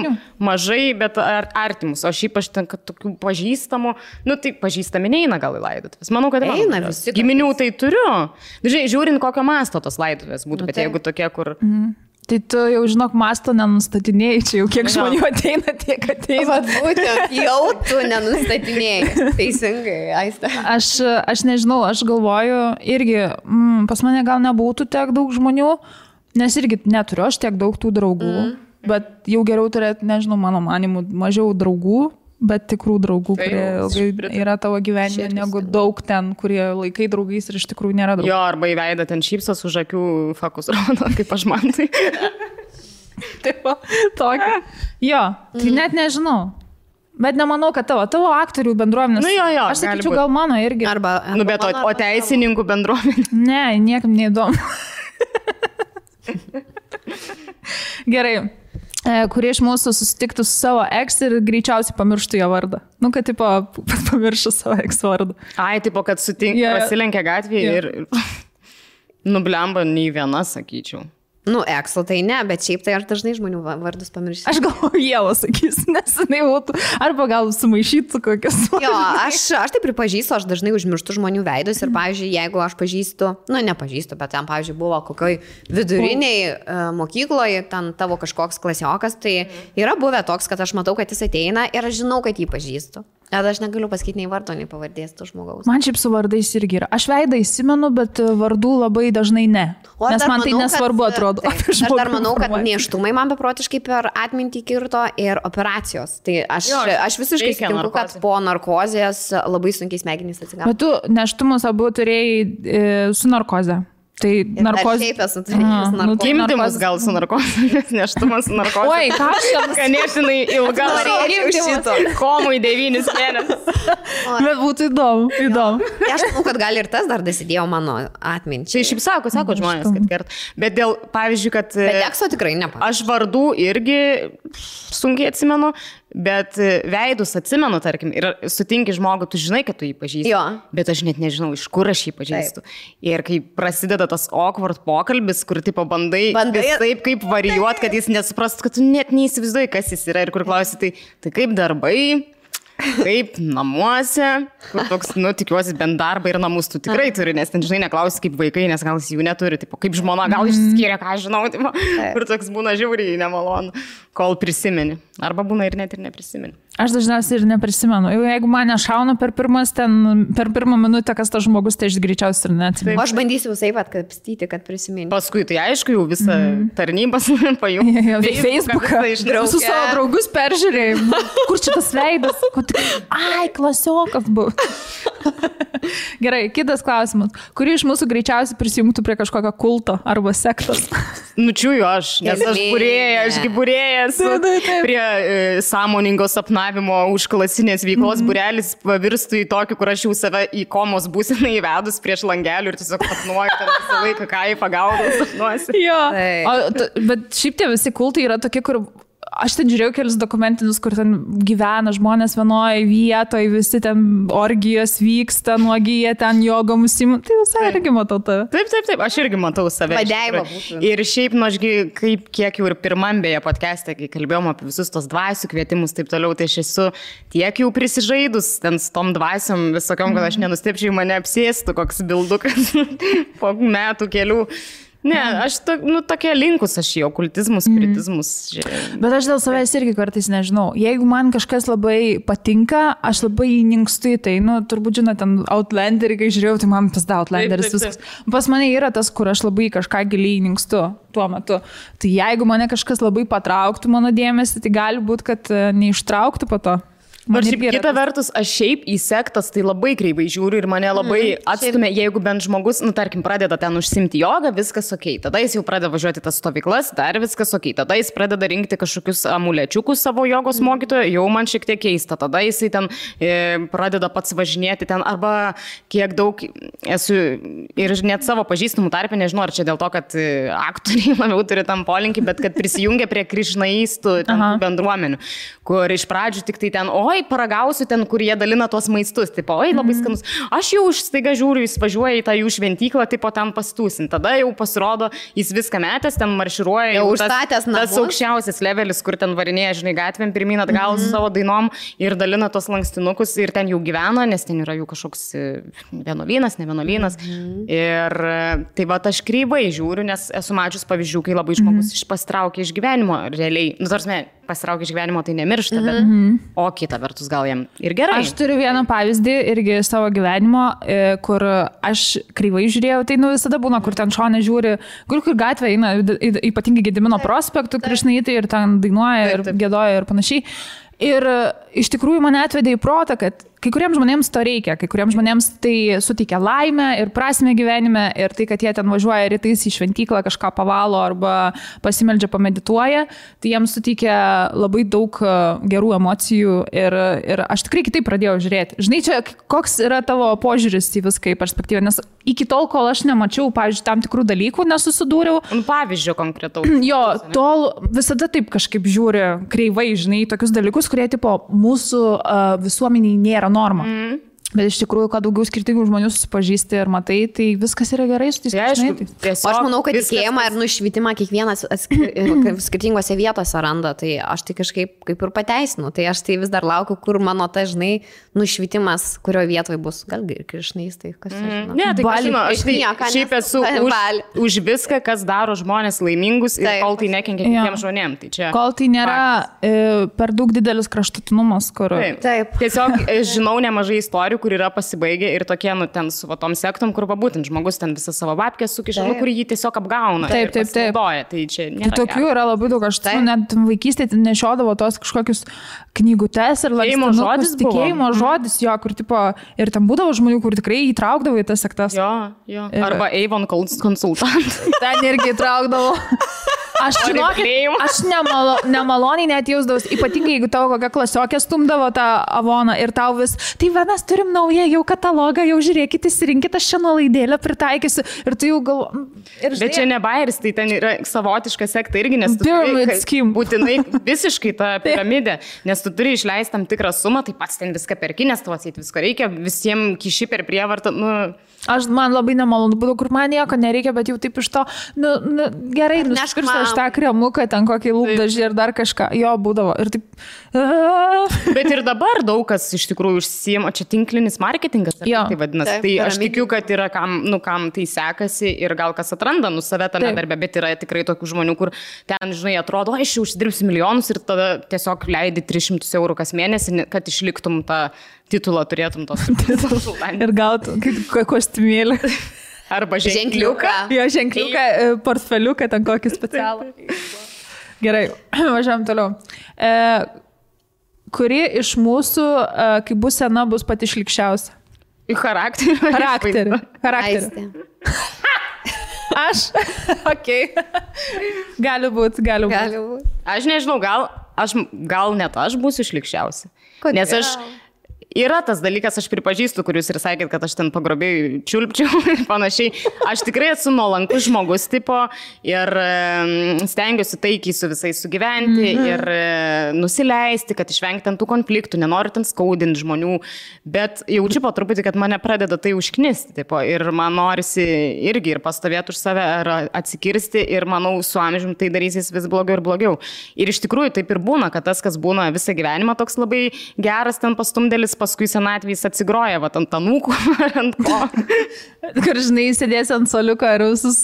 mažai, bet artimus. O šiaip aš ten, kad tokių pažįstamų, nu tai pažįstami neina gal į laidotuvės. Manau, kad eina visi. Giminių tai turiu. Dažnai žiūrint, kokio masto tos laidotuvės būtų, bet jeigu tokie, kur... Tai tu jau, žinok, masto nenustatinėjai, čia jau kiek žmonių ateina, tiek ateina. Vat būtent, jau tu nenustatinėjai. Teisingai, Aiste. Aš nežinau, aš galvoju, irgi pas mane gal nebūtų tiek daug žmonių, nes irgi neturiu aš tiek daug tų draugų, bet jau geriau turėti, nežinau, mano manimu, mažiau draugų, bet tikrų draugų, kurie yra tavo gyvenime, negu daug ten, kurie laikai draugais ir iš tikrųjų nėra draugų. Jo, arba įveidą ten šypsos už akių fakus rodo, kaip aš man tai. Taip, tokia. Jo, tai net nežinau. Bet nemanau, kad tavo aktorių bendruomenės. Nu, jo, aš sakyčiau, gal mano irgi. Arba nu, bet o teisininkų bendruomenė. Ne, niekam neįdomu. Gerai. Kurie iš mūsų susitiktų su savo ex ir greičiausiai pamirštų jo vardą. Nu, kad, tipo, pamirštų savo ex vardą. Ai, tipo, kad pasilenkia gatvėje ir nublemba nei viena, sakyčiau. Nu, ekso tai ne, bet šiaip tai aš dažnai žmonių vardus pamirštu. Aš galvoju, Ieva sakys, nes jinai būtų, arba gal sumaišytų kokias. Jo, aš tai pripažįstu, aš dažnai užmirštu žmonių veidus ir, pavyzdžiui, jeigu aš pažįstu, nu, nepažįstu, bet ten, pavyzdžiui, buvo kokioj viduriniai mokykloje, ten tavo kažkoks klasiokas, tai yra buvę toks, kad aš matau, kad jis ateina ir aš žinau, kad jį pažįstu. Bet aš negaliu pasakyti nei vardo, nei pavardės to žmogaus. Man šiaip su vardais irgi yra. Aš veidą įsimenu, bet vardų labai dažnai ne. Nes man tai nesvarbu atrodo. Aš dar manau, kad nėštumai man beprotiškai per atmintį kirto ir operacijos. Tai aš visiškai sutinku, kad po narkozės labai sunkiai smegenys atsigavo. Bet tu nėštumus abu turėjai su narkoze. Tai narkozė. Taip, esu turėjęs narkozę. Gimdymas gal su narkozė, nes nėštumas su narkozė. Oi, ką aš jam ganėtinai ilga. Komui 9 mėnesius. Bet būtų įdomu. Aš manau, kad gal ir tas dar dasidėjo mano atminčiai. Tai šiaip sako žmonės, kad kert. Bet dėl, pavyzdžiui, kad... Bet ekso tikrai nepavyzdžiui. Aš vardų irgi sunkiai atsimenu. Bet veidus atsimenu, tarkim, ir sutinki žmogų, tu žinai, kad tu jį pažįsti. Jo. Bet aš net nežinau, iš kur aš jį pažįstu. Ir kai prasideda tas awkward pokalbis, kur tipo bandai taip kaip varijuot, kad jis nesuprastų, kad tu net neįsivaizduoji, kas jis yra. Ir kur klausi, tai kaip darbai, kaip namuose, kur toks, nu, tikiuosi, bent darbą ir namus tu tikrai turi, nes ten, žinai, neklausi kaip vaikai, nes gal jis jų neturi, tipo, kaip žmona, gal išsiskyrė, ką žinau, tipo, kur toks būna žiauriai nemalonu, kol prisimeni. Arba būna ir net ir neprisimeni. Aš dažniausiai ir neprisimenu. Jeigu mane šauna per pirmą minutę, kas tas žmogus, tai aš greičiausiai ir neatsimenu. Aš bandysiu visai atkapstyti, kad prisiminti. Paskui tai aišku, jau visą tarnybas pajungti. Facebooką. Su savo draugus peržiūrėjau. Kur čia tas veidas? Ai, klasiokas buvo. Gerai, kitas klausimas. Kuri iš mūsų greičiausiai prisijungtų prie kažkokio kulto arba sektos? Nučiuju aš, nes aš būrėjas prie sąmoningo sapnavimo užklasinės veiklos būrelis pavirstų į tokį, kur aš jau save į komos būseną įvedus prieš langelių ir tiesiog sapnuoju ten visą laiką, ką į pagalbą sapnuosi. Jo, bet šiaip tie visi kultai yra tokie, kur... Aš ten žiūrėjau kelius dokumentinius, kur ten gyvena žmonės vienoje vietoje, visi ten orgijos vyksta, nuogyje ten jogom užsiima. Tai visai irgi matau tave. Taip, aš irgi matau save. Vadeiva būtų. Ir šiaip, nu, ašgi, kiek jau ir pirmam beje podcast'e, kai kalbėjom apie visus tos dvasių kvietimus, taip toliau, tai aš esu tiek jau prisižaidus ten su tom dvasiom visokiom, kad aš nenustepčiau, mane apsėstų koks bildukas po metų kelių. Ne, aš tokia linkus aš į okultizmus, spiritizmus. Bet aš dėl savęs irgi kartais nežinau. Jeigu man kažkas labai patinka, aš labai įninkstu į tai. Nu, turbūt žinot, ten Outlanderį, kai žiūrėjau, tai man pasda Outlanderis viskas. Pas mane yra tas, kur aš labai kažką giliai įninkstu tuo metu. Tai jeigu mane kažkas labai patrauktų mano dėmesį, tai gali būti, kad neištrauktų po to. Bet šiaip kita vertus, aš šiaip į sektas tai labai kreivai žiūriu ir mane labai atstumia, jeigu bent žmogus, tarkim, pradeda ten užsimti jogą, viskas ok. Tada jis jau pradeda važiuoti tas stovyklas, dar viskas ok. Tada jis pradeda rinkti kažkokius amulečiukus savo jogos mokytojo, jau man šiek tiek keista. Tada jisai ten pradeda pats važinėti ten, arba kiek daug esu ir net savo pažįstamų tarpę, nežinau, ar čia dėl to, kad aktoriai labiau turi tam polinkį, bet kad prisijungia prie krišnaistų bendruomenių, kur iš pradžių tik tai ten, oi, paragausiu ten, kur jie dalina tuos maistus, tipo, oi, labai skanus. Aš jau staiga žiūriu, jis važiuoja į tą jų šventyklą, tipo, ten pastūsin. Tada jau pasirodo, jis viską metęs, ten marširuoja, jau užstatęs namus. Tas aukščiausias levelis, kur ten varinėja, žinai, gatvėm pirmyn atgal su savo dainom ir dalina tos lankstinukus ir ten jau gyvena, nes ten yra jų kažkoks vienuolynas, ne vienuolynas. Ir tai va, aš kreivai žiūriu, nes esu mačius pavyzdžių, kai labai žmogus pasitraukia iš gyvenimo realiai. Tarsi, pasitraukia iš gyvenimo, tai nemiršta, bet o kita vertus gal jam ir gerai. Aš turiu vieną pavyzdį irgi savo gyvenimo, kur aš kreivai žiūrėjau, tai visada būna, kur ten šone žiūri, kur gatvė eina, ypatingai Gedimino prospektų, krišnaitai ir ten dainuoja ir gėdoja ir panašiai. Ir iš tikrųjų mane atvedė į protą, kad kai kuriems žmonėms to reikia, kai kuriems žmonėms tai suteikia laimę ir prasmę gyvenime ir tai, kad jie ten važiuoja rytais į šventyklą, kažką pavalo arba pasimeldžia, pamedituoja, tai jiems suteikia labai daug gerų emocijų ir aš tikrai kitaip pradėjau žiūrėti. Žinai, čia koks yra tavo požiūris į viską į perspektyvą, nes iki tol, kol aš nemačiau, pavyzdžiui, tam tikrų dalykų, nesusidūriau. Pavyzdžio konkretaus. Jo, tol visada taip kažkaip žiūri kreivai, žinai, tokius dalykus, kurie tipo mūsų visuomeniai nėra norma. Bet iš tikrųjų, kad daugiau skirtingų žmonių susipažįsti ir matai, tai viskas yra gerai su tais žmonėmis. Aš manau, kad tikėjimą ir nušvitimą kiekvienas skirtingose vietose randa, tai aš tai kažkaip kaip ir pateisinu. Tai aš tai vis dar laukiu, kur mano ta, žinai, nušvitimas, kurio vietoje bus. Gal krišnais, tai kas žino. Ne, tai aš šiaip esu už viską, kas daro žmonės laimingus ir kol tai nekenkia kitiems žmonėms. Tai čia kol tai nėra per daug didelis kraštutinumas, kur... Taip. Tiesiog žinau nemažai istorijų, kur yra pasibaigę ir tokie, ten su tom sektom, kur būtent žmogus ten visą savo babkę sukiša, kur jį tiesiog apgauna. Taip. Tai čia nėra. Tai tokių yra labai daug, aš net vaikystėje nešiodavo tos kažkokius knygutes ir lankstinukus. Tikėjimo žodis, jo, kur tipo, ir ten būdavo žmonių, kur tikrai įtraukdavo į tas sektas. Jo. Arba Avon konsultant. Ten irgi įtraukdavo. Aš nemaloniai net jausdavau, ypatingai jeigu tavo kokia klasiokė stumdavo tą Avoną ir tau vis, tai mes turim naują jau katalogą, jau žiūrėkit, įsirinkit, aš šią nuolaidėlę pritaikysiu ir tu jau galvo... Bet čia ne bairis, tai ten yra savotiška sekta irgi, nes tu turi būtinai visiškai tą piramidę, nes tu turi išleisti tam tikrą sumą, tai pats ten viską perki, nes tau atseit viską reikia, visiems kiši per prievartą, Man labai nemalonu būdavo, kur man nieko nereikia, bet jau taip iš to, gerai, nusipirsiu aš tą kremuką, ten kokį lūpdažį ir dar kažką. Jo, būdavo. Ir taip... Bet ir dabar daug kas iš tikrųjų užsiima, čia tinklinis marketingas, tai vadinasi. Tai aš tikiu, kad yra kam tai sekasi ir gal kas atranda save tame darbe, bet yra tikrai tokių žmonių, kur ten, žinai, atrodo, aš jau užsidirbsiu milijonus ir tada tiesiog leidi 300 eurų kas mėnesį, kad išliktum tą titulą, turėtum tos konsultantės. Ir gautum kostiumėlį. Arba ženkliuką. Jo, ženkliuką, portfeliuką, ten kokį specialų. Gerai, važiuojam toliau. Kuri iš mūsų, kai bus sena, bus pati šlikščiausia? Į charakterį. Charakterį. Aš? Okei. Gali būt. Aš nežinau, gal net aš būsiu šlikščiausia. Nes yra tas dalykas, aš pripažįstu, kur jūs ir sakėt, kad aš ten pagrobėjau čiulpčiau ir panašiai. Aš tikrai esu nuolankus žmogus tipo ir stengiuosi taikiai su visais sugyventi ir nusileisti, kad išvengti ant tų konfliktų, nenoriu ten skaudinti žmonių, bet jaučiu po truputį, kad mane pradeda tai užknisti tipo, ir man norisi irgi ir pastovėti už save ar atsikirsti ir manau, su amžiumi tai darysis vis blogiau ir blogiau. Ir iš tikrųjų taip ir būna, kad tas, kas būna visą gyvenimą toks labai geras ten pastumdėlis, paskui senatvės atsigroja, va, ant anūkų ar ant ko. Kur, žinai, sėdėsi ant soliuko ir visus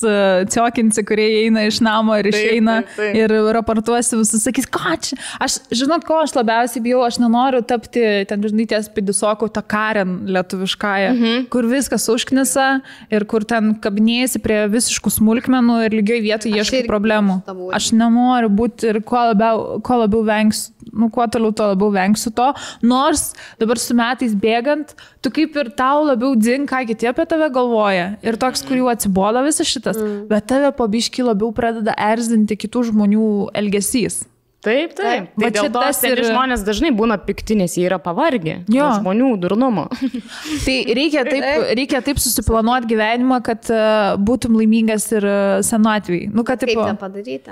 ciokinsi, kurie eina iš namo ir išeina ir raportuosi visus, sakys, ką čia. Aš, žinot, ko aš labiausiai bijau, aš nenoriu tapti, ten, žinai, ties pidisokų tą Karen lietuviškąją, kur viskas užknisa ir kur ten kabinėjasi prie visiškų smulkmenų ir lygioj vietoje ieškai problemų. Aš nenoriu būti ir kuo labiau vengsiu, kuo toliau to labiau vengsiu to, nors dabar su metais bėgant, tu kaip ir tau labiau dzin, ką kiti apie tave galvoja. Ir toks, kur jau atsibodo visas šitas, bet tave po biškį labiau pradeda erzinti kitų žmonių elgesys. Taip. Tai dėl to žmonės dažnai būna pikti, nes jie yra pavargę nuo žmonių durnumo. Tai reikia taip susiplanuoti gyvenimą, kad būtum laimingas ir senatvėj. Kaip tą padaryti?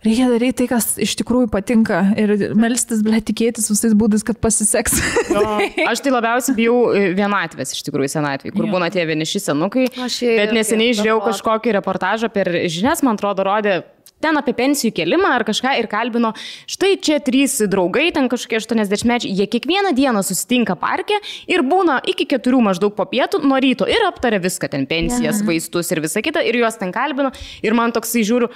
Reikia daryti tai, kas iš tikrųjų patinka ir melstis, tikėtis visais būdais, kad pasiseks. Aš tai labiausiai bijau vienatvės iš tikrųjų senatvėj, kur būna tie vieniši senukai. Bet neseniai žiūrėjau kažkokį reportažą per žinias, man atrodo, rodė ten apie pensijų kėlimą ar kažką ir kalbino, štai čia 3 draugai, ten kažkokie 80-mečiai, jie kiekvieną dieną susitinka parke ir būna iki 4 maždaug po pietų nuo ryto ir aptaria viską, ten pensijas, vaistus ir visą kitą ir juos ten kalbino ir man toksai žiūriu,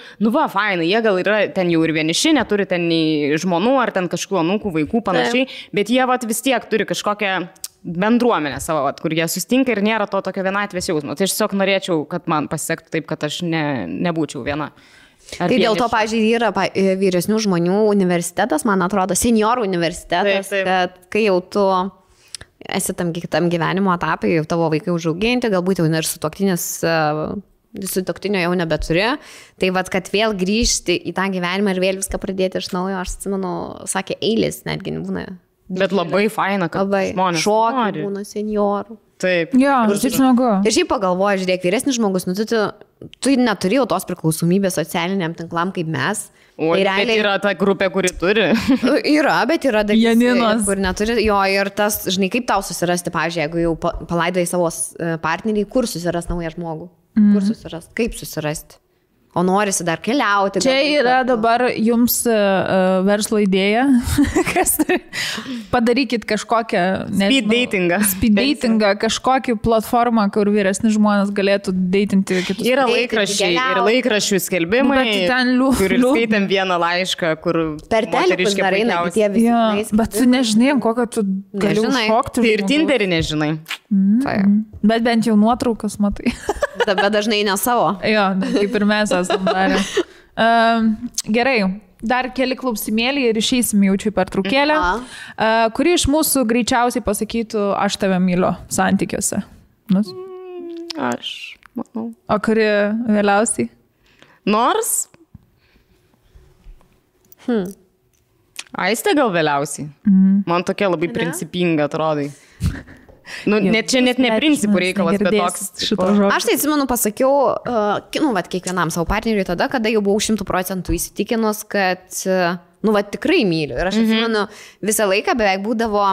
fainai, jie gal yra ten jau ir vieniši, neturi ten nei žmonų ar ten kažkokių anūkų, vaikų panašiai, bet jie vis tiek turi kažkokią bendruomenę savo, kur jie susitinka ir nėra to tokio vienatvės jausmo. Tai aš tiesiog norėčiau, kad man pasisektų taip, kad aš nebūčiau viena. Tai dėl to, pavyzdžiui, yra vyresnių žmonių universitetas, man atrodo, seniorų universitetas, kad kai jau tu esi tam gyvenimo etapai, jau tavo vaikai užauginti, galbūt jau ir sutuoktinio jau nebeturi, tai kad vėl grįžti į tą gyvenimą ir vėl viską pradėti iš naujo, aš atsimenu, sakė, eilės netgi būna. Bet labai faina, kad žmonės šokiai būna seniorų. Taip. Taip smagu. Ir šiaip pagalvoju, žiūrėk, vyresnis žmogus, tu neturi jau tos priklausomybės socialiniam tinklam kaip mes. O tai realiai yra ta grupė, kuri turi. Yra, bet yra dalis, kur neturi. Jo, ir tas, žinai, kaip tau susirasti, pavyzdžiui, jeigu jau palaidai savo partnerį, kur susiras naują žmogų? Kur susiras? Kaip susirasti? O norisi dar keliauti. Čia yra dabar jums verslo idėja. Padarykit kažkokią... Speed datingą, kažkokį platformą, kur vyresni žmonės galėtų datinti kitus. Yra laikraščiai ir laikraščių skelbimai, kur skaitam vieną laišką, kur... Per telefonus dar eina, bet jie visi. Bet tu nežinai, kokią tu gali užšokti. Tai ir Tinderį nežinai. Bet bent jau nuotraukas matai. Bet dažnai ne savo. Jo, kaip ir mes esam darę. Gerai, dar keli klausimėlį ir išeisim jaučiu per trukėlę. Kuri iš mūsų greičiausiai pasakytų, aš tave myliu santykiuose? Aš manau. O kuri vėliausiai? Nors? Aistė gal vėliausiai. Man tokia labai principinga atrodai. Čia net ne principų reikalas, bet toks. Aš tai atsimenu, pasakiau, kiekvienam savo partneriui tada, kada jau buvau 100% įsitikinus, kad, tikrai myliu. Ir aš atsimenu, visą laiką beveik būdavo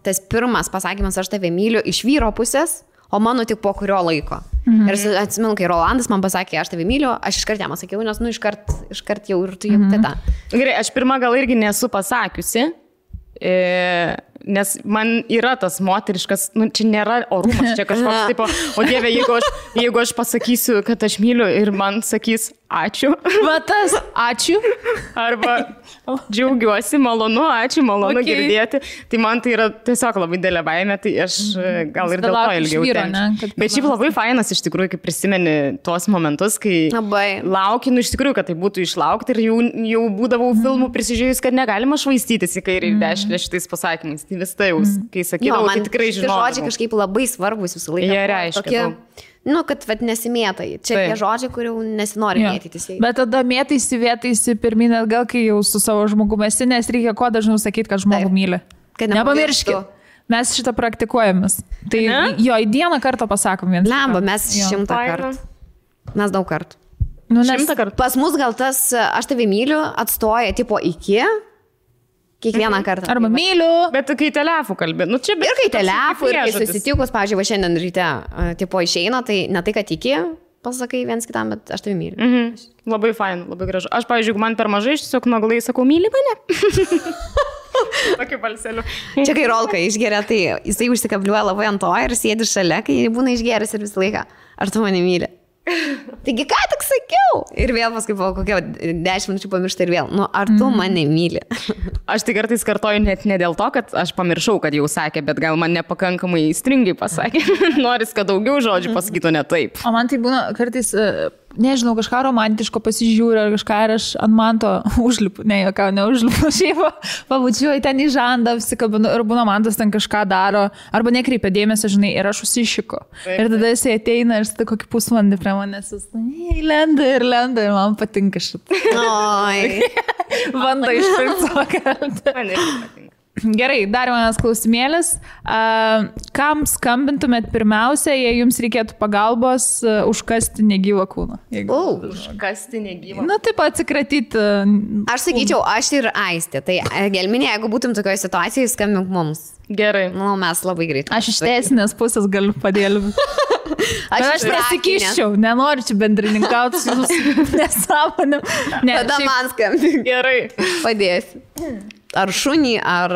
tas pirmas pasakymas, aš tave myliu iš vyro pusės, o mano tik po kurio laiko. Ir atsimenu, kai Rolandas man pasakė, aš tave myliu, aš iškart jam sakiau, nes, iškart jau ir tu jau teta. Gerai, aš pirmą gal irgi nesu pasakiusi. Nes man yra tas moteriškas, čia nėra orumas, čia kažkoks tipo, o Dieve, jeigu aš pasakysiu, kad aš myliu ir man sakys ačiū. Tas ačiū. Arba džiaugiuosi, malonu, ačiū, malonu girdėti. Tai man tai yra tiesiog labai didelė baimė, tai aš gal ir dėl to ilgiau tenčiu. Bet šiaip labai fainas iš tikrųjų, kai prisimeni tuos momentus, kai laukinu iš tikrųjų, kad tai būtų išlaukti ir jau būdavau filmų prisižiūrėjus, kad negalima švaistytis į kairį ir dešinę šitais pasakymais. Tai vis tai jau, kai sakydavau, tai tikrai žinau. Tie žodžiai kažkaip labai svarbus visą laiką. Jie reiškia. Kad nesimėtai. Čia tie žodžiai, kurių nesinori mėtytis. Bet tada mėtaisi pirmin atgal, kai jau su savo žmogumi esi, nes reikia kuo dažniau sakyti, kad žmogų myli. Nepamirškit. Mes šitą praktikuojamės. Tai jo, į dieną kartą pasakom vieną. Lemba, mes 100 kartų. Mes daug kartų. 100 kartų. Pas mus gal tas aš tave myliu atstoja tipo iki. Kiekvieną kartą. Arba myliu. Bet kai telefų kalbė. Ir kai telefų, ir kai susitikus, pavyzdžiui, šiandien ryte tipo išeina, tai ne tai, kad iki pasakai viens kitam, bet aš tave myliu. Labai fain, labai gražu. Aš, pavyzdžiui, man per mažai, aš tiesiog naglai sakau, myli mane. Tokiu balseliu. Čia kai Rolka išgeria, tai jisai užsikabliuoja labai ant to ir sėdi šalia, kai būna išgeris ir visą laiką. Ar tu mane myli? Taigi ką tik sakiau? Ir vėl paskui po kokio 10 minučių pamiršta ir vėl. Nu, ar tu mane myli? Aš tai kartais kartoju net ne dėl to, kad aš pamiršau, kad jau sakė, bet gal man nepakankamai stringai pasakė. Noris, kad daugiau žodžių pasakytų ne taip. O man tai būna kartais, nežinau, kažką romantiško pasižiūriu ar kažką ir aš ant manto užlipu. Ne, jokiau neužlipu. Šiaip pabučiuoju ten į žandą, apsikabinu ir būna mantas ten kažką daro. Arba nekreipia dėmesio, žinai, ir aš užsišiku. Ir tada jisai ateina ir tada kokį pusvalandį prie manęs. Lenda ir man patinka šitą. Oi. Bando išpirkti savo kartą. Man irgi patinka. Gerai, dar vienas klausimėlis. Kam skambintumėt pirmiausia, jei jums reikėtų pagalbos užkasti negyvą kūną? Užkasti negyvą. Na, taip atsikratyti. Aš sakyčiau, aš ir Aistė. Tai Gelminė, jeigu būtum tokioje situacijoje, skambink mums. Gerai. Nu, mes labai greit. Aš iš teisinės pusės galiu padėlbinti. Aš nesikiščiau, nenoriu čia bendrininkauti su jūsų nesąmonėm. Tada man skambink. Gerai. Padėsiu. Ar šunį, ar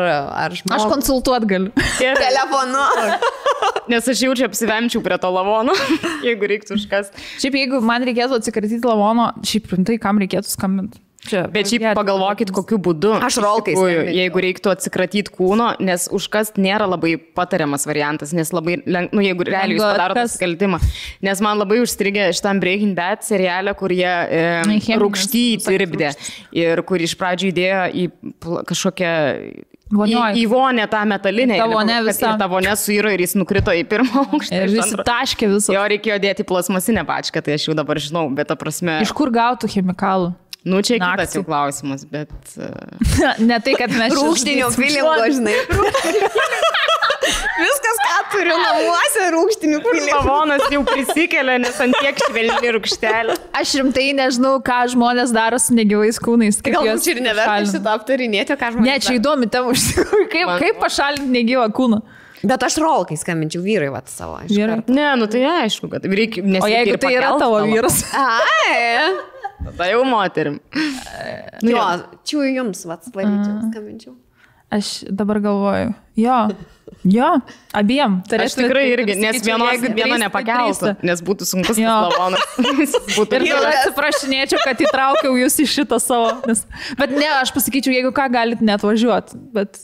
žmogų. Aš konsultuot galiu. Telefonu. Nes aš jaučiu apsivemčiau prie to lavono, jeigu reiktų užkasti. Šiaip jeigu man reikėtų atsikratyti lavono, šiaip rimtai, kam reikėtų skambinti? Bet šiaip pagalvokit, kokiu būdu. Aš Rolkai skambinčiau. Jeigu reiktų atsikratyti kūno, nes užkast nėra labai patariamas variantas, nes labai, jeigu realiai jūs padaro nusikaltimą. Nes man labai užstrigė šitam Breaking Bad serialę, kur jie rūgštį tirpdė ir kur iš pradžių įdėjo į kažkokią... Į vonę tą metalinę. Ta vonė suiro ir jis nukrito į pirmą aukštą. Ir visi taškė visą. Jo reikėjo dėti plasmasinę pačką, tai aš jau dabar žinau, bet ta prasme... Iš kur gautų chemikalų? Nu, čia kitas jau klausimas, bet... Ne tai, kad mes... Rūgštinio filingo, žinai. Viskas, ką turiu namuose, rūgštinių filingo. Lavonas jau prisikelia, nes ant tiek švelni rūgštelė. Aš rimtai nežinau, ką žmonės daro su negyvais kūnais. Galbūt čia ir neverta šitą aptarinėti, ką žmonės daro. Ne, čia įdomi tema už kaip pašalinti negyvą kūną. Bet aš Rolkai skambinčiau vyrai savo. Ne, nu tai aišku, kad reikia... O jeigu tai yra tavo vyras? Ai. Tada jau moterim. Jo, čia jums, skambinčiau. Aš dabar galvoju, jo, abiem. Aš tikrai irgi, nes viena nepakeltų, nes būtų sunkus tas lavonas. Ir tada atsiprašinėčiau, kad įtraukiau jūs į šitą savo. Bet ne, aš pasakyčiau, jeigu ką, galit net važiuoti.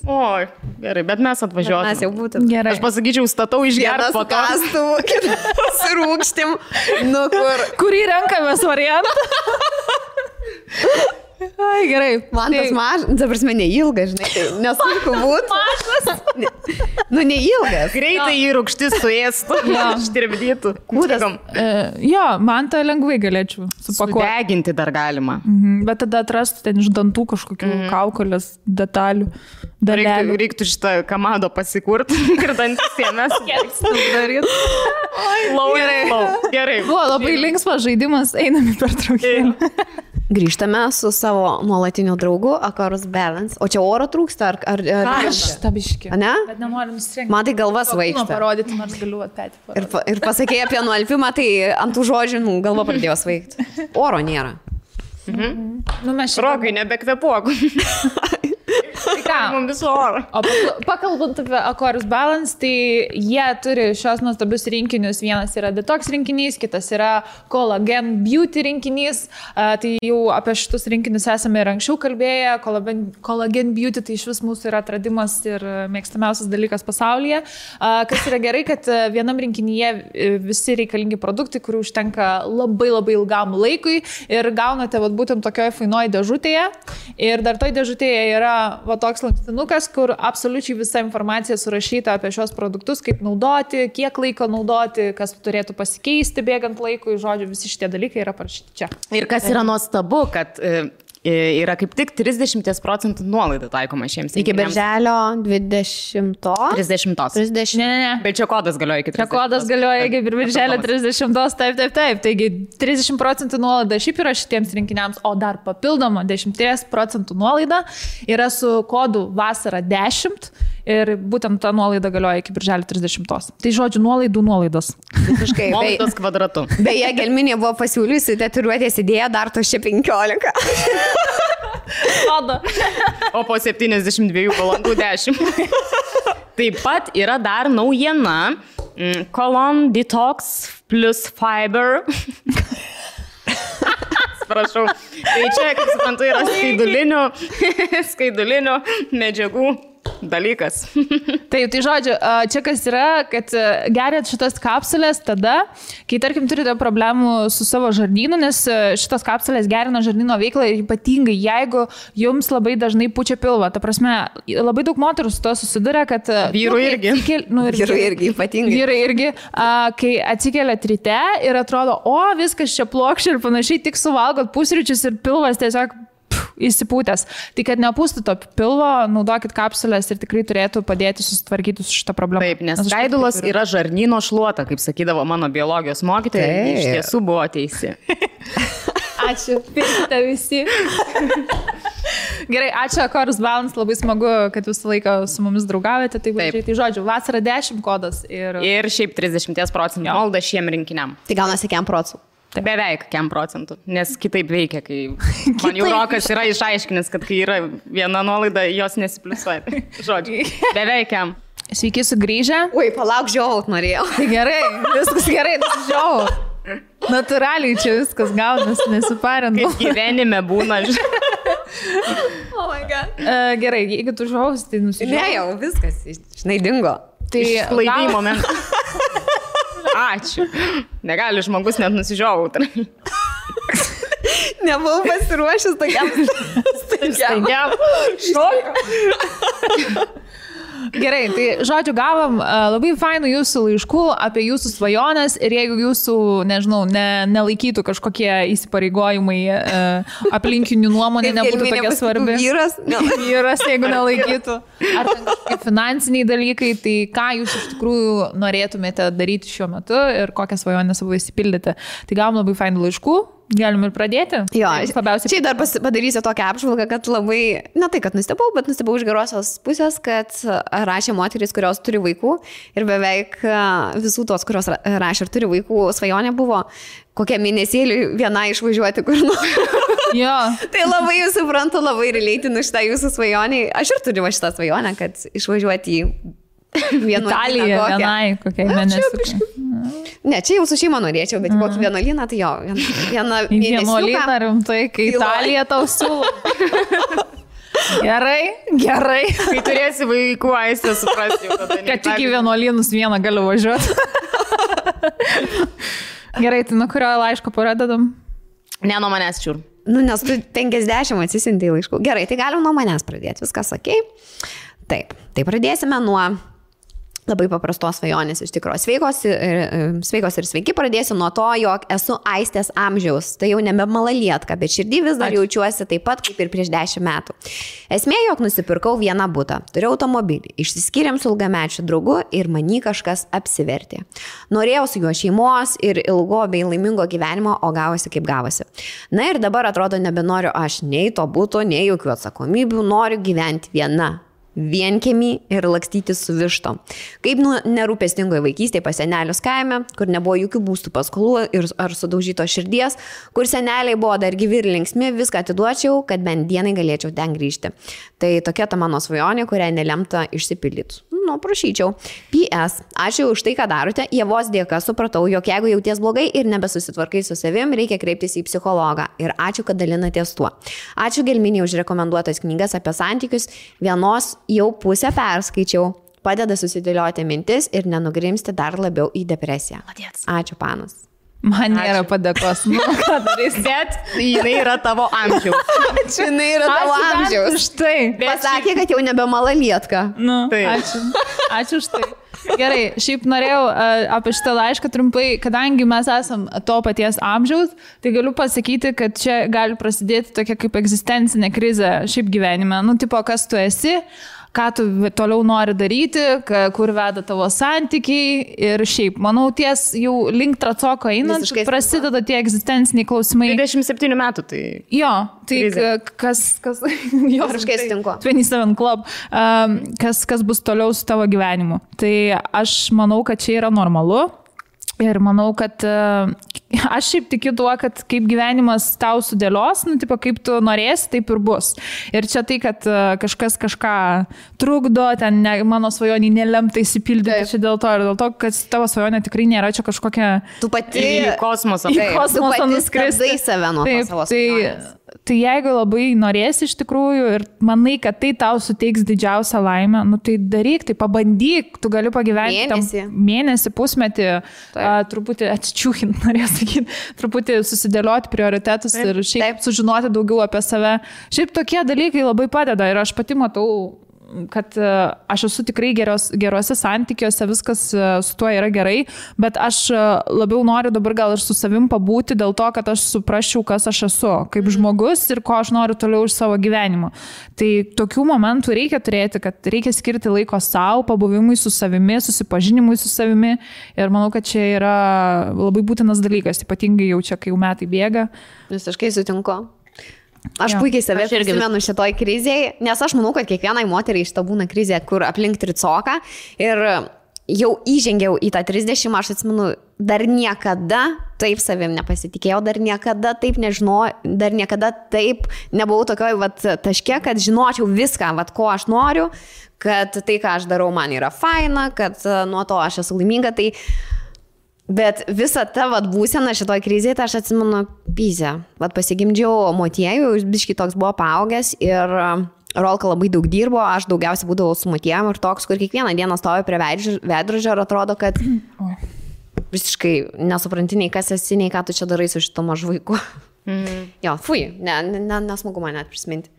Oi, gerai, bet mes atvažiuotume. Mes jau būtum. Gerai. Aš pasakyčiau, statau išgerti po to. Pasirūgštim, nu kur. Kurį renkamės variantą? Ai, gerai. Man tas mažas, dabar mes neilgas, žinai, tai nesunku būtų. Mažas. Nu, neilgas. Greitai jį rūgštis suėstų, ištirpdytų. Kūdas. Jo, man tą lengvai galėčiau supakuoti. Sudeginti dar galima. Bet tada atrastų ten iš dantų kažkokių kaukolės detalių. Reiktų šitą kamado pasikurti ir dantis jėmės. Gerai. Buvo labai linksmas žaidimas, einame per traukėlį. Grįžtame su savo nuolatiniu draugu, Akorus Balance. O čia oro trūksta, ar Tabiški. Ne? Bet nenoriu nusirengti. Man tai galva svaigsta. Parodyti, nors galiu atpėti parodyti. Ir pasakėjai apie nualpimą, tai ant tų žodžių galva pradėjo svaigti. Oro nėra. Nu, mes čia... Rokai, nebekvepuok. Tai ką? Mums viso oro. O pakalbant apie Akorus Balance, tai jie turi šios nuostabius rinkinius. Vienas yra detox rinkinys, kitas yra Collagen Beauty rinkinys. Tai jau apie šitus rinkinius esame ir anksčiau kalbėję. Collagen Beauty tai iš vis mūsų yra atradimas ir mėgstamiausias dalykas pasaulyje. Kas yra gerai, kad vienam rinkinyje visi reikalingi produktai, kurių užtenka labai labai ilgam laikui ir gaunate būtent tokioje fainoje dėžutėje. Ir dar toj dėžutėje yra toks lankstinukas, kur absoliučiai visa informacija surašyta apie šios produktus, kaip naudoti, kiek laiko naudoti, kas turėtų pasikeisti bėgant laikui, žodžiu, visi šitie dalykai yra parašyti čia. Ir kas yra nuostabu, kad yra kaip tik 30% nuolaida taikoma šiems rinkiniams. Iki birželio 20. 30. Ne. Bet čia kodas galioja iki 30. Čia kodas galioja iki birželio 30. Taip. Taigi 30% nuolaida šiaip yra šitiems rinkiniams, o dar papildoma 10% nuolaida yra su kodu vasara 10 ir būtent ta nuolaida galioja iki birželio 30. Tai žodžiu, nuolaidos. Visiškai. Nuolaidos kvadratu. Beje, Gelminė buvo pasiūliusi tatuiruotės idėją dar to čia 15. O po 72 valandų 10. Taip pat yra dar naujiena. Colon Detox plus Fiber. Prašau. Tai čia, kaip suprantu, yra skaidulinių medžiagų dalykas. Taip, tai žodžiu, čia kas yra, kad geriat šitas kapsulės tada, kai, tarkim, turite problemų su savo žarnynu, nes šitas kapsulės gerina žarnyno veiklą ir ypatingai, jeigu jums labai dažnai pučia pilvą. Ta prasme, labai daug moterų su to susiduria, kad... Vyrų irgi. Vyrų irgi, ypatingai. Vyrai irgi, kai atsikeliat ryte ir atrodo, o, viskas čia plokščia ir panašiai, tik suvalgot pusryčius ir pilvas tiesiog įsipūtęs. Tai kad nepūstų to pilvo, naudokit kapsulės ir tikrai turėtų padėti susitvarkyti su šitą problemą. Taip, nes skaidulos yra žarnyno šluota, kaip sakydavo mano biologijos mokytoja, ir iš tiesų buvo teisi. Ačiū, pirkite visi. Gerai, ačiū Chorus Balance, labai smagu, kad visą laiką su mumis draugaujate. Tai žodžiu, vasara 10 kodas. Ir šiaip 30% malda šiem rinkiniam. Tai gaunasi 100%. Beveik 100%, nes kitaip veikia, kai man jau Rokas yra išaiškinęs, kad kai yra viena nuolaida, jos nesipliusuoja. Žodžiu, beveik 100%. Sveiki sugrįžę. Ui, palauk, žiaut norėjau. Tai gerai, viskas gerai, žiaut. Natūraliai čia viskas gaunas, nesiparinu. Kaip gyvenime būna. Oh my God. Gerai, jeigu tu žiaus, tai nusižiaus. Ne, jau viskas, žinai, dingo. Tai laidai momentas. Ačiū. Negali žmogus net nusižiauti. Nebuvau pasiruošęs tokiam. Gerai, tai žodžiu, gavom labai fainų jūsų laiškų apie jūsų svajonės ir jeigu jūsų, nežinau, nelaikytų kažkokie įsipareigojimai aplinkinių nuomonė nebūtų tokia svarbi. Vyras, jeigu nelaikytų. Ar ten kažkokie finansiniai dalykai, tai ką jūs iš tikrųjų norėtumėte daryti šiuo metu ir kokią svajonę savo įsipildyti. Tai gavom labai fainų laiškų. Galim ir pradėti? Jo, čia dar padarysiu tokią apžvalgą, kad labai, ne tai, kad nustebau, bet nustebau iš gerosios pusės, kad rašė moterys, kurios turi vaikų ir beveik visų tos, kurios rašė ir turi vaikų, svajonė buvo kokią mėnesėlį viena išvažiuoti kur nors. Jo. Tai labai jūs suprantu, labai relateinu šitą jūsų svajonį. Aš ir turiu šitą svajonę, kad išvažiuoti į Italiją vienai, kokiai mėnesį. Ne, čia jau su šeima norėčiau, bet kokį vienuolyną, tai jo, vieną mėnesiuką. Vienuolyną rimtai, kai Italija tau siūlo. Gerai. Kai turėsi vaikų, aistę suprasti. Kad tik į vienuolynus vieną galiu važiuoti. Gerai, tai nuo kurio laiško pradedam? Ne, nuo manęs čiur. Nu, nes tu 50 atsisintai laiškų. Gerai, tai galim nuo manęs pradėti, viskas okei. Taip, tai pradėsime nuo labai paprastos svajonės iš tikrųjų. Sveikos ir sveiki, pradėsiu nuo to, jog esu Aistės amžiaus. Tai jau nebe malalietka, bet širdį vis dar jaučiuosi taip pat kaip ir prieš 10 metų. Esmė, jog nusipirkau vieną butą, turiu automobilį, išsiskyrėm su ilgamečiu draugu ir many kažkas apsivertė. Norėjau su juo šeimos ir ilgo bei laimingo gyvenimo, o gavosi kaip gavosi. Na ir dabar atrodo nebenoriu aš nei to buto, nei jokių atsakomybių, noriu gyventi viena. Vienkiemį ir lakstyti su vištom. Kaip nerūpestingoje vaikystėje pas senelius kaime, kur nebuvo jokių būstų paskolų ar sudaužyto širdies, kur seneliai buvo dar gyvi ir linksmi, viską atiduočiau, kad bent dienai galėčiau ten grįžti. Tai tokia ta mano svajonė, kurią nelemta išsipildyti. Nu, prašyčiau. PS. Ačiū už tai, ką darote. Ievos dėka supratau, jog jeigu jauties blogai ir nebesusitvarkai su savim, reikia kreiptis į psichologą. Ir ačiū, kad dalinatės tuo. Ačiū Gelminei už rekomenduotas knygas apie santykius. Vienos jau pusę perskaičiau. Padeda susidėlioti mintis ir nenugrimsti dar labiau į depresiją. Ačiū, panas. Man nėra padėkos. Nu, ką darys? Bet jinai yra tavo amžiaus. Ačiū, jinai yra tavo amžiaus. Štai. Pasakė, kad jau nebe malalietka. Nu, ačiū už tai. Gerai, šiaip norėjau apie šitą laišką trumpai, kadangi mes esam to paties amžiaus, tai galiu pasakyti, kad čia gali prasidėti tokia kaip egzistencinė krizė šiaip gyvenime. Nu, tipo, kas tu esi, ką tu toliau nori daryti, kur veda tavo santykiai ir šiaip, manau, ties jau link tracoko einant, prasideda tie egzistenciniai klausimai. 27 metų, tai... Jo, tai kas jo, visiškai sutinku. 27 Club, kas bus toliau su tavo gyvenimu. Tai aš manau, kad čia yra normalu. Ir manau, kad aš šiaip tikiu tuo, kad kaip gyvenimas tau sudėlios, nu, tipo, kaip tu norėsi, taip ir bus. Ir čia tai, kad kažkas kažką trukdo, ten mano svajonį nelemta įsipildyti, čia dėl to, ir dėl to, kad tavo svajonė tikrai nėra čia kažkokia... Tu pati į kosmosą. Tu pati skristai save nuo savo svajonės. Tai jeigu labai norėsi iš tikrųjų ir manai, kad tai tau suteiks didžiausią laimę, nu tai daryk, tai pabandyk, tu gali pagyventi mėnesį, pusmetį, truputį atsičiūkint, norėjau sakyti, truputį susidėlioti prioritetus ir šiaip sužinoti daugiau apie save. Šiaip tokie dalykai labai padeda ir aš pati matau, kad aš esu tikrai geruose santykiuose, viskas su tuo yra gerai, bet aš labiau noriu dabar gal ir su savim pabūti dėl to, kad aš suprasčiau, kas aš esu, kaip žmogus ir ko aš noriu toliau iš savo gyvenimo. Tai tokių momentų reikia turėti, kad reikia skirti laiko savo, pabuvimui su savimi, susipažinimui su savimi ir manau, kad čia yra labai būtinas dalykas, ypatingai jau čia, kai jau metai bėga. Visiškai sutinku. Aš puikiai save prisimenu šitoj krizėje, nes aš manau, kad kiekvienai moteriai šita būna krizė, kur aplink tricoka ir jau įžengiau į tą 30, aš atsimenu, dar niekada taip savim nepasitikėjau, dar niekada taip nežinojau, dar niekada taip nebuvau tokioj taške, kad žinočiau viską, ko aš noriu, kad tai, ką aš darau, man yra faina, kad nuo to aš esu laiminga, tai... Bet visa ta būsena šitoj krizėje, tai aš atsimenu pyzę. Pasigimdžiau motiejų, biškai toks buvo paaugęs ir Rolka labai daug dirbo, aš daugiausiai būdavau su motiejom ir toks, kur kiekvieną dieną stovi prie veidrodžio ir atrodo, kad visiškai nesupranti nei kas esi, nei ką tu čia darai su šito mažu vaiku. Jo, fui, nesmagu man net prisiminti.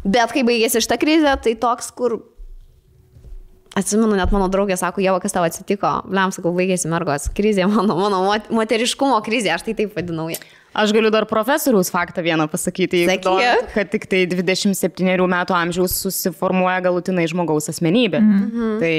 Bet kai baigėsi šitą krizę, tai toks, kur... Atsimenu, net mano draugė sako, Ieva, kas tau atsitiko? Bliam, sakau, baigėsi mergos krizė, mano moteriškumo krizė, aš tai taip vadinau. Aš galiu dar profesoriaus faktą vieną pasakyti, kad tik tai 27 metų amžiaus susiformuoja galutinai žmogaus asmenybė. Tai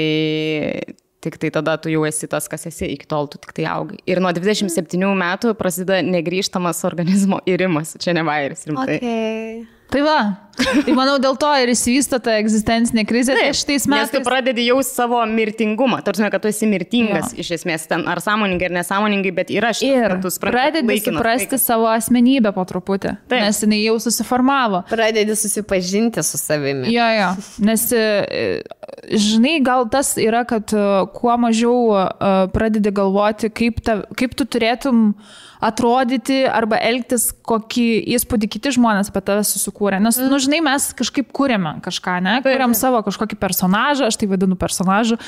tik tai tada tu jau esi tas, kas esi, iki tol tu tik tai augai. Ir nuo 27 metų prasideda negrįžtamas organizmo irimas, čia ne vairis, rimtai. Okay. Tai va, tai manau dėl to ir įsivysto ta egzistencinė krizė. Tai šitais metais... Nes tu pradedi jau savo mirtingumą, tarsi, kad tu esi mirtingas iš esmės, ten ar sąmoningai, ar nesąmoningai, bet yra šitas. Ir pradedi suprasti savo asmenybę po truputį, nes jinai jau susiformavo. Pradedi susipažinti su savimi. Jo, nes, žinai, gal tas yra, kad kuo mažiau pradedi galvoti, kaip tu turėtum atrodyti arba elgtis, kokį įspūdį kiti žmonės apie tave susikūrė. Nes, žinai, mes kažkaip kūrėme kažką, ne? Kūrėm savo kažkokį personažą, aš tai vadinu personažu.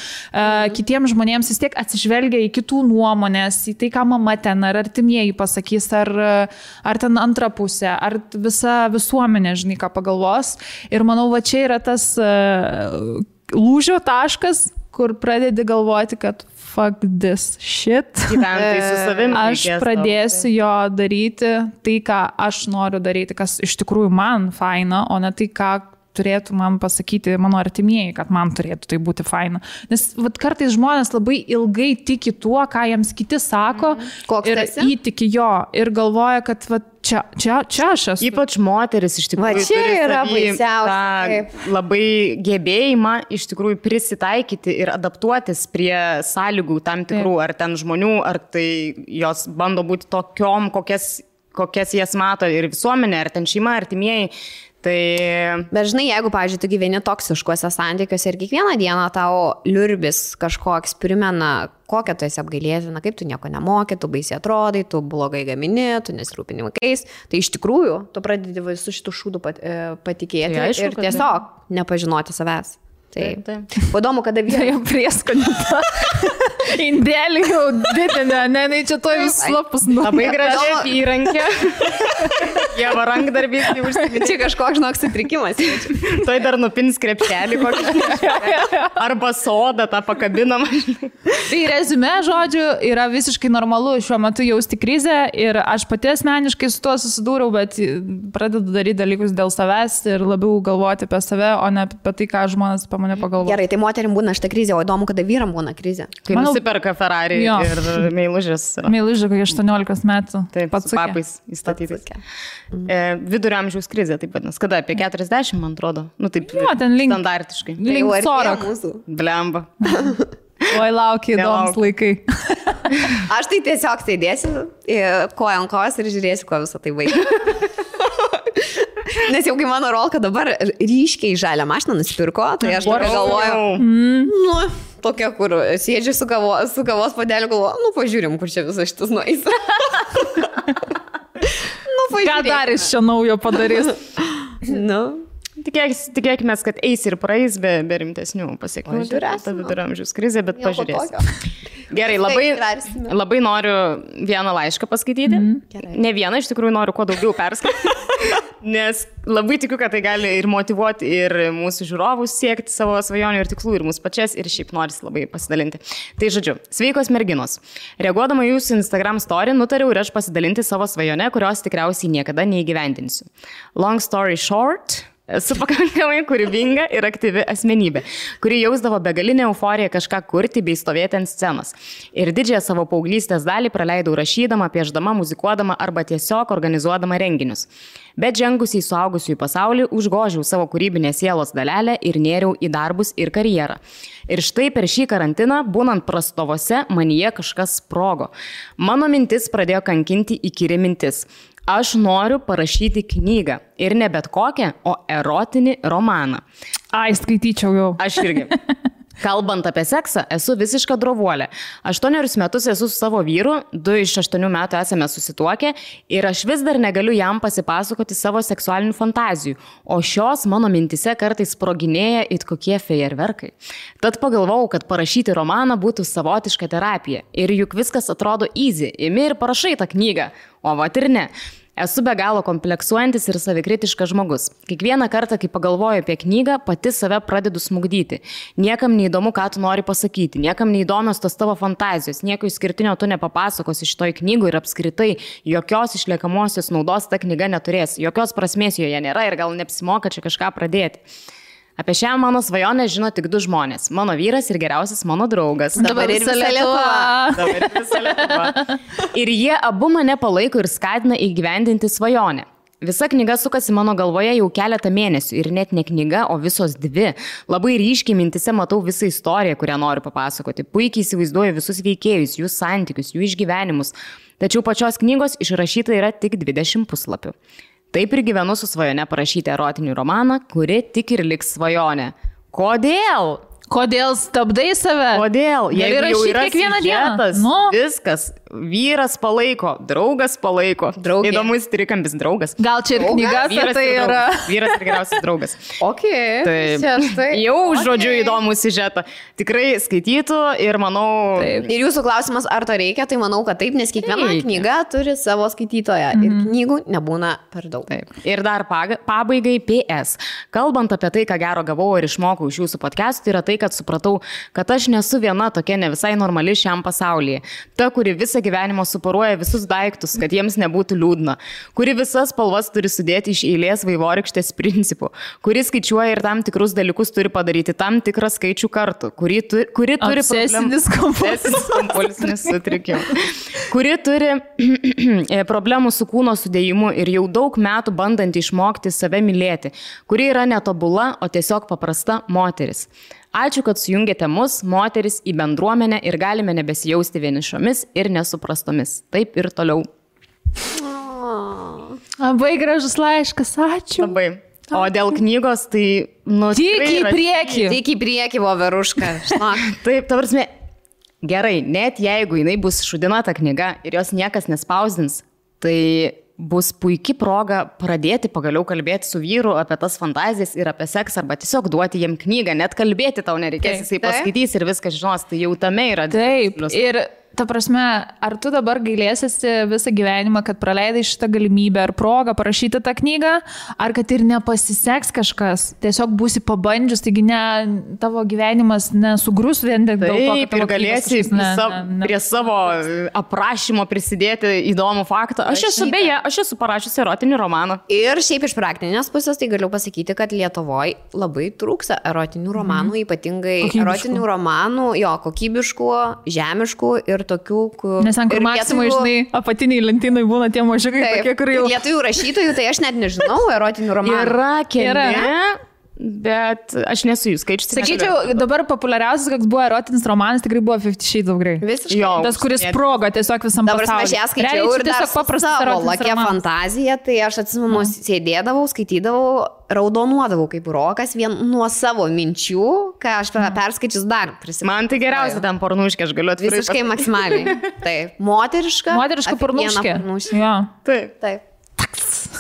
Kitiems žmonėms vis tiek atsižvelgia į kitų nuomonės, į tai, ką mama ten, ar artimieji pasakys, ar ten antra pusė, ar visa visuomenė, žinai, ką pagalvos. Ir manau, va čia yra tas lūžio taškas, kur pradedi galvoti, kad fuck this shit. Gyventai su savimi. Aš pradėsiu jo daryti tai, ką aš noriu daryti, kas iš tikrųjų man faina, o ne tai, ką turėtų man pasakyti mano artimieji, kad man turėtų tai būti faina. Nes kartais žmonės labai ilgai tiki tuo, ką jiems kiti sako, ir įtiki jo ir galvoja, kad čia aš esu. Ypač moteris iš tikrųjų čia yra baisiausia. Labai gebėjimą iš tikrųjų prisitaikyti ir adaptuotis prie sąlygų tam tikrų, ar ten žmonių, ar tai jos bando būti tokiom, kokias jas mato ir visuomenė, ar ten šeima, artimieji. Bet žinai, jeigu, pavyzdžiui, tu gyveni toksiškuose santykiuose ir kiekvieną dieną tau liurbis kažkoks primena, kokią tu esi apgailėtina, kaip tu nieko nemoki, tu baisiai atrodai, tu blogai gamini, tu nesirūpini vaikais, tai iš tikrųjų tu pradedi visų šitų šūdų patikėti ir tiesiog nepažinoti savęs. Taip. Įdomu, kada vyrai jau prieskonį tą indelį jau didinę, ne, čia to vis slapus. Labai gražiai įrankė. Jeva rankdarbys jau užsiminti. Čia kažkoks, žinok, sutrikimas. Toj dar nupins krepšelį kokį. Arba sodą tą pakabinamą. Tai reziumė, žodžiu, yra visiškai normalu šiuo metu jausti krizę ir aš pati asmeniškai su tuo susidūriau, bet pradedu daryti dalykus dėl savęs ir labiau galvoti apie save, o ne apie tai, ką žmonės apie mane pagalvoja. Gerai, tai moterim būna šitą krizę, o įdomu, kada vyram būna krizė. Kai nusiperka Ferrari ir meilužės. Meilužė, kai 18 metų. Taip, su papais įstatytais. Vidurio amžiaus krizė, taip vadinasi. Kada? Apie 40, man atrodo. Nu, taip, standartiškai. Link Sorok. Blemba. Oi, laukia įdomus laikai. Aš tai tiesiog sėdėsiu koja ant kojos ir žiūrėsiu, kuo visą tai vaikai. Nes jau kai mano rolka dabar ryškiai žalią mašiną nusipirko, tai aš dabar galvoju, tokia, kur sėdžiu su kavos padeliu, galvoju, pažiūrim, kur čia visas šitas nueis. Ką dar iš čia naujo padarys? Tikėkime, kad eis ir praeis be rimtesnių pasiekmių. Ta viduramžiaus krizė, bet pažiūrėsim. Gerai, labai noriu vieną laišką paskaityti. Ne vieną, iš tikrųjų noriu kuo daugiau perskaityti. Nes labai tikiu, kad tai gali ir motyvuoti ir mūsų žiūrovus siekti savo svajonių ir tikslų, ir mūsų pačias, ir šiaip norisi labai pasidalinti. Tai žodžiu, sveikos merginos. Reaguodama jūsų Instagram story, nutariau ir aš pasidalinti savo svajone, kurios tikriausiai niekada neįgyvendinsiu. Long story short, esu pakankamai kūrybinga ir aktyvi asmenybė, kuri jausdavo begalinę euforiją kažką kurti bei stovėti ant scenos. Ir didžiąją savo paauglystės dalį praleidau rašydama, pieždama, muzikuodama arba tiesiog organizuodama renginius. Bet žengusi į suaugusiųjų pasaulį, užgožiau savo kūrybinę sielos dalelę ir nėriau į darbus ir karjerą. Ir štai per šį karantiną, būnant prastovose, manyje kažkas sprogo. Mano mintis pradėjo kankinti įkyri mintis. Aš noriu parašyti knygą. Ir ne bet kokią, o erotinį romaną. Ai, skaityčiau jau. Aš irgi. Kalbant apie seksą, esu visiška drovuolė. 8 metus esu su savo vyru, 2 iš 8 metų esame susituokę ir aš vis dar negaliu jam pasipasakoti savo seksualinių fantazijų, o šios mano mintise kartais sproginėja it kokie fejerverkai. Tad pagalvojau, kad parašyti romaną būtų savotiška terapija. Ir juk viskas atrodo easy, imi ir parašai tą knygą, o vat ir ne. Esu be galo kompleksuojantis ir savikritiškas žmogus. Kiekvieną kartą, kai pagalvoju apie knygą, pati save pradedu smugdyti. Niekam neįdomu, ką tu nori pasakyti, niekam neįdomios tos tavo fantazijos, nieko išskirtinio tu nepapasakosi šitoj knygų ir apskritai jokios išliekamosios naudos ta knyga neturės, jokios prasmės joje nėra ir gal neapsimoka čia kažką pradėti. Apie šią mano svajonę žino tik 2 žmonės. Mano vyras ir geriausias mano draugas. Dabar ir visa Lietuva. Ir jie abu mane palaiko ir skatina įgyvendinti svajonę. Visa knyga sukasi mano galvoje jau keletą mėnesių ir net ne knyga, o visos 2. Labai ryškiai mintise matau visą istoriją, kurią noriu papasakoti. Puikiai įsivaizduoju visus veikėjus, jų santykius, jų išgyvenimus. Tačiau pačios knygos išrašyta yra tik 20 puslapių. Taip ir gyvenu su svajone parašyti erotinį romaną, kuri tik ir liks svajonė. Kodėl? Kodėl stabdai save? Kodėl? Jeigu jau yra kiekvieną dieną. Viskas. Vyras palaiko, draugas palaiko. Draugė. Įdomus trikampis draugas. Gal čia ir knyga, vyras tai yra. Vyras ir geriausias draugas. Taip. Jau žodžiu įdomų siužetą. Tikrai skaitytų ir manau... Taip. Ir jūsų klausimas, ar to reikia, tai manau, kad taip, nes kiekviena knyga turi savo skaitytoją ir knygų nebūna per daug. Taip. Ir dar pabaigai PS. Kalbant apie tai, ką gero gavau ir išmokau iš jūsų podcastų, yra tai, kad supratau, kad aš nesu viena tokia ne visai normali šiam pasaulyje. Ta, kuri visą gyvenimą suporuoja visus daiktus, kad jiems nebūtų liūdna. Kuri visas spalvas turi sudėti iš eilės vaivorykštės principų. Kuri skaičiuoja ir tam tikrus dalykus turi padaryti tam tikrą skaičių kartų. Kuri turi obsesinis kompulsinis sutrikimas. Kuri turi problemų su kūno sudėjimu ir jau daug metų bandanti išmokti save mylėti. Kuri yra netobula, o tiesiog paprasta moteris. Ačiū, kad sujungėte mus, moteris, į bendruomenę ir galime nebesijausti vienišomis ir nesuprastomis. Taip ir toliau. Labai gražus laiškas, ačiū. Labai. O dėl knygos, tai... Tik į priekį. Tik į priekį, voveruška. Taip, ta prasme, gerai, net jeigu jinai bus šudina ta knyga ir jos niekas nespausdins, tai... bus puikia proga pradėti pagaliau kalbėti su vyru apie tas fantazijas ir apie seksą, arba tiesiog duoti jiem knygą, net kalbėti tau nereikės, jisai paskaitys ir viską žinos, tai jau tame yra. Taip, ir ta prasme, ar tu dabar gailėsiesi visą gyvenimą, kad praleidai šitą galimybę ar progą parašyti tą knygą, ar kad ir nepasiseks kažkas, tiesiog būsi pabandžius, taigi tavo gyvenimas nesugrus vien dėl to, kad tavo galėsi prie savo aprašymo prisidėti įdomų faktą. Aš esu parašiusi erotinį romaną. Ir šiaip iš praktinės pusės tai galiu pasakyti, kad Lietuvoje labai trūksa erotinių romanų, ypatingai erotinių romanų, kokybiškų, žemiškų ir tokių, kur... Nes ant kur Maksimui, žinai, apatiniai lentynai būna tie mažiukai, tokie, kur jau... Lietuvių rašytojų, tai aš net nežinau erotinių romanų. Yra keli. bet aš nesu jų skaičius. Sakyčiau, dabar populiariausias, koks buvo erotinis romanas, tikrai buvo 50 Shades of Grey. Visiškai. Tas, kuris sprogo tiesiog visam pasauliu. Dabar aš ją skaičiau ir tiesiog savo lakia fantazija, tai aš atsimenu, sėdėdavau, skaitydavau, raudonuodavau kaip rokas vien nuo savo minčių, ką aš perskaičius dar prisimenu. Man tai geriausia ten pornuškė, aš galiu atvirai. Visiškai maksimaliai. Taip. Moteriška pornuškė. Ja. Taip.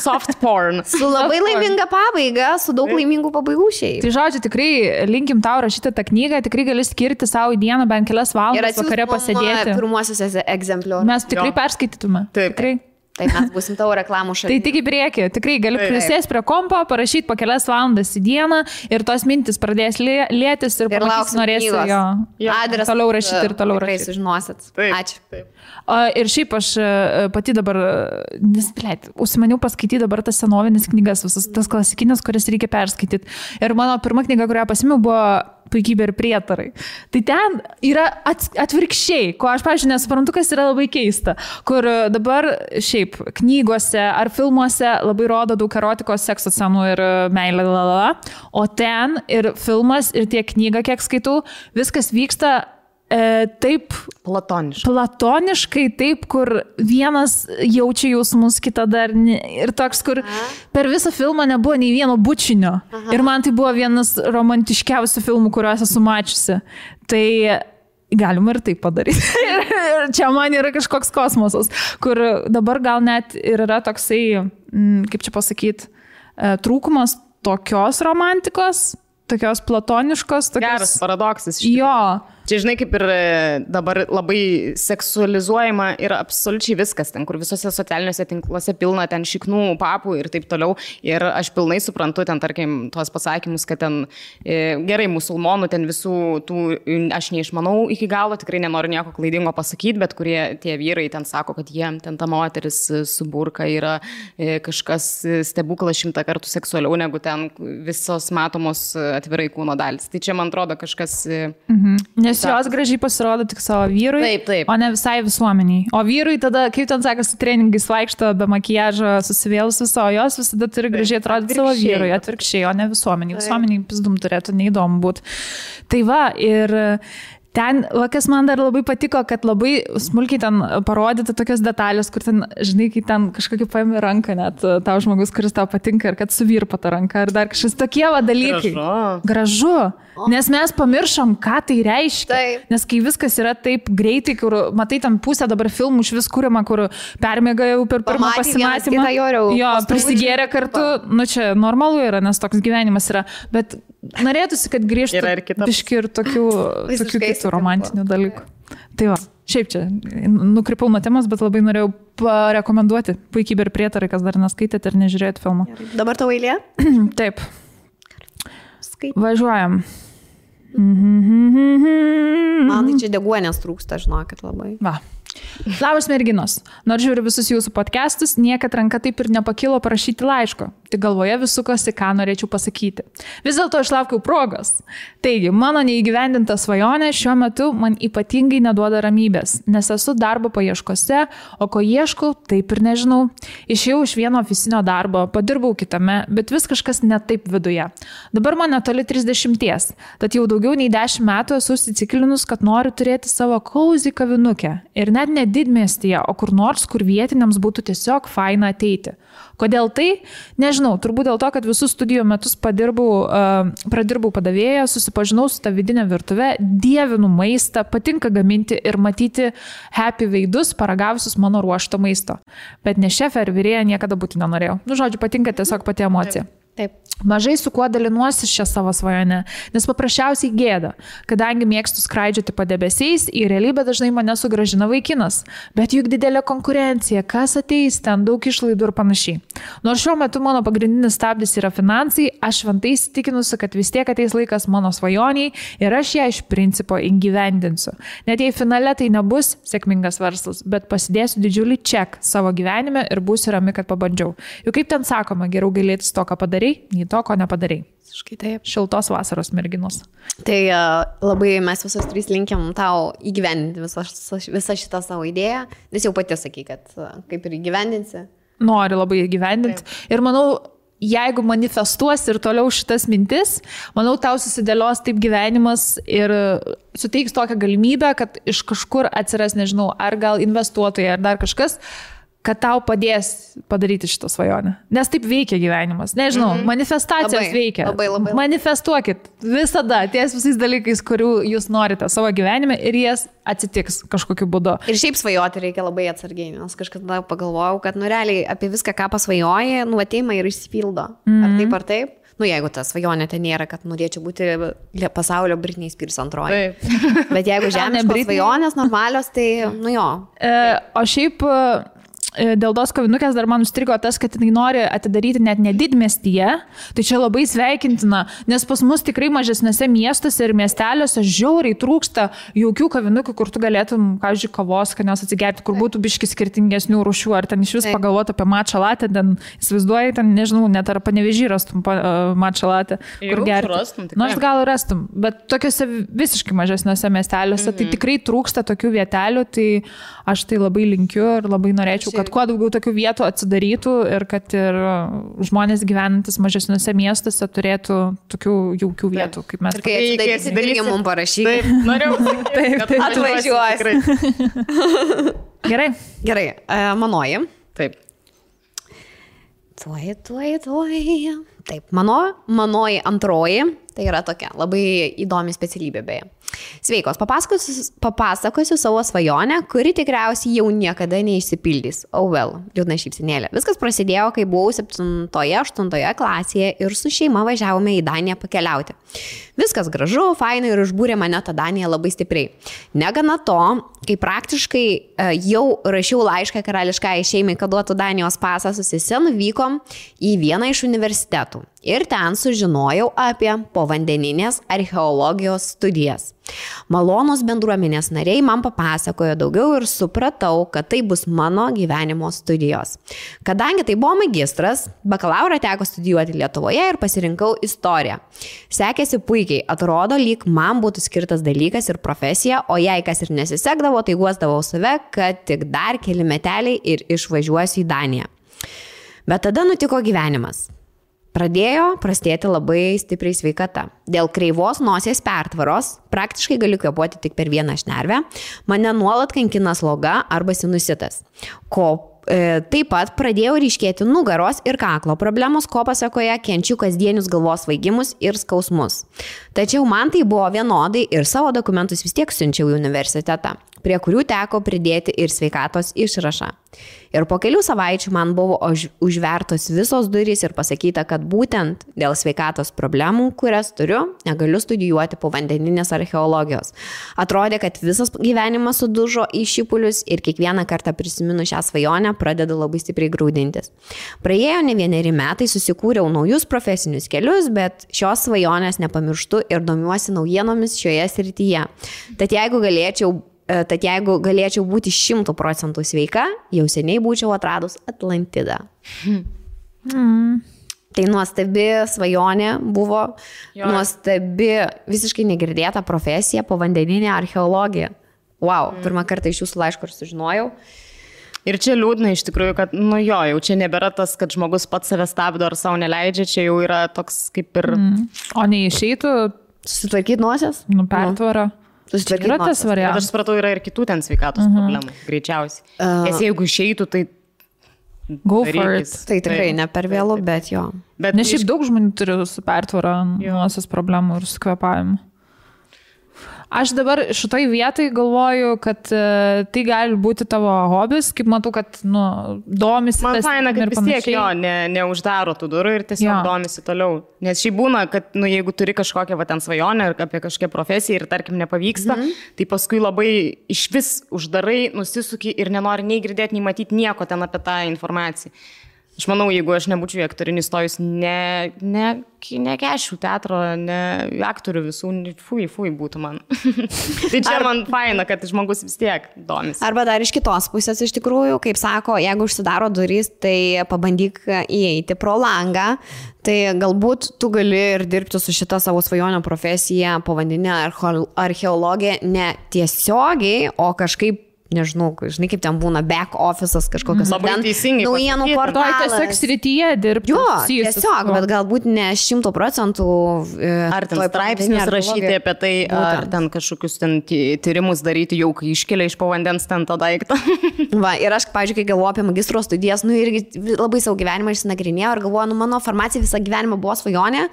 Soft porn. Su labai laiminga pabaiga, su daug laimingų pabaigų šiaip. Tai žodžiu, tikrai linkim tau rašyti tą knygą, tikrai gali skirti savo į dieną bent kelias valandas vakare pasėdėti. Pirmuosius egzempliorius. Mes tikrai perskaitytume. Taip. Tikrai. Taip, mes būsim tavo reklamų šalia. Tai tik į priekį, tikrai gali prisėsti prie kompo, parašyti po kelias valandas į dieną ir tos mintis pradės lėtis ir pamatysi, norėsi jo adresą toliau rašyti ir toliau rašyti. Tikrai sužinosit. Ačiū. Taip. Ir šiaip aš pati dabar, užsimaniau paskaityti dabar tas senovinis knygas, visas tas klasikinės, kurias reikia perskaityti. Ir mano pirma knyga, kurią pasimiau, buvo Puikybė ir prietarai. Tai ten yra atvirkščiai, ko aš, pavyzdžiui, nesuprantu, kas yra labai keista, kur dabar šiaip knygose ar filmuose labai rodo daug erotikos, sekso scenų ir meilė, o ten ir filmas, ir tiek knyga, kiek skaitau, viskas vyksta taip platoniškai, taip, kur vienas jaučia jausmus, kita dar ir toks, kur per visą filmą nebuvo nei vieno bučinio. Ir man tai buvo vienas romantiškiausių filmų, kuriuos esu mačiusi. Tai galima ir taip padaryti. Ir čia man yra kažkoks kosmosas, kur dabar gal net ir yra toksai, kaip čia pasakyti, trūkumas tokios romantikos, tokios platoniškos. Geras paradoksas. Jo. Čia, žinai, kaip ir dabar labai seksualizuojama yra absoliučiai viskas, ten, kur visose socialiniuose tinkluose pilna ten šiknų, papų ir taip toliau. Ir aš pilnai suprantu ten, tarkim, tuos pasakymus, kad ten gerai musulmonų, ten visų tų, aš neišmanau iki galo, tikrai nenoriu nieko klaidingo pasakyti, bet kurie tie vyrai ten sako, kad jiem ten ta moteris su burka yra kažkas stebuklas 100 kartų seksualiau negu ten visos matomos atvirai kūno dalis. Tai čia, man atrodo, kažkas... Nes jos gražiai pasirodo tik savo vyrui, taip. O ne visai visuomeniai. O vyrui tada, kaip ten sakasi, treningais vaikšto be makiažo, susivėlus viso, o jos visada turi gražiai atrodyti savo vyrui, atvirkščiai, o ne visuomeniai. Visuomeniai pizdum turėtų neįdomu būti. Tai va, ir... Ten, kas man dar labai patiko, kad labai smulkiai ten parodyti tokias detalės, kur ten, žinai, kai ten kažkokį paėmė ranką net tau žmogus, kuris tau patinka ir kad suvirpa tą ranką ir dar kažkas tokie dalykai. Gražu. Nes mes pamiršom, ką tai reiškia. Taip. Nes kai viskas yra taip greitai, kur, matai, ten pusę dabar filmų iš vis kuriama, kur permėga jau per pirmą pasimatymą. Jo, prisigėrė kartu. Nu čia normalu yra, nes toks gyvenimas yra. Bet norėtųsi, kad grįžtų biški ir tokių kitų romantinių dalykų. Tai va, šiaip čia nukrypau nuo temos, bet labai norėjau parekomenduoti Puikybė ir prietarai, kas dar neskaitėte ir nežiūrėjote filmą. Dabar tavo eilė? Taip. Važiuojam. Man tai čia deguonės trūksta, žinokit, labai. Va. Labas merginos. Nors žiūriu visus jūsų podcastus, niekad ranka taip ir nepakilo parašyti laiško. Tik galvoje vis sukosi, ką norėčiau pasakyti. Vis dėlto išlaukiau progos. Taigi, mano neįgyvendinta svajonė šiuo metu man ypatingai neduoda ramybės, nes esu darbo paieškose, o ko ieškau, taip ir nežinau. Išėjau iš vieno ofisinio darbo, padirbau kitame, bet vis kažkas ne taip viduje. Dabar man netoli 30, tad jau daugiau nei 10 metų esu įsiciklinus, kad noriu turėti savo cozy kavinukę. Ir net ne didmiestyje, o kur nors, kur vietiniams būtų tiesiog faina ateiti. Kodėl tai? Nežinau, turbūt dėl to, kad visus studijų metus pradirbau padavėją, susipažinau su tą vidinę virtuvę, dievinu maistą, patinka gaminti ir matyti happy veidus paragavusius mano ruošto maisto. Bet ne šefė ar virėja niekada būti nenorėjau. Nu, žodžiu, patinka tiesiog pati emocija. Taip. Mažai su kuo dalinuosi šią savo svajonę, nes paprasčiausiai gėda, kadangi mėgstu skraidžioti padebesiais, į realybę dažnai mane sugrąžina vaikinas, bet juk didelė konkurencija, kas ateis ten, daug išlaidų ir panašiai. Nors šiuo metu mano pagrindinis stabdis yra finansai, aš šventai įsitikinusi, kad vis tiek ateis laikas mano svajoniai ir aš ją iš principo įgyvendinsiu. Net jei finale tai nebus sėkmingas verslas, bet pasidėsiu didžiulį ček savo gyvenime ir būsiu rami, kad pabandžiau. Juk kaip ten sakoma, geriau gailėtis to, ką padarai, nei to, ko nepadarai. Visiškai taip. Šiltos vasaros merginos. Tai labai mes visos trys linkiam tau įgyvendinti visą šitą savo idėją, nes jau pati sakai, kad kaip ir įgyvendinsi. Nori labai įgyvendinti. Ir manau, jeigu manifestuosi ir toliau šitas mintis, manau, tau susidėlios taip gyvenimas ir suteiks tokią galimybę, kad iš kažkur atsiras, nežinau, ar gal investuotojai, ar dar kažkas, kad tau padės padaryti šitą svajonę. Nes taip veikia gyvenimas. Nežinau, manifestacijos veikia. Labai. Manifestuokit visada ties visais dalykais, kurių jūs norite savo gyvenime ir jas atsitiks kažkokiu būdu. Ir šiaip svajoti reikia labai atsargiai, nes kažkada pagalvojau, kad realiai apie viską, ką pasvajoji, ateima ir išsipildo. Ar taip? Jeigu ta svajonė ten nėra, kad norėčiau būti pasaulio Britney Spears antroji. Bet jeigu žemiškos svajonės normalios, tai jo. O šiaip dėl tos kavinukės dar man užstrigo tas, kad jinai nori atidaryti net ne didmiestyje, tai čia labai sveikintina, nes pas mus tikrai mažesnėse miestuose ir miesteliuose žiauriai trūksta jaukių kavinukių, kur tu galėtum, pavyzdžiui, kavos, kad nes atsigerti, kur būtų biški skirtingesnių rūšių, ar ten iš vis pagalvoti apie matcha latte, ten įsivaizduoji, ten nežinau, net ar Panevėžy rastum matcha latte, kur gerti. Nors gal rastum, bet tokiuose visiškai mažesnėse miesteliuose tai tikrai trūksta tokių vietelių, tai aš tai labai linkiu ir labai norėčiau, kad kuo daugiau tokių vietų atsidarytų ir kad ir žmonės gyvenantis mažesniuose miestuose turėtų tokių jaukių vietų, kaip mes. Ir kai atsidarysim, mums parašyk. Taip, norėjau, kad atvažiuosi. Gerai. Manoji. Taip. Tuoj. Taip, manoji antroji, tai yra tokia labai įdomi specialybė beje. Sveikos, papasakosiu savo svajonę, kuri tikriausiai jau niekada neišsipildys. Liūdna šypsenėlė. Viskas prasidėjo, kai buvau 7-8 klasėje ir su šeima važiavome į Daniją pakeliauti. Viskas gražu, fainai ir užbūrė mane tą Daniją labai stipriai. Negana to, kai praktiškai jau rašiau laišką karališkai šeimai, kad duotų Danijos pasą, su sese nuvykom į vieną iš universitetų. Ir ten sužinojau apie povandeninės archeologijos studijas. Malonūs bendruomenės nariai man papasakojo daugiau ir supratau, kad tai bus mano gyvenimo studijos. Kadangi tai buvo magistras, bakalaurą teko studijuoti Lietuvoje ir pasirinkau istoriją. Sekėsi puikiai, atrodo, lyg man būtų skirtas dalykas ir profesija, o jei kas ir nesisekdavo, tai guosdavau save, kad tik dar keli meteliai ir išvažiuosiu į Daniją. Bet tada nutiko gyvenimas. Pradėjo prastėti labai stipriai sveikata. Dėl kreivos nosies pertvaros, praktiškai galiu kvėpuoti tik per vieną šnervę, mane nuolat kankina sloga arba sinusitas. Taip pat pradėjo ryškėti nugaros ir kaklo problemos, ko pasakoje kenčiu kasdienius galvos svaigimus ir skausmus. Tačiau man tai buvo vienodai ir savo dokumentus vis tiek siunčiau į universitetą, prie kurių teko pridėti ir sveikatos išrašą. Ir po kelių savaičių man buvo užvertos visos durys ir pasakyta, kad būtent dėl sveikatos problemų, kurias turiu, negaliu studijuoti povandeninės archeologijos. Atrodė, kad visas gyvenimas sudužo į šipulius ir kiekvieną kartą prisiminu šią svajonę pradedu labai stipriai graudintis. Praėjo ne 1 metai, susikūriau naujus profesinius kelius, bet šios svajonės nepamirštu ir domiuosi naujienomis šioje srityje. Tad jeigu galėčiau būti 100% sveika, jau seniai būčiau atradus Atlantidą. Tai nuostabi svajonė buvo, nuostabi, visiškai negirdėta profesija, povandeninė archeologija. Pirmą kartą iš jūsų laiško ir sužinojau. Ir čia liūdna iš tikrųjų, kad, jau čia nebėra tas, kad žmogus pats save stabdo ar savo neleidžia, čia jau yra toks kaip ir... O neišeitų susitvarkyti nosies? Pertvarą. Yra tas variantas. Aš supratau, yra ir kitų ten sveikatos problemų, greičiausiai. Nes jeigu išeitų, tai... Go for it. Tai tikrai ne per vėlu, bet jo. Nes šiaip daug žmonių turi su pertvara nosies problemų ir su kvėpavimu. Aš dabar šitoj vietai galvoju, kad tai gali būti tavo hobis, kaip matau, kad domisi. Man faina, kad vis tiek neuždaro tų durų ir tiesiog domisi toliau. Nes šiaip būna, kad jeigu turi kažkokią ten svajonę ar apie kažkokią profesiją ir tarkim nepavyksta, tai paskui labai iš vis uždarai, nusisuki ir nenori nei girdėti, nei matyti nieko ten apie tą informaciją. Aš manau, jeigu aš nebūčiau į aktorinį stojus, nekeščiau teatro, ne aktorių visų, fui būtų man. Tai čia man faina, kad žmogus vis tiek domisi. Arba dar iš kitos pusės, iš tikrųjų, kaip sako, jeigu užsidaro durys, tai pabandyk įeiti pro langą, tai galbūt tu gali ir dirbti su šita savo svajonio profesija, povandeninė archeologija, ne tiesiogiai, o kažkaip nežinau, žinai, kaip ten būna back office'as kažkokios. Labai teisingai. Naujienų portalas. Tiesiog srityje dirbti. Jo, tiesiog, bet galbūt ne 100%. Ar ten straipsnius rašyti apie tai, ar ten kažkokius ten tyrimus daryti jau, kai iškelia iš po vandens ten tą daiktą. Va, ir aš, pavyzdžiui, kai galvoju apie magistro studijas, irgi labai savo gyvenimą išsinagrinėjau ir galvoju, mano farmacija visą gyvenimą buvo svajonė.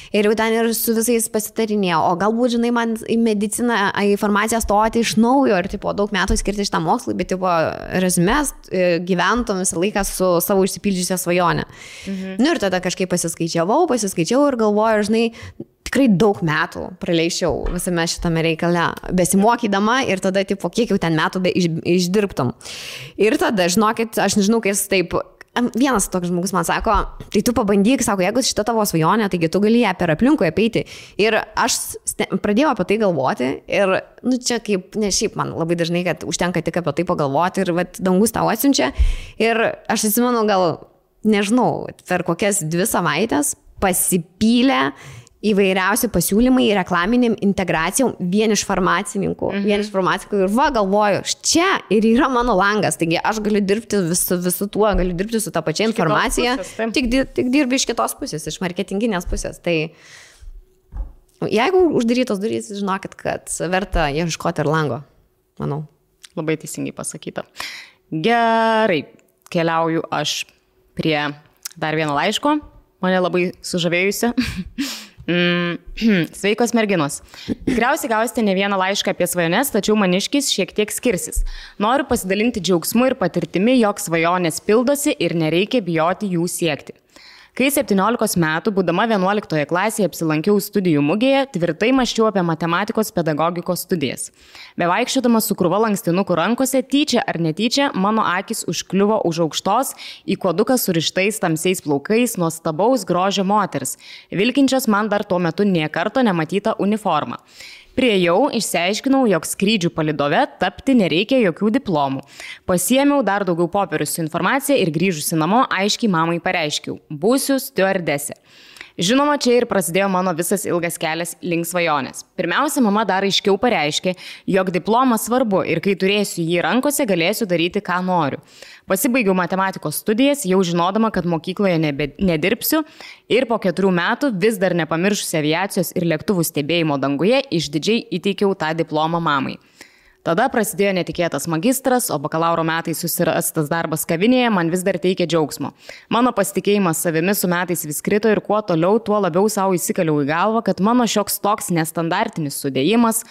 Ir jau ten ir su visais pasitarinėjau, o galbūt, žinai, man į mediciną, į farmaciją stoti iš naujo ir, tipo, daug metų skirti šitam mokslui, bet, tipo, rezumės gyventum visą laiką su savo išsipildžiusią svajonę. Nu ir tada kažkaip pasiskaičiavau ir galvoju, žinai, tikrai daug metų praleičiau visame šitame reikale, besimokydama ir tada, tipo, kiek jau ten metų išdirbtum. Ir tada, žinokit, aš nežinau, kai jis taip... Vienas toks žmogus man sako, tai tu pabandyk, sako, jeigu šita tavo svajonė, taigi tu gali ją per aplinkui apeiti. Ir aš pradėjau apie tai galvoti ir, nu, čia kaip, ne šiaip man labai dažnai, kad užtenka tik apie tai pagalvoti ir, vat, dangus tau atsiunčia. Ir aš atsimenu, gal, nežinau, per kokias 2 savaitės pasipylė įvairiausi pasiūlymai reklaminiam integracijom vien iš farmacininkų. Ir va, galvoju, čia ir yra mano langas, taigi aš galiu dirbti visu tuo, galiu dirbti su tą pačią informaciją, tik dirbi iš kitos pusės, iš marketinginės pusės. Tai jeigu uždarytos durys, žinokit, kad verta ieškoti ir lango, manau. Labai teisingai pasakyta. Gerai, keliauju aš prie dar vieno laiško, mane labai sužavėjusi. Sveikos merginos. Tikriausiai gausite ne vieną laišką apie svajones, tačiau maniškis šiek tiek skirsis. Noriu pasidalinti džiaugsmu ir patirtimi, jog svajonės pildosi ir nereikia bijoti jų siekti. Kai 17 metų, būdama 11 klasėje, apsilankiau studijų mugėje, tvirtai mąsčiau apie matematikos pedagogikos studijas. Bevaikščiodama su krūva lankstinukų rankose, tyčia ar netyčia, mano akis užkliuvo už aukštos, į kuoduką surištais tamsiais plaukais nuostabaus grožio moters, vilkinčios man dar tuo metu nė karto nematytą uniformą. Priejau, išsiaiškinau, jog skrydžių palydove tapti nereikia jokių diplomų. Pasiėmiau dar daugiau popierių su informacija ir grįžusi namo aiškiai mamai pareiškiau – būsiu stiuardesė. Žinoma, čia ir prasidėjo mano visas ilgas kelias link svajonės. Pirmiausia, mama dar aiškiau pareiškė, jog diplomas svarbu ir kai turėsiu jį rankose, galėsiu daryti, ką noriu. Pasibaigiau matematikos studijas, jau žinodama, kad mokykloje nedirbsiu ir po 4 metų vis dar nepamiršusi aviacijos ir lėktuvų stebėjimo danguje išdidžiai įteikiau tą diplomą mamai. Tada prasidėjo netikėtas magistras, o bakalauro metais susirastas darbas kavinėje man vis dar teikė džiaugsmo. Mano pasitikėjimas savimi su metais vis krito ir kuo toliau, tuo labiau savo įsikaliau į galvą, kad mano šioks toks nestandartinis sudėjimas,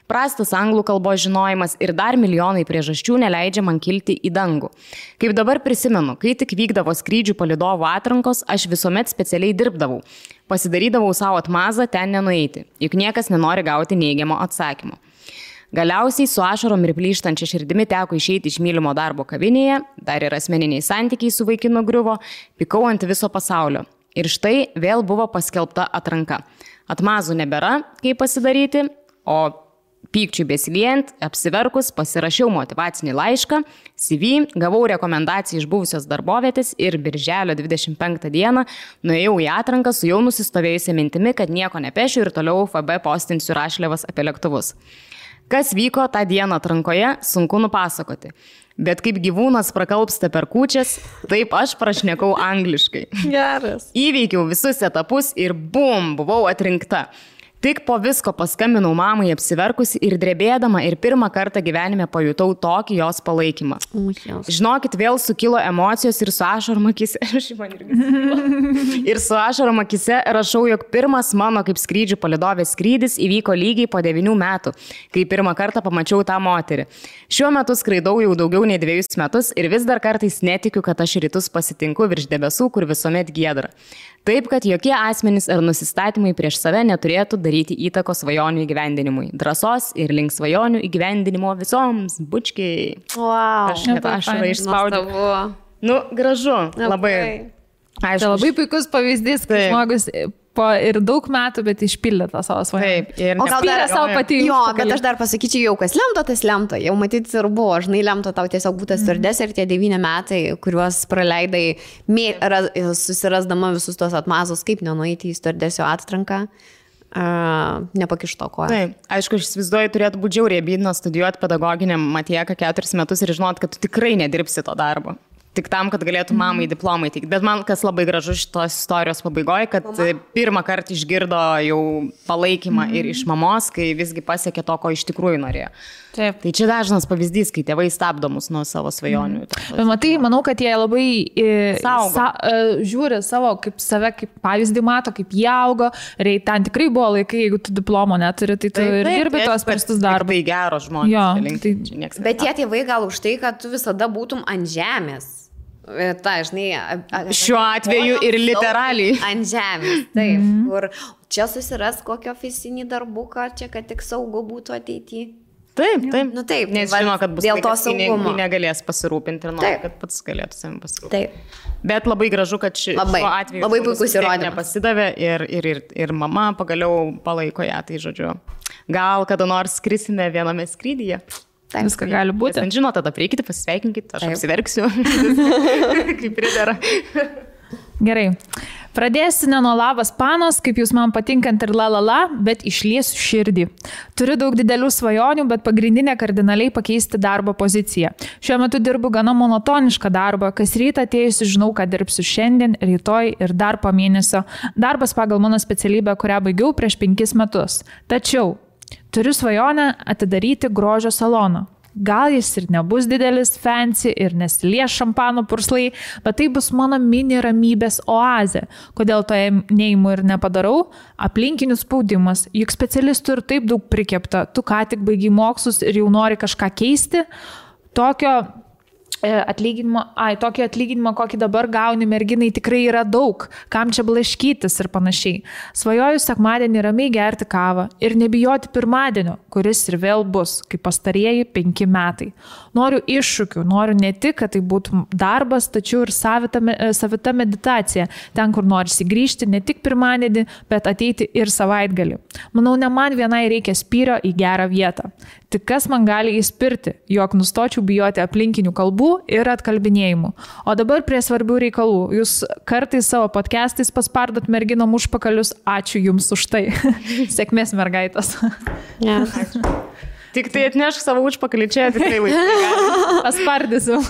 prastas anglų kalbos žinojimas ir dar milijonai priežasčių neleidžia man kilti į dangų. Kaip dabar prisimenu, kai tik vykdavo skrydžių palydovų atrankos, aš visuomet specialiai dirbdavau. Pasidarydavau savo atmazą ten nenueiti, juk niekas nenori gauti neigiamo atsakymo. Galiausiai su ašarom ir plyštančia širdimi teko išeiti iš mylimo darbo kavinėje, dar ir asmeniniai santykiai su vaikinu griuvo, pikau ant viso pasaulio. Ir štai vėl buvo paskelbta atranka. Atmazų nebėra, kaip pasidaryti, o pykčiui besiliejant, apsiverkus, pasirašiau motyvacinį laišką, CV, gavau rekomendaciją iš buvusios darbovietės ir birželio 25 dieną nuėjau į atranką su jau nusistovėjusia mintimi, kad nieko nepešiu ir toliau FB postinsiu rašliavas apie lėktuvus. Kas vyko tą dieną atrankoje, sunku nupasakoti. Bet kaip gyvūnas prakalbsta per kūčias, taip aš prašnekau angliškai. Geras. Įveikiau visus etapus ir bum, buvau atrinkta. Tik po visko paskambinau mamai apsiverkusi ir drebėdama ir pirmą kartą gyvenime pajutau tokį jos palaikymą. Žinokit, vėl sukilo emocijos ir su ašarom akise. Ir su ašarom akise rašau, jog pirmas mano kaip skrydžių palydovės skrydis įvyko lygiai po 9 metų, kai pirmą kartą pamačiau tą moterį. Šiuo metu skraidau jau daugiau nei 2 metus ir vis dar kartais netikiu, kad aš rytus pasitinku virš debesų, kur visuomet giedra. Taip, kad jokie asmenys ar nusistatymai prieš save neturėtų daryti įtakos svajonių įgyvendinimui. Drąsos ir link svajonių įgyvendinimo visoms, bučkiai. Wow. Aš net ašarą išspaudžiu. Nu, gražu. Labai. Tai labai puikus pavyzdys, kai žmogus po ir daug metų, bet išpildė tą savo svajonę. Taip. Ir o gal dar savo pati. Jo, bet aš dar pasakyčiau, jau kas lemta, tas lemta. Jau matyti ir buvo, žinai, lemta tau tiesiog būtas stiuardesė ir tie 9 metai, kuriuos praleidai susirasdama visus tos atmazus, kaip nenueiti į stiuardesio atranką. nepakišto koją. Taip, aišku, aš įsivaizduoju, turėtų būti žiauriai abydna studijuoti pedagoginiam Matieką 4 metus ir žinot, kad tu tikrai nedirbsi to darbo. Tik tam, kad galėtų mamai diplomai teikti. Bet man kas labai gražu šitos istorijos pabaigoje, kad pirmą kartą išgirdo jau palaikymą ir iš mamos, kai visgi pasiekė to, ko iš tikrųjų norėjo. Taip. Tai čia dažnas pavyzdys, kai tėvai stabdo mus nuo savo svajonių. Bet matai, manau, kad jie labai žiūri save kaip pavyzdį mato, kaip jie augo. Ir ten tikrai buvo laikai, jeigu tu diplomo neturi, tai tu ir dirbi tuos prastus darbus. Tai geros žmonės. Bet tie tėvai gal už tai, kad tu visada būtum ant žemės. Ta, žinai, šiuo atveju ir literaliai. Ant žemės, taip. Kur čia susiras kokį ofisinį darbuką, čia kad tik saugu būtų ateityje. Taip. Nu taip, nes žino, kad bus dėl to saugumo. Negalės pasirūpinti ir nori, kad pats galėtų savim pasirūpinti. Taip. Bet labai gražu, kad šiuo atveju labai puikus įrodymas. Nepasidavė ir mama pagaliau palaiko ją, tai žodžiu. Gal kada nors skrisime viename skrydyje. Taip, viską gali būti. Nes žino, tada prieikite, pasveikinkite, aš apsiverksiu, kaip pridera. Gerai. Pradėsiu ne nuo labas panos, kaip jūs man patinkant ir la, bet išliesiu širdį. Turiu daug didelių svajonių, bet pagrindinė kardinaliai pakeisti darbo poziciją. Šiuo metu dirbu gana monotonišką darbą, kas rytą atėjusi žinau, kad dirbsiu šiandien, rytoj ir dar po mėnesio. Darbas pagal mano specialybę, kurią baigiau prieš 5 metus. Tačiau turiu svajonę atidaryti grožio saloną. Gal jis ir nebus didelis, fancy ir nesilies šampano purslai, bet tai bus mano mini ramybės oazė. Kodėl to neimu ir nepadarau? Aplinkinių spaudimas. Juk specialistų ir taip daug prikepta. Tu ką tik baigiai mokslus ir jau nori kažką keisti. Tokio atlyginimo, kokį dabar gauni merginai, tikrai yra daug. Kam čia blaškytis ir panašiai. Svajoju sekmadienį ramiai gerti kavą ir nebijoti pirmadienio, kuris ir vėl bus, kaip pastarieji 5 metai. Noriu iššūkių, noriu ne tik, kad tai būtų darbas, tačiau ir savita meditacija. Ten, kur norisi grįžti ne tik pirmadienį, bet ateiti ir savaitgalį. Manau, ne man vienai reikia spyrio į gerą vietą. Tik kas man gali įspirti, jog nustočiau bijoti aplinkinių kalbų ir atkalbinėjimų. O dabar prie svarbių reikalų. Jūs kartais savo podcastais paspardot merginom užpakalius. Ačiū jums už tai. Sėkmės mergaitas. Yes. Tik tai atnešk savo užpakalį čia, tikrai laikai. Paspardysiu.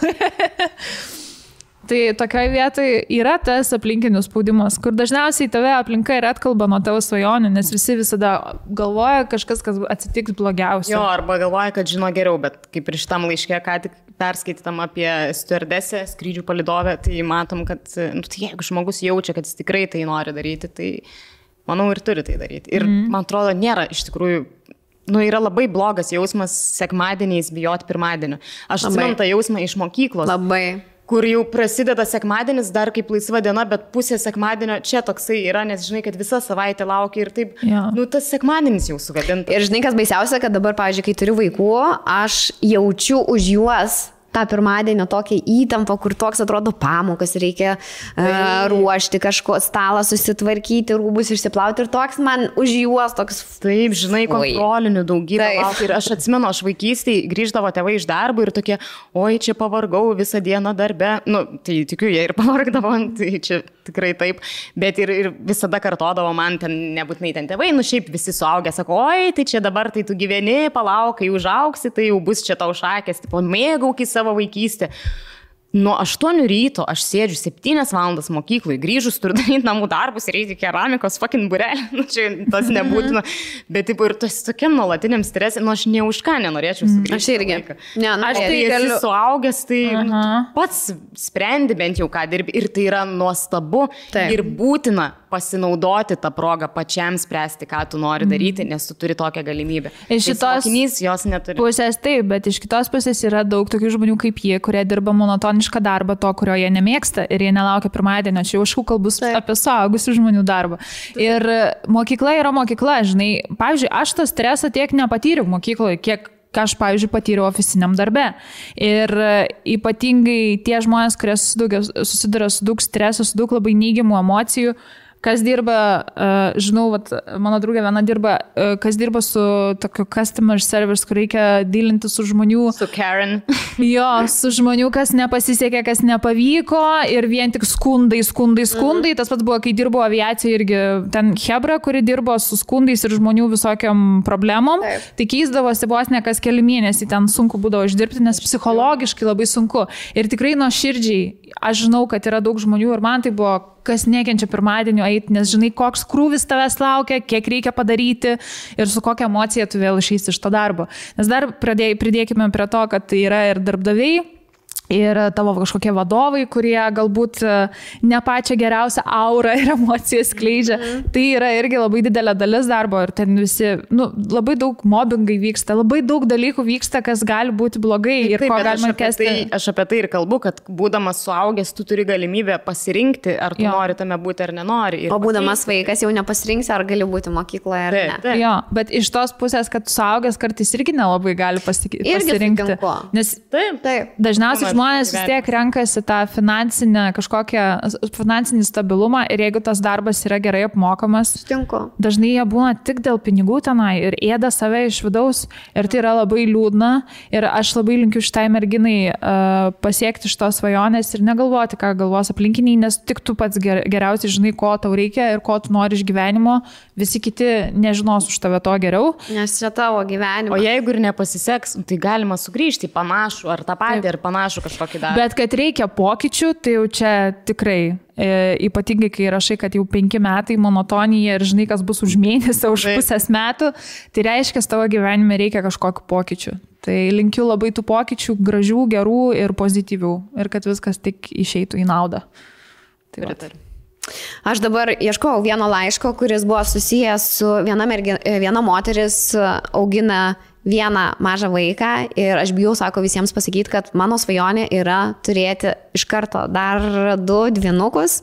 Tai tokioje vietoje yra tas aplinkinių spaudimas, kur dažniausiai tave aplinka ir atkalba nuo tavo svajonių, nes visi visada galvoja kažkas, kas atsitiks blogiausia. Jo, arba galvoja, kad žino geriau, bet kaip ir šitam laiške, ką tik perskaitytam apie stewardesę, skrydžių palydovę, tai matom, kad tai jeigu žmogus jaučia, kad jis tikrai tai nori daryti, tai manau ir turi tai daryti. Ir man atrodo, nėra iš tikrųjų, yra labai blogas jausmas sekmadieniais bijoti pirmadienio. Aš atsimenu tą jausmą iš mokyklos. Labai. Kur jau prasideda sekmadienis, dar kaip laisva diena, bet pusė sekmadienio čia toksai yra, nes žinai, kad visa savaitė laukia ir taip, tas sekmadienis jau sugadintas. Ir žinai, kas baisiausia, kad dabar, pavyzdžiui, kai turiu vaikų, aš jaučiu už juos tą pirmadienio tokią įtampą, kur toks atrodo pamokas, reikia ruošti kažko, stalą susitvarkyti, rūbus išsiplauti ir toks man už juos toks... Taip, žinai, kontrolinių daugybę laukia. Ir aš atsimenu, aš vaikystėje grįždavo tėvai iš darbo ir tokie, oi, čia pavargau visą dieną darbe. Tai tikiu, jie ir pavargdavo, tai čia tikrai taip. Bet ir visada kartodavo man, ten nebūtinai ten tėvai, šiaip visi suaugę, sako, oi, tai čia dabar tai tu gyveni, palauk, kai užaugsi, tai jau bus čia tau šakės, tipo, mėgaukis savo vaikystę. Nuo 8 ryto aš sėdžiu 7 valandas mokyklai, grįžus turiu daryti namų darbus ir eiti keramikos fucking burelį. Čia tas nebūtina. Bet taip, ir tas tokiam nuolatiniam stresė, aš ne už ką nenorėčiau sugrįžti. Aš irgi. Aš tai esi suaugęs, tai pats sprendi bent jau ką dirbi. Ir tai yra nuostabu ir būtina pasinaudoti tą progą pačiam spręsti, ką tu nori daryti, nes tu turi tokią galimybę. Iš šitos jos neturi. Pusės taip, bet iš kitos pusės yra daug tokių žmonių kaip jie, kurie dirba monotonišką darbą, to, kurio jie nemėgsta ir jie nelaukia pirmadienio. Čia jau kalbus apie suaugusių žmonių darbą. Ir mokykla yra mokykla, žinai. Pavyzdžiui, aš tą stresą tiek nepatyriau mokykloje, kiek aš, pavyzdžiui, patyriau oficiniam darbe. Ir ypatingai tie žmonės, kurie susiduria su daug streso, su daug labai neigiamų emocijų, kas dirba, žinau, vat, mano draugė viena dirba, kas dirba su tokiu customer service, kur reikia dylinti su žmonių. Su Karen. Jo, su žmonių, kas nepasisekė, kas nepavyko ir vien tik skundai. Tas pats buvo, kai dirbo aviacija irgi ten Hebra, kuri dirbo su skundais ir žmonių visokiam problemom. Taip. Tai keisdavosi vos ne kas keli mėnesiai, ten sunku būdavo išdirbti, nes psichologiškai labai sunku. Ir tikrai nuo širdžiai, aš žinau, kad yra daug žmonių ir man tai buvo, kas nekenčia pirmadienio eiti, nes žinai, koks krūvis tavęs laukia, kiek reikia padaryti ir su kokia emocija tu vėl išeisi iš to darbo. Nes dar pridėkime prie to, kad tai yra ir darbdaviai, ir tavo kažkokie vadovai, kurie galbūt ne pačią geriausią aurą ir emocijas skleidžia. Tai yra irgi labai didelė dalis darbo ir ten visi, labai daug mobbingai vyksta, labai daug dalykų vyksta, kas gali būti blogai ir ko galima kesti. Aš apie tai ir kalbu, kad būdamas suaugęs, tu turi galimybę pasirinkti, ar tu nori tame būti ar nenori. O būdamas vaikas jau nepasirinksi, ar gali būti mokykloje ar ne. Jo, bet iš tos pusės, kad suaugęs kartais irgi nelabai gali pasirinkti. Nes dažniausiai žmonės vis tiek renkasi tą finansinį stabilumą ir jeigu tas darbas yra gerai apmokamas, dažnai jie būna tik dėl pinigų tenai ir ėda save iš vidaus ir tai yra labai liūdna ir aš labai linkiu šitai merginai pasiekti šitos svajonės ir negalvoti, ką galvos aplinkiniai, nes tik tu pats geriausiai žinai, ko tau reikia ir ko tu nori iš gyvenimo, visi kiti nežinos už tave to geriau. Nes čia tavo gyvenimas. O jeigu ir nepasiseks, tai galima sugrįžti į panašų ar tą patį ar panašų kažkokį darbą. Bet kad reikia pokyčių, tai jau čia tikrai, ypatingai kai rašai, kad jau 5 metai monotonija ir žinai, kas bus už mėnesį, už pusės metų, tai reiškia, tavo gyvenime reikia kažkokių pokyčių. Tai linkiu labai tų pokyčių, gražių, gerų ir pozityvių ir kad viskas tik išeitų į naudą. Tai aš dabar ieškojau vieno laiško, kuris buvo susijęs su viena moteris augina vieną mažą vaiką ir aš bijau, sako, visiems pasakyti, kad mano svajonė yra turėti iš karto dar 2 dvynukus.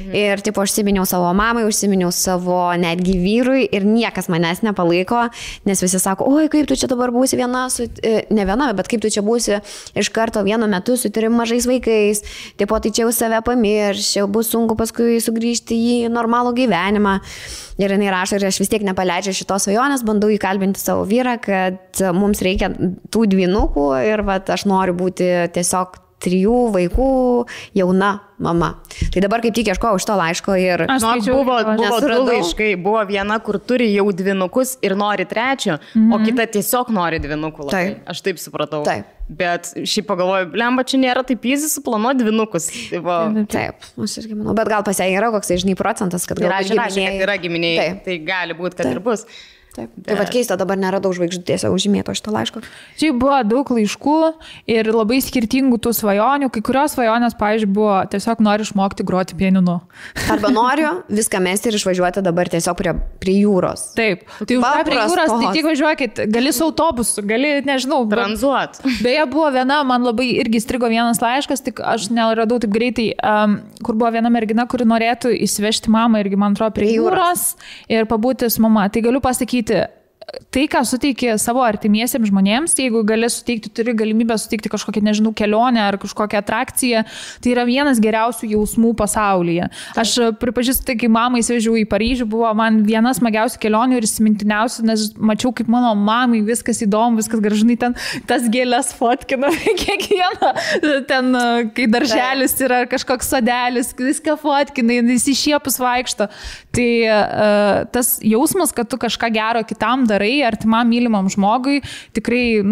Ir tipo, užsiminiau savo mamai, užsiminiau savo netgi vyrui ir niekas manęs nepalaiko, nes visi sako, oi, kaip tu čia dabar būsi viena, ne viena, bet kaip tu čia būsi iš karto vienu metu su 3 mažais vaikais, tipo, tai čia jau save pamirš, bus sunku paskui sugrįžti į normalų gyvenimą. Ir jinai rašo, ir aš vis tiek nepaleidžiu šitos svajonės, bandau įkalbinti savo vyrą, kad mums reikia tų dvynukų ir aš noriu būti tiesiog 3 vaikų jauna mama. Tai dabar kaip tik ieškojau iš to laiško ir... Buvo 2 laiškai, buvo viena, kur turi jau 2 ir nori 3, o kita tiesiog nori 2. Taip. Aš taip supratau. Taip. Bet šiaip pagalvoju, blemba, čia nėra taip easy suplanuoti 2. Taip, aš irgi manau. Bet gal pas ją yra koks, žinai, procentas, kad yra giminiai. Tai gali būti, kad ir bus. Taip. Tai vad keista, dabar neradau žvaigždutėse užžymėto šito laiško. Čia buvo daug laiškų ir labai skirtingų tų svajonių. Kai kurios svajonės, pavyzdžiui, buvo tiesiog noriu išmokti groti pianinu. Arba noriu viską mesti ir išvažiuoti dabar tiesiog prie jūros. Taip. Tai už prie jūros, tai tik važiuokit, gali su autobusu, gali, nežinau, tranzuot. Beje, buvo viena, man labai irgi strigo vienas laiškas, tik aš neradau taip greitai, kur buvo viena mergina, kuri norėtų įsivežti mamą irgi, man atrodo, prie jūros ir pabūti su mama. Tai galiu pasakyti, tai, ką suteiki savo artimiesiems žmonėms, jeigu gali suteikti, turi galimybę suteikti kažkokią, nežinau, kelionę ar kažkokią atrakciją, tai yra vienas geriausių jausmų pasaulyje. Aš pripažįstu, tai kai mamą įsivežiau į Paryžių, buvo man vienas smagiausių kelionių ir įsimintiniausių, nes mačiau, kaip mano mamai viskas įdomu, viskas gražinai ten, tas gėlės fotkina kiekvieną, ten, kai darželis yra kažkoks sodelis, viską fotkina, jis išiepus vaikšto. Tai tas jausmas, kad tu kažką gero kitam darai, artimam mylimam žmogui, tikrai,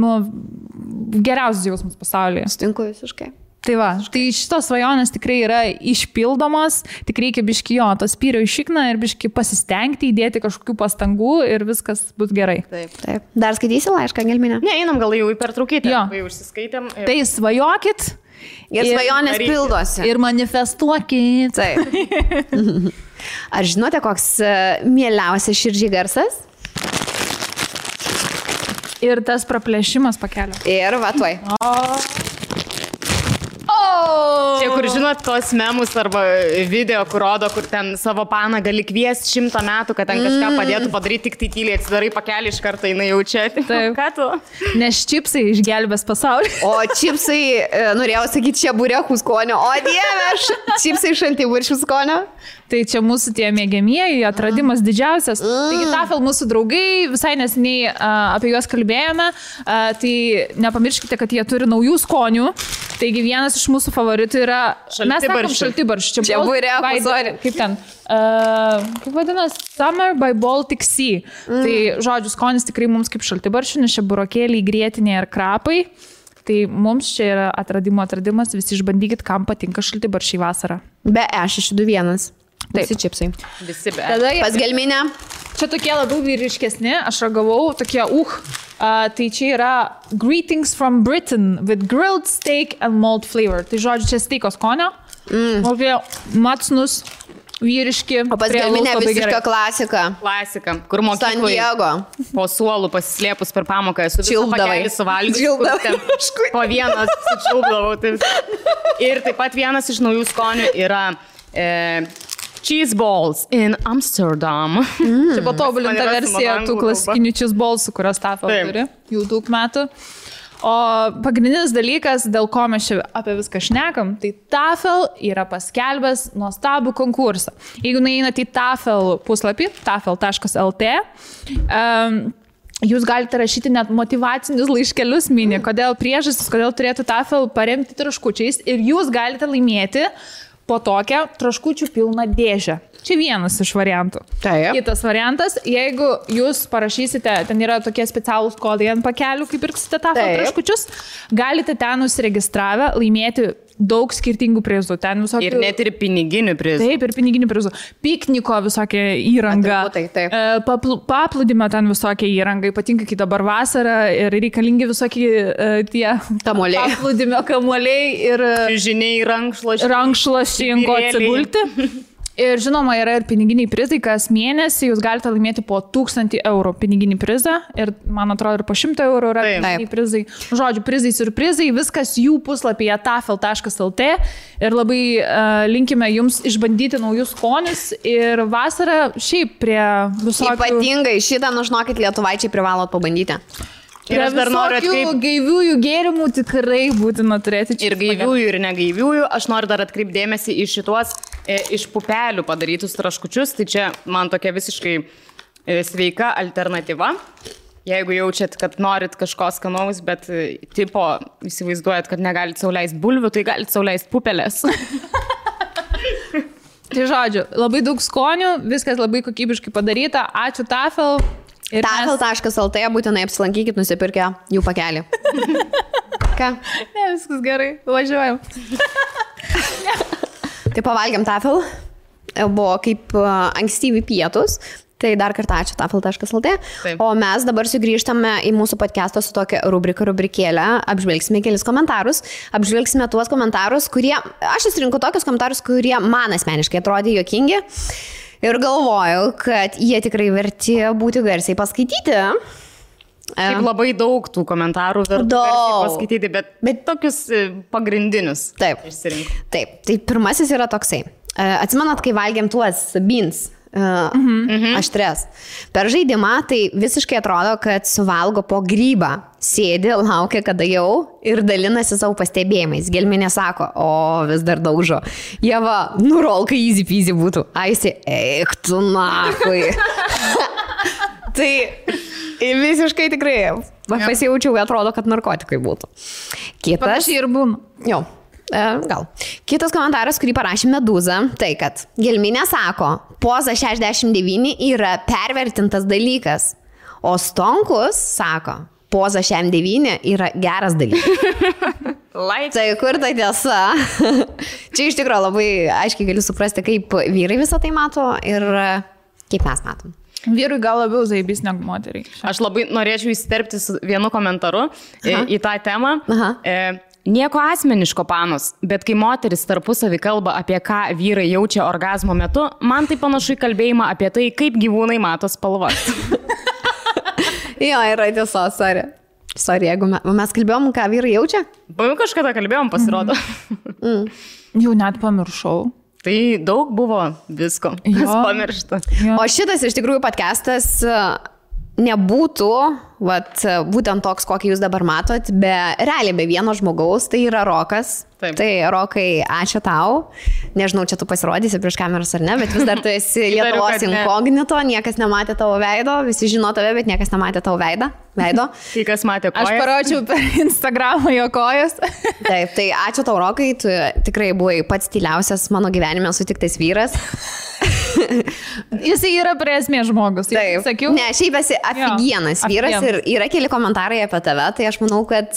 geriausias jausmas pasaulyje. Sutinku visiškai. Tai va, tai šitos svajonės tikrai yra išpildomos, tik reikia biški to spyrio į šikną ir biški pasistengti, įdėti kažkokių pastangų ir viskas bus gerai. Taip. Dar skaitysi laišką, Gelminė? Ne, einam gal jau į pertraukėtę, jau užsiskaitėm. Tai svajokit. Ir svajonės pildosi. Ir manifestuokit. Taip. Ar žinote, koks mieliausias širdžiai garsas? Ir tas praplėšimas pakelio. Ir va tuoj. Čia, kur žinot, tos memus arba video, kur rodo, kur ten savo paną gali kviesti 100 metų, kad ten kažką padėtų padaryti, tik tai tyliai atsidarai pakelį iš karto, jinai jaučia. Taip. Ką tu? Nes čipsai išgelbės pasaulį. O čipsai, norėjau sakyti, čia burėkų skonio. O dieve, čipsai šaltibarščių skonio. Tai čia mūsų tie mėgiamieji, atradimas didžiausias. Taigi Tafel mūsų draugai, visai nesiniai apie juos kalbėjome, tai nepamirškite, kad jie turi naujų skonių. Taigi vienas iš mūsų favoritų yra šaltibarščių. Čia burėkų, sorry. Kaip ten? Kaip vadinasi? Summer by Baltic Sea. Tai žodžiu, skonis tikrai mums kaip šaltibarščių, nes čia burokėliai, grietinė ir krapai. Tai mums čia yra atradimas, visi išbandykit, kam patinka šaltibarščiai vasarą. Be E621. Visi čipsai. Visi be. Tada Pas gelminę. čia tokie labiau vyriškesni, aš ragavau, tokie tai čia yra Greetings from Britain with grilled steak and malt flavor. Tai žodžiu, čia steiko skonio. Tokie matsnus, vyriški. O pas gelminę visiška klasika. Klasika, kur San mokykloje Diego. po suolų pasislėpus per pamoką esu visą Čiulpdavai. pakelį suvalgius. Čiulpdavai. Po vieną sučiulpdavau. Ir taip pat vienas iš naujų skonių yra cheese balls in Amsterdam. Čia patobulinta Man yra versija su tų anglų klasikinių cheese ballsų, kurios Tafel Taip. turi jau daug metų. O pagrindinis dalykas, dėl ko mes čia apie viską šnekam, tai Tafel yra paskelbęs nuostabų konkursą. Jeigu nueinate į Tafel puslapį, tafel.lt, jūs galite rašyti net motyvacinius laiškelius mini, kodėl priežastis, kodėl turėtų Tafel paremti traškučiais ir jūs galite laimėti po tokią traškučių pilną dėžę. Čia vienas iš variantų. Taip. Kitas variantas, jeigu jūs parašysite, ten yra tokie specialūs kodai ant pakelių, kaip pirksite Tafel Taip. traškučius, galite ten užsiregistravę laimėti daug skirtingų prizų. Ten visokių... Ir net ir piniginių prizų. Taip, ir piniginių prizų. Pikniko visokia įranga. Atributai, taip. Paplūdimio ten visokia įranga. Ypatingai, kai dabar vasara ir reikalingi visokie tie Kamuoliai. paplūdimio kamuoliai ir Žiniai rankšluosčiai ant ko atsigulti. Ir žinoma, yra ir piniginiai prizai, kas mėnesį jūs galite laimėti po 1000 eurų piniginį prizą ir, man atrodo, ir po 100 eurų yra piniginiai prizai. Žodžiu, prizai, surprizai, viskas jų puslapyje tafel.lt ir labai linkime jums išbandyti naujus skonius ir vasarą šiaip prie visokių... Ypatingai šitą, nužinokit, lietuvaičiai privalot pabandyti. Ir aš dar noriu atkreipti. Gaiviųjų gėrimų tikrai būtina turėti čia. Ir gaiviųjų, ir negaiviųjų. Aš noriu dar atkreipti dėmesį į šituos iš pupelių padarytus traškučius. Tai čia man tokia visiškai sveika alternatyva. Jeigu jaučiat, kad norit kažko skanaus, bet tipo įsivaizduojat, kad negalit sau leisti bulvių, tai galit sau leisti pupelės. Tai žodžiu, labai daug skonių, viskas labai kokybiškai padaryta. Ačiū Tafel. Tafel.lt būtinai apsilankykit, nusipirkę jų pakelį. Ką? Ne, viskas gerai, važiuojam. Tai pavalgiam Tafel. Buvo kaip ankstyvi pietus. Tai dar kartą ačiū tafel.lt. O mes dabar sugrįžtame į mūsų podcastą su tokia rubrikėlė. Apžvelgsime kelis komentarus. Apžvelgsime tuos komentarus, kurie... Aš įsirinku tokius komentarus, kurie man asmeniškai atrodė juokingi. Ir galvojau, kad jie tikrai verti būti garsiai paskaityti. Šiaip labai daug tų komentarų verti paskaityti, bet tokius pagrindinius. Taip. Išsirinku. Taip. Tai pirmasis yra toksai. Atsimenat, kai valgėm tuos beans aštres. Per žaidimą tai visiškai atrodo, kad suvalgo po grybą. Sėdi, laukia, kada jau ir dalinasi savo pastebėjimais. Gelminė sako, o vis dar daužo. Jeva, nurolka easy peasy būtų. Aisi, eik tu nakui. Tai visiškai tikrai pasijaučiau, atrodo, kad narkotikai būtų. Kitas. Panašiai ir būna. Jo. Gal. Kitas komentaras, kurį parašė Medūza, tai kad Gelminė sako, poza 69 yra pervertintas dalykas, o Stonkus sako, poza 69 yra geras dalykas. Tai kur ta tiesa? Čia iš tikrųjų labai aiškiai galiu suprasti, kaip vyrai visą tai mato ir kaip mes matom. Vyrui gal labiau zaibys negu moteriai. Aš labai norėčiau įsiterpti su vienu komentaru į tą temą. Nieko asmeniško, panos, bet kai moteris tarpusavį kalba apie ką vyrai jaučia orgazmo metu, man tai panašu į kalbėjimą apie tai, kaip gyvūnai mato spalvas. Jo, yra tiesos, sorry. Sorry, jeigu mes kalbėjom, ką vyrai jaučia? Kažkada kalbėjom, pasirodo. Jau net pamiršau. Tai daug buvo visko, kas pamiršta. O šitas iš tikrųjų podcastas nebūtų, būtent toks, kokį jūs dabar matot, realiai be vieno žmogaus, tai yra Rokas. Taip. Tai Rokai, ačiū tau. Nežinau, čia tu pasirodysi prieš kameras ar ne, bet vis dar tu esi Lietuvos inkognito, niekas nematė tavo veido, visi žino tave, bet niekas nematė tavo veido. Tai kas matė kojas? Aš parodžiau per Instagramą jo kojas. Taip, tai ačiū tau, Rokai, tu tikrai buvai pats tyliausias mano gyvenime sutiktas vyras. Jis yra prie esmės žmogus. Taip, sakiau. Ne, šiaip esi afigienas vyras ir yra keli komentarai apie tave, tai aš manau, kad,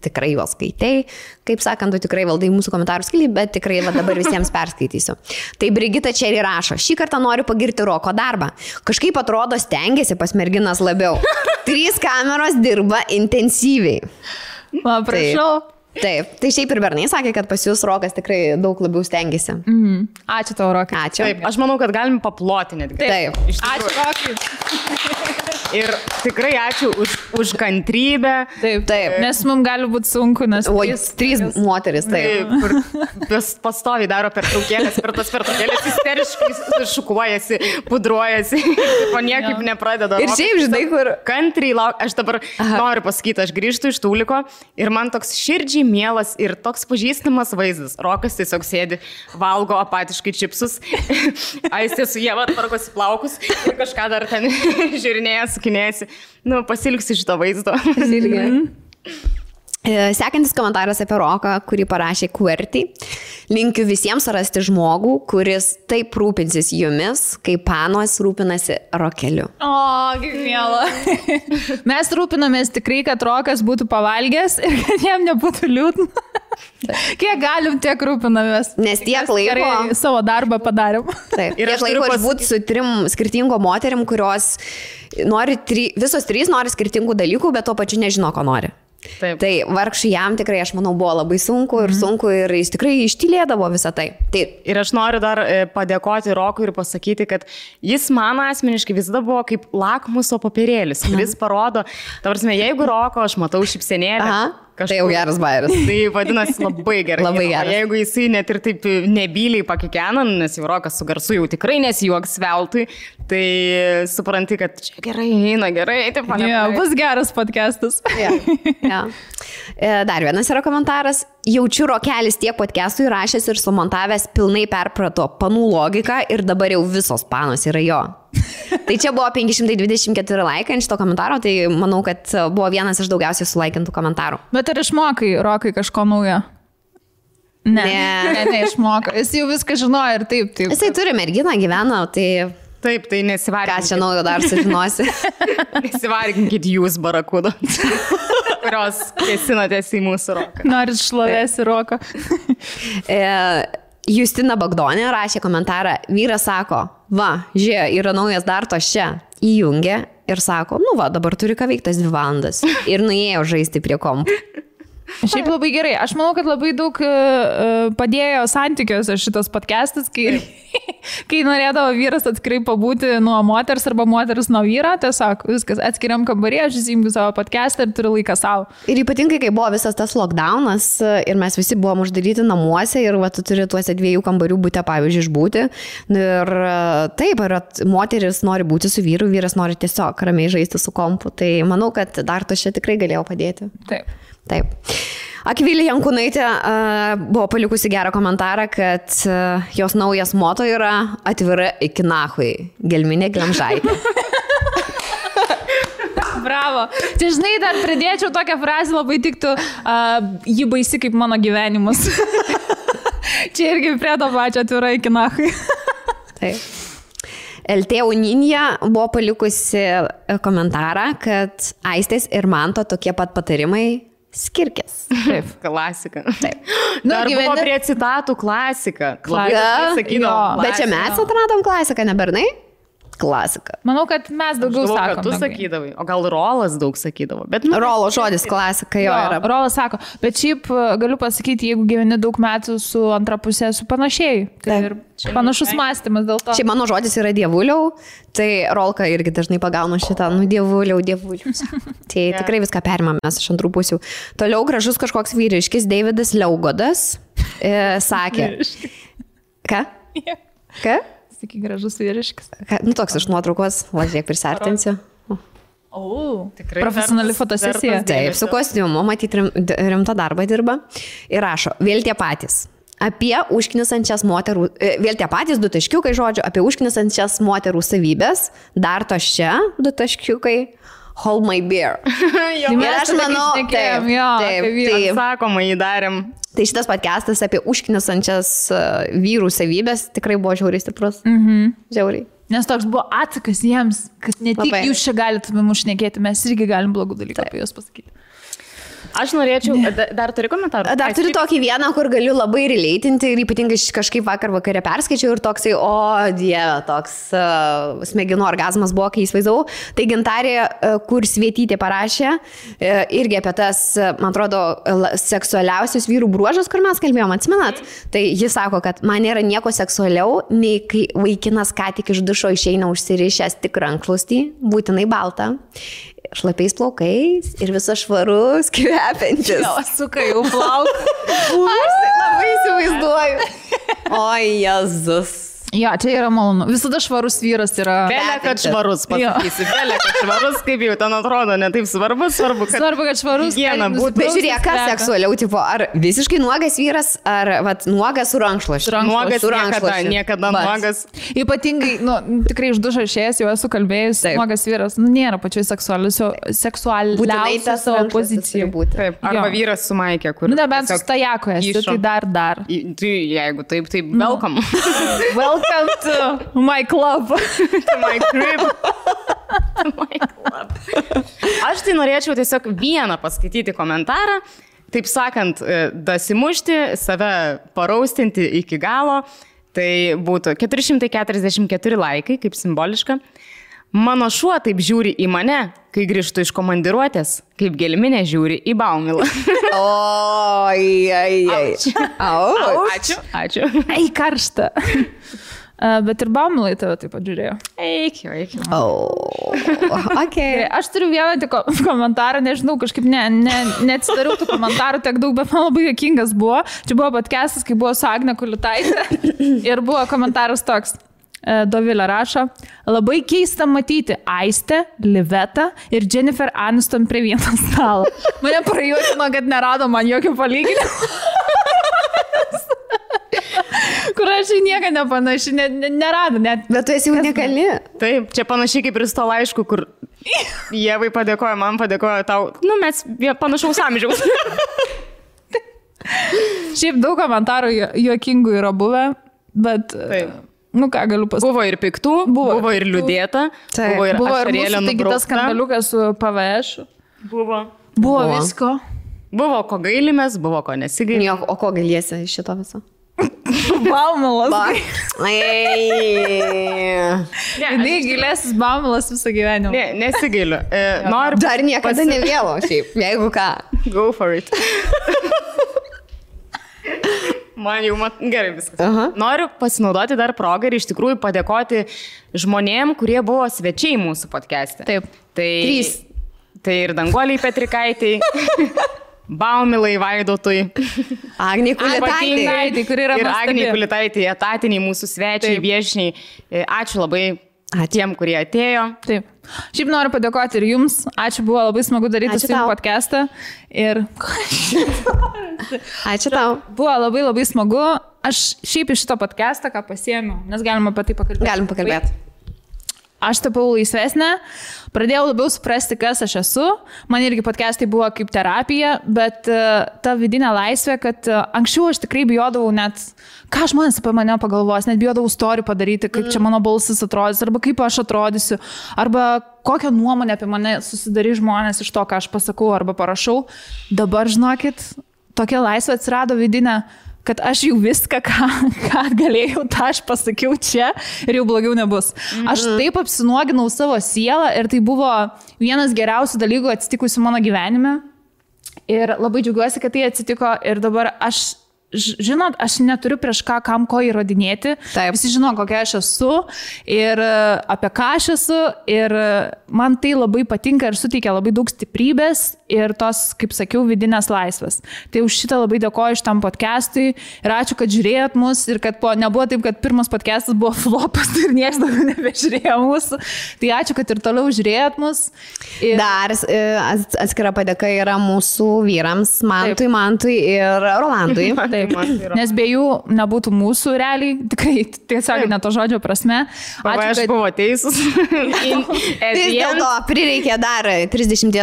tikrai juos skaitei. Kaip sakant, tu tikrai valdai mūsų komentarų skilį, bet tikrai dabar visiems perskaitysiu. Tai Brigita čia ir rašo, šį kartą noriu pagirti Roko darbą. Kažkaip atrodo stengiasi pas merginas labiau. 3 kameros dirba intensyviai. Prašau. Taip, tai šiaip ir bernai sakė, kad pas jūs Rokas tikrai daug labiau stengiasi. Ačiū tau, Rokai. Ačiū. Taip, aš manau, kad galim paploti netgi. Taip. Ačiū, Rokai. Ir tikrai ačiū už kantrybę. Taip. Nes mums gali būti sunku, nes... O, 3 moteris, taip. Kur pastoviai daro pertraukėlės, per tas pertraukėlės isteriškai šukuojasi, pudruojasi, o niekaip nepradeda. Ir šiaip, žinai, kur... Kantriai lauk, aš dabar noriu pasakyti, aš grįžtu iš Tūliko ir man toks širdžiai mielas ir toks pažįstamas vaizdas. Rokas tiesiog sėdi, valgo apatiškai čipsus, Aistė su Ieva tvarkosi plaukus ir kažką dar ten žiūrinėja, sukinėjasi. Pasilgsiu šito vaizdo. Sekantis komentaras apie Roką, kurį parašė QWERTY. Linkiu visiems rasti žmogų, kuris taip rūpinsis jumis, kaip panos rūpinasi Rokeliu. O, kaip miela. Mes rūpinamės tikrai, kad Rokas būtų pavalgęs ir kad jam nebūtų liūdna. Kiek galim, tiek rūpinamės. Nes tiek laiko... Gerai savo darbą padarėm. Taip. Ir tiek laiko išbūti su 3 skirtingom moterim, kurios nori, visos 3 nori skirtingų dalykų, bet tuo pačiu nežino, ko nori. Taip. Tai vargšui jam tikrai, aš manau, buvo labai sunku ir jis tikrai ištylėdavo visą tai. Ir aš noriu dar padėkoti Rokui ir pasakyti, kad jis man asmeniškai visada buvo kaip lakmuso popierėlis, kuris parodo, jeigu Roko aš matau šypsenėlę. Tai jau geras bairis. Tai vadinasi labai gerai. Labai geras. Jeigu jisai net ir taip nebyliai pakikena, nes jau Rokas su garsu jau tikrai nesijuoks veltui, tai supranti, kad čia gerai, eina gerai. Bus geras podcastas. Dar vienas yra komentaras. Jaučiu, Rokelis tiek podcastų įrašęs ir sumontavęs pilnai perprato panų logiką ir dabar jau visos panos yra jo. Tai čia buvo 524 laikai ant šito komentaro, tai manau, kad buvo vienas iš daugiausiai sulaikintų komentarų. Bet ar išmokai, Rokai, kažko naujo? Ne, išmoko. Jis jau viską žinojo ir taip. Jisai turi merginą, gyvena, tai... Taip, tai nesivarginkit. Ką čia naujo dar sužinosi? Nesivarginkit jūs, barakudo, kurios kėsinatės į mūsų Roką. Norit šlovės į Roką. Justina Bagdonė rašė komentarą, vyras sako, žiūrė, yra naujas dartos čia, įjungė ir sako, dabar turi ką veiktas 2 valandas ir nuėjo žaisti prie kompų. Šiaip labai gerai. Aš manau, kad labai daug padėjo santykiuose šitas podcastas, kai norėdavo vyras atskirai pabūti nuo moters arba moteris nuo vyro, tiesiog viskas atskiriam kambarį, aš įsijungiu savo podcastą ir turiu laiką savo. Ir ypatingai, kai buvo visas tas lockdownas ir mes visi buvom uždaryti namuose ir tu turi tuose 2 kambarių būti, pavyzdžiui, išbūti. Ir taip, moteris nori būti su vyru, vyras nori tiesiog ramiai žaisti su kompu. Tai manau, kad dar to čia tikrai galėjo padėti. Taip. Akvilė Jankūnaitė buvo palikusi gerą komentarą, kad jos naujas moto yra atvira iki nahui, gelminė glemžaitė. Bravo. Čia, žinai, dar pridėčiau tokią frazę, labai tiktų, ji baisi kaip mano gyvenimas. Čia irgi prie to pačio atvira iki nahui. Taip. LT Uninja buvo palikusi komentarą, kad Aistės ir Manto tokie pat patarimai skirkės. Taip, klasika. Taip. Dar buvo prie citatų klasika. Bet čia mes atradom klasiką, ne bernai? Klasika. Manau, kad mes daugiau sakom. Tu sakydavai, o gal Rolas daug sakydavo. Bet, Rolo žodis klasika jo yra. Rolas sako, bet šiaip galiu pasakyti, jeigu gyveni daug metų su antra pusė, su panašiai. Tai ir panašus mąstymas dėl to. Šiaip mano žodis yra dievuliau, tai Rolka irgi dažnai pagauna šitą, dievuliau. Tai tikrai viską perimame mes iš antrų pusių. Toliau gražus kažkoks vyriškis, Davidas Liaugodas, sakė. Ką? Ką? Sakai, gražus vyriškis. Toks iš nuotraukos, važiuok prisartinsiu. Tikrai profesionali fotosesija. Taip, su kostiumu, matyti rimtą darbą dirba. Ir rašo, vėl tie patys. Apie užknisančias moterų, vėl tie patys 2 taškiukai žodžiu, apie užknisančias moterų savybės, dar tos čia 2 taškiukai, hold my beer. Ir aš manau, taip, sakoma, jį darėm. Tai šitas podcastas apie užknisančias vyrų savybės tikrai buvo žiauriai stiprus. Žiauriai. Nes toks buvo atsakas jiems, kad ne tik jūs čia galite mums šnekėti, mes irgi galim blogų dalykų apie jūs pasakyti. Aš norėčiau, dar turi komentarų? Dar turiu tokį vieną, kur galiu labai releitinti ir ypatingai kažkaip vakare perskaičiau ir toksai, dieve, toks smegenų orgazmas buvo, kai įsivaizdavau. Tai Gintarė Kursvietytė parašė irgi apie tas, man atrodo, seksualiausius vyrų bruožus, kur mes kalbėjom, atsimenat? Tai jis sako, kad man nėra nieko seksualiau, nei kai vaikinas ką tik iš dušo išeina užsirišęs tik rankšluostį, būtinai baltą. Šlapiais plaukais ir visas švarus, kvepiantis. Jo, suka jau plauką. Aš tai labai įsivaizduoju. O, Jėzus. Jo, čia yra malonu. Visada švarus vyras yra... Belė, kad švarus, pasakysi. Belė, kad švarus, kaip jau ten atrodo, ne taip svarbu, kad švarus higiena būtų. Bet žiūrėk, kas seksualiau, tipo, ar visiškai nuogas vyras, ar nuogas su rankšluošiu. Nuogas niekada nuogas. Ypatingai, tikrai iš dušo išėjęs, jau esu kalbėjus, nuogas vyras, nėra pačioj seksualiausia savo pozicijų. Taip, arba vyras su maikė, kur... Nebent su stajako esi, tai dar. Jeigu taip, welcome. Welcome to my club. To my crib. To my club. Aš tai norėčiau tiesiog vieną paskaityti komentarą, taip sakant, dasimušti, save paraustinti iki galo. Tai būtų 444 laikai, kaip simboliška. Mano šuo taip žiūri į mane, kai grįžtu iš komandiruotės, kaip gelminė žiūri į Baumilą. Ačiū. Ei, karšta. Bet ir Baumilai tave taip pat žiūrėjo. Eik. Okay. Aš turiu vieną tik komentarą, nežinau, kažkaip neatsidariau tų komentarų tiek daug, bet man labai juokingas buvo. Čia buvo podcastas, kai buvo su Agne Kulitaitė ir buvo komentaras toks. Dovilė rašo, labai keista matyti Aistę, Livetą ir Jennifer Aniston prie vieno stalo. Mane prajuokino, kad nerado man jokio palyginimo. Kur aš į nieką nepanaši, nerado net. Bet tu esi unikali. Taip, čia panašiai kaip ir su to laišku, kur Ievai padėkojo, man padėkojo tau. Mes panašaus amžiaus. Šiaip daug komentarų juokingų yra buvę, bet... Taip. Ką galiu pasakyti? Buvo ir piktų, buvo ir liūdėta, buvo ir ašarėlė nubraukta. Buvo tas skandaliukas su PVŠ. Buvo visko. Buvo ko gailimės, buvo ko nesigailimės. O ko gailiesi iš šito viso? Baumilas. Ne, gailėsis Baumilas visą gyvenimą. Ne, nesigailiu. Dar niekada nevėlo, šiaip, jeigu ką. Go for it. Man jau gerai viskas. Noriu pasinaudoti dar progą ir iš tikrųjų padėkoti žmonėm, kurie buvo svečiai mūsų podcast'e. Taip. Tai ir Danguoliai Petrikaitai, Baumilai Vaidotui, Agnei Kulitaitei, kur yra ir Agnei Kulitaitei, etatiniai mūsų svečiai, viešniai. Ačiū labai tiem, kurie atėjo. Taip. Šiaip noriu padėkoti ir jums. Ačiū, buvo labai smagu daryti su jums podcastą. Ir... Ačiū tau. Buvo labai labai smagu. Aš šiaip iš šito podcastą ką pasiėmiau, nes galima apie tai pakalbėti. Galim pakalbėti. Aš tapau laisvesnė, pradėjau labiau suprasti, kas aš esu. Man irgi podcastai buvo kaip terapija, bet ta vidinė laisvė, kad anksčiau aš tikrai bijodavau net, ką žmonės apie mane pagalvos, net bijodavau story padaryti, kaip čia mano balsas atrodys, arba kaip aš atrodysiu, arba kokią nuomonę apie mane susidarys žmonės iš to, ką aš pasakau arba parašau. Dabar, žinokit, tokia laisvė atsirado vidinė, kad aš jau viską, ką galėjau, tą aš pasakiau čia ir jau blogiau nebus. Aš taip apsinuoginau savo sielą ir tai buvo vienas geriausių dalykų atsitikusių mano gyvenime. Ir labai džiaugiuosi, kad tai atsitiko ir dabar žinot, aš neturiu prieš kam ko įrodinėti. Taip. Visi žino, kokia aš esu ir apie ką aš esu ir man tai labai patinka ir suteikia labai daug stiprybės ir tos, kaip sakiau, vidinės laisvės. Tai už šitą labai dėkoju šitam podcastui ir ačiū, kad žiūrėjot mus ir kad nebuvo taip, kad pirmas podcastas buvo flopas ir niekas daugiau nebežiūrėjo mūsų. Tai ačiū, kad ir toliau žiūrėjot mus. Ir... Dar atskira padėka yra mūsų vyrams, Mantui ir Rolandui. Taip, nes be jų nebūtų mūsų realiai, tikrai tiesiog ne to žodžio prasme. Ačiū, aš buvau teisus. Vis dėlto prireikė dar 30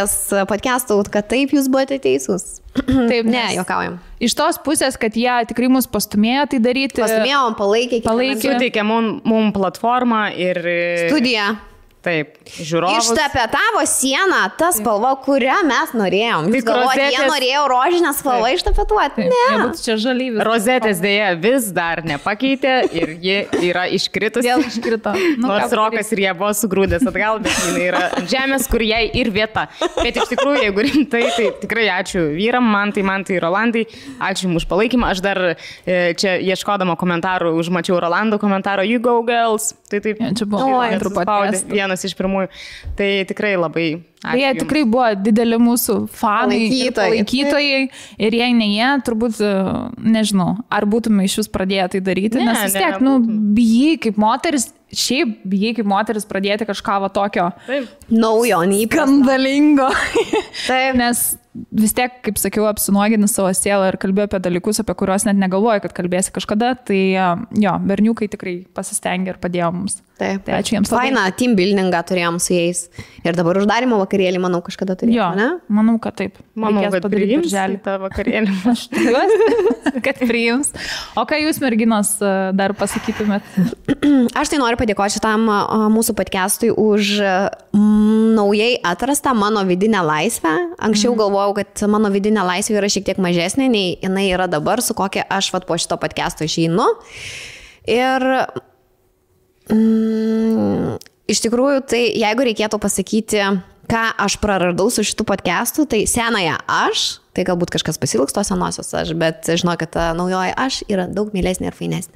podcastų, kad taip jūs buvote teisus. Taip, ne, juokaujam. Iš tos pusės, kad jie tikrai mus pastumėjo tai daryti. Pastumėjom, palaikė. Suteikė mum platformą ir... Studiją. Taip, žiūrovus. Ištapetavo sieną, ta spalva, kurią mes norėjom. Jūs galvojate, jie norėjo rožinę spalvą ištapetuoti? Ne. Nebūtų čia žalyvis. Rozetės dėja vis dar nepakeitė ir ji yra iškritusi. Vėl iškrito. Nors Rokas ir jie buvo sugrūdęs atgal, bet jinai yra žemės, kur jai ir vieta. Bet iš tikrųjų, jeigu rimtai, tai tikrai ačiū vyram, Mantai ir Rolandai. Ačiū jums už palaikymą. Aš dar čia ieškodama komentarų, užmačiau Rolando komentarą You go girls. Tai taip. Ja, čia buvo vienas iš pirmųjų. Tai tikrai labai ačiū. Jie tikrai buvo dideli mūsų fanai, palaikytojai ir jei ne jie, turbūt, nežinau, ar būtume iš vis pradėję tai daryti, nes vis tiek, bijai kaip moteris, pradėti kažką va tokio naujo, skandalingo. Taip. Nes vis tiek, kaip sakiau, apsinuogini savo sielą ir kalbėjau apie dalykus, apie kuriuos net negalvoju, kad kalbėsi kažkada, tai jo, berniukai tikrai pasistengė ir padėjo mums. Taip. Tai ačiū jiems. Fainą team buildingą turėjom su jais. Ir dabar uždarimo vakarėlį, manau, kažkada turėjome, ne? Manau, kad taip. Manau, kad priims tą vakarėlį. Aš tikiuosi, kad priims. O ką jūs, merginos, dar pasakytumėt? Aš tai noriu padėkoti šitam mūsų podcastui už naujai atrastą mano vidinę laisvę. Anksčiau galvojau, kad mano vidinė laisvė yra šiek tiek mažesnė, nei jinai yra dabar, su kokia aš po šito podcasto išeinu. Ir iš tikrųjų, tai jeigu reikėtų pasakyti, ką aš praradau su šitų podcastų, tai senąją aš, tai galbūt kažkas pasilgs tos senosios aš, bet žinau, kad ta naujoji aš yra daug mielesnė ir fainesnė.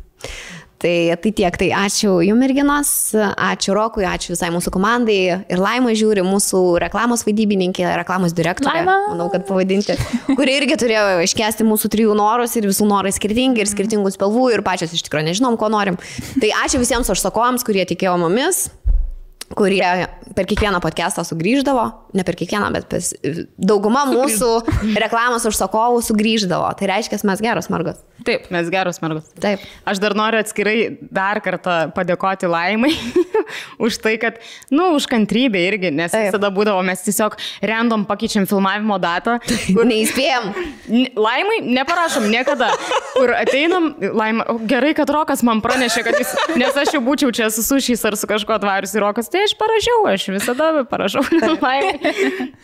Tai tiek, tai ačiū jums merginos, ačiū Rokui, ačiū visai mūsų komandai ir Laima žiūri, mūsų reklamos vaidybininkė, reklamos direktorė, manau, kad pavadinti, kuri irgi turėjo iškesti mūsų 3 norus ir visų norai skirtingi ir skirtingų spalvų ir pačios iš tikrųjų nežinom, ko norim. Tai ačiū visiems užsakovams, kurie tikėjo mumis, kurie per kiekvieną podcastą sugrįždavo, ne per kiekvieną, bet dauguma mūsų reklamos užsakovų sugrįždavo. Tai reiškia, mes geros mergos. Taip, mes geros mergos. Taip. Aš dar noriu atskirai dar kartą padėkoti Laimai už tai, kad, už kantrybę irgi, nes visada būdavo, mes tiesiog random pakeičiam filmavimo datą. Kur neįspėjom. Laimai neparašom niekada, kur ateinam, Laima, gerai, kad Rokas man pranešė, kad jis, nes aš jau būčiau čia su sušiais ar su kažko atvarius į Rokas, tai aš parašiau, aš visada parašau Laimai.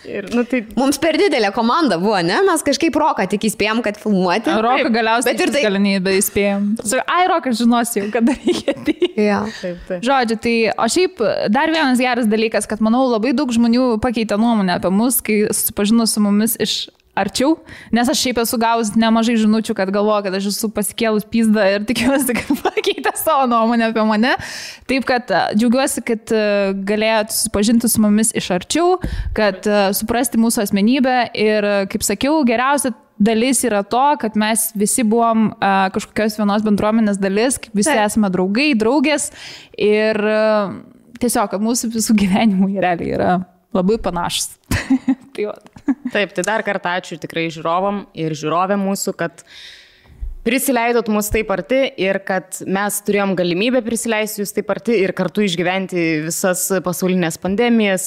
Ir, tai... Mums per didelė komanda buvo, ne? Mes kažkaip Roką tik įspėjom, kad filmuoti. Roką galiausiai tai... galimybę įspėjom. Rokas žinosi jau, kada reikia tai. Ja. Taip. Žodžiu, tai o šiaip dar vienas geras dalykas, kad manau labai daug žmonių pakeitė nuomonę apie mus, kai susipažino su mumis iš arčiau, nes aš šiaip esu gavus nemažai žinučių, kad galvoju, kad aš esu pasikėlus pizdą ir tikiuosi, kad pakeitė savo nuomonę apie mane. Taip, kad džiaugiuosi, kad galėjot susipažinti su mumis iš arčiau, kad suprasti mūsų asmenybę ir, kaip sakiau, geriausia dalis yra to, kad mes visi buvom kažkokios vienos bendruomenės dalis, kaip visi esame draugai, draugės ir tiesiog, kad mūsų visų gyvenimų realiai yra labai panašus. Taip, tai dar kartą ačiū tikrai žiūrovam ir žiūrovėm mūsų, kad prisileidot mus taip arti ir kad mes turėjom galimybę prisileisti jūs taip arti ir kartu išgyventi visas pasaulinės pandemijas,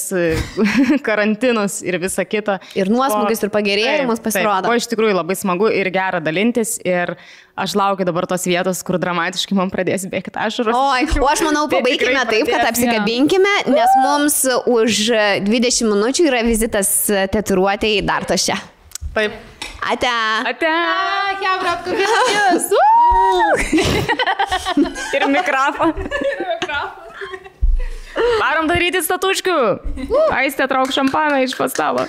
karantinus ir visą kitą. Ir nuosmugius ir pagerėjimus pasirodo. O iš tikrųjų labai smagu ir gera dalintis ir aš laukiu dabar tos vietos, kur dramatiškai man pradės bėgti ašaros. O aš manau, pabaikime taip, kad apsikabinkime, nes mums už 20 minučių yra vizitas tatuiruotei Dartoše. Taip. Ate. Ate. Hebra, apkabinamės. Ir mikrofą. Varom daryti statuškių. Aistė, trauk šampaną iš pastalo.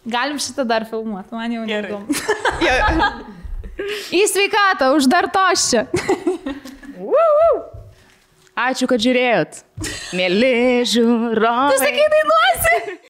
Galim šitą dar filmuoti, man jau neįdomu. Į sveikatą, uždartos čia. Ačiū, kad žiūrėjot. Mėly žiūrovai. Tu sakai, dainuosi.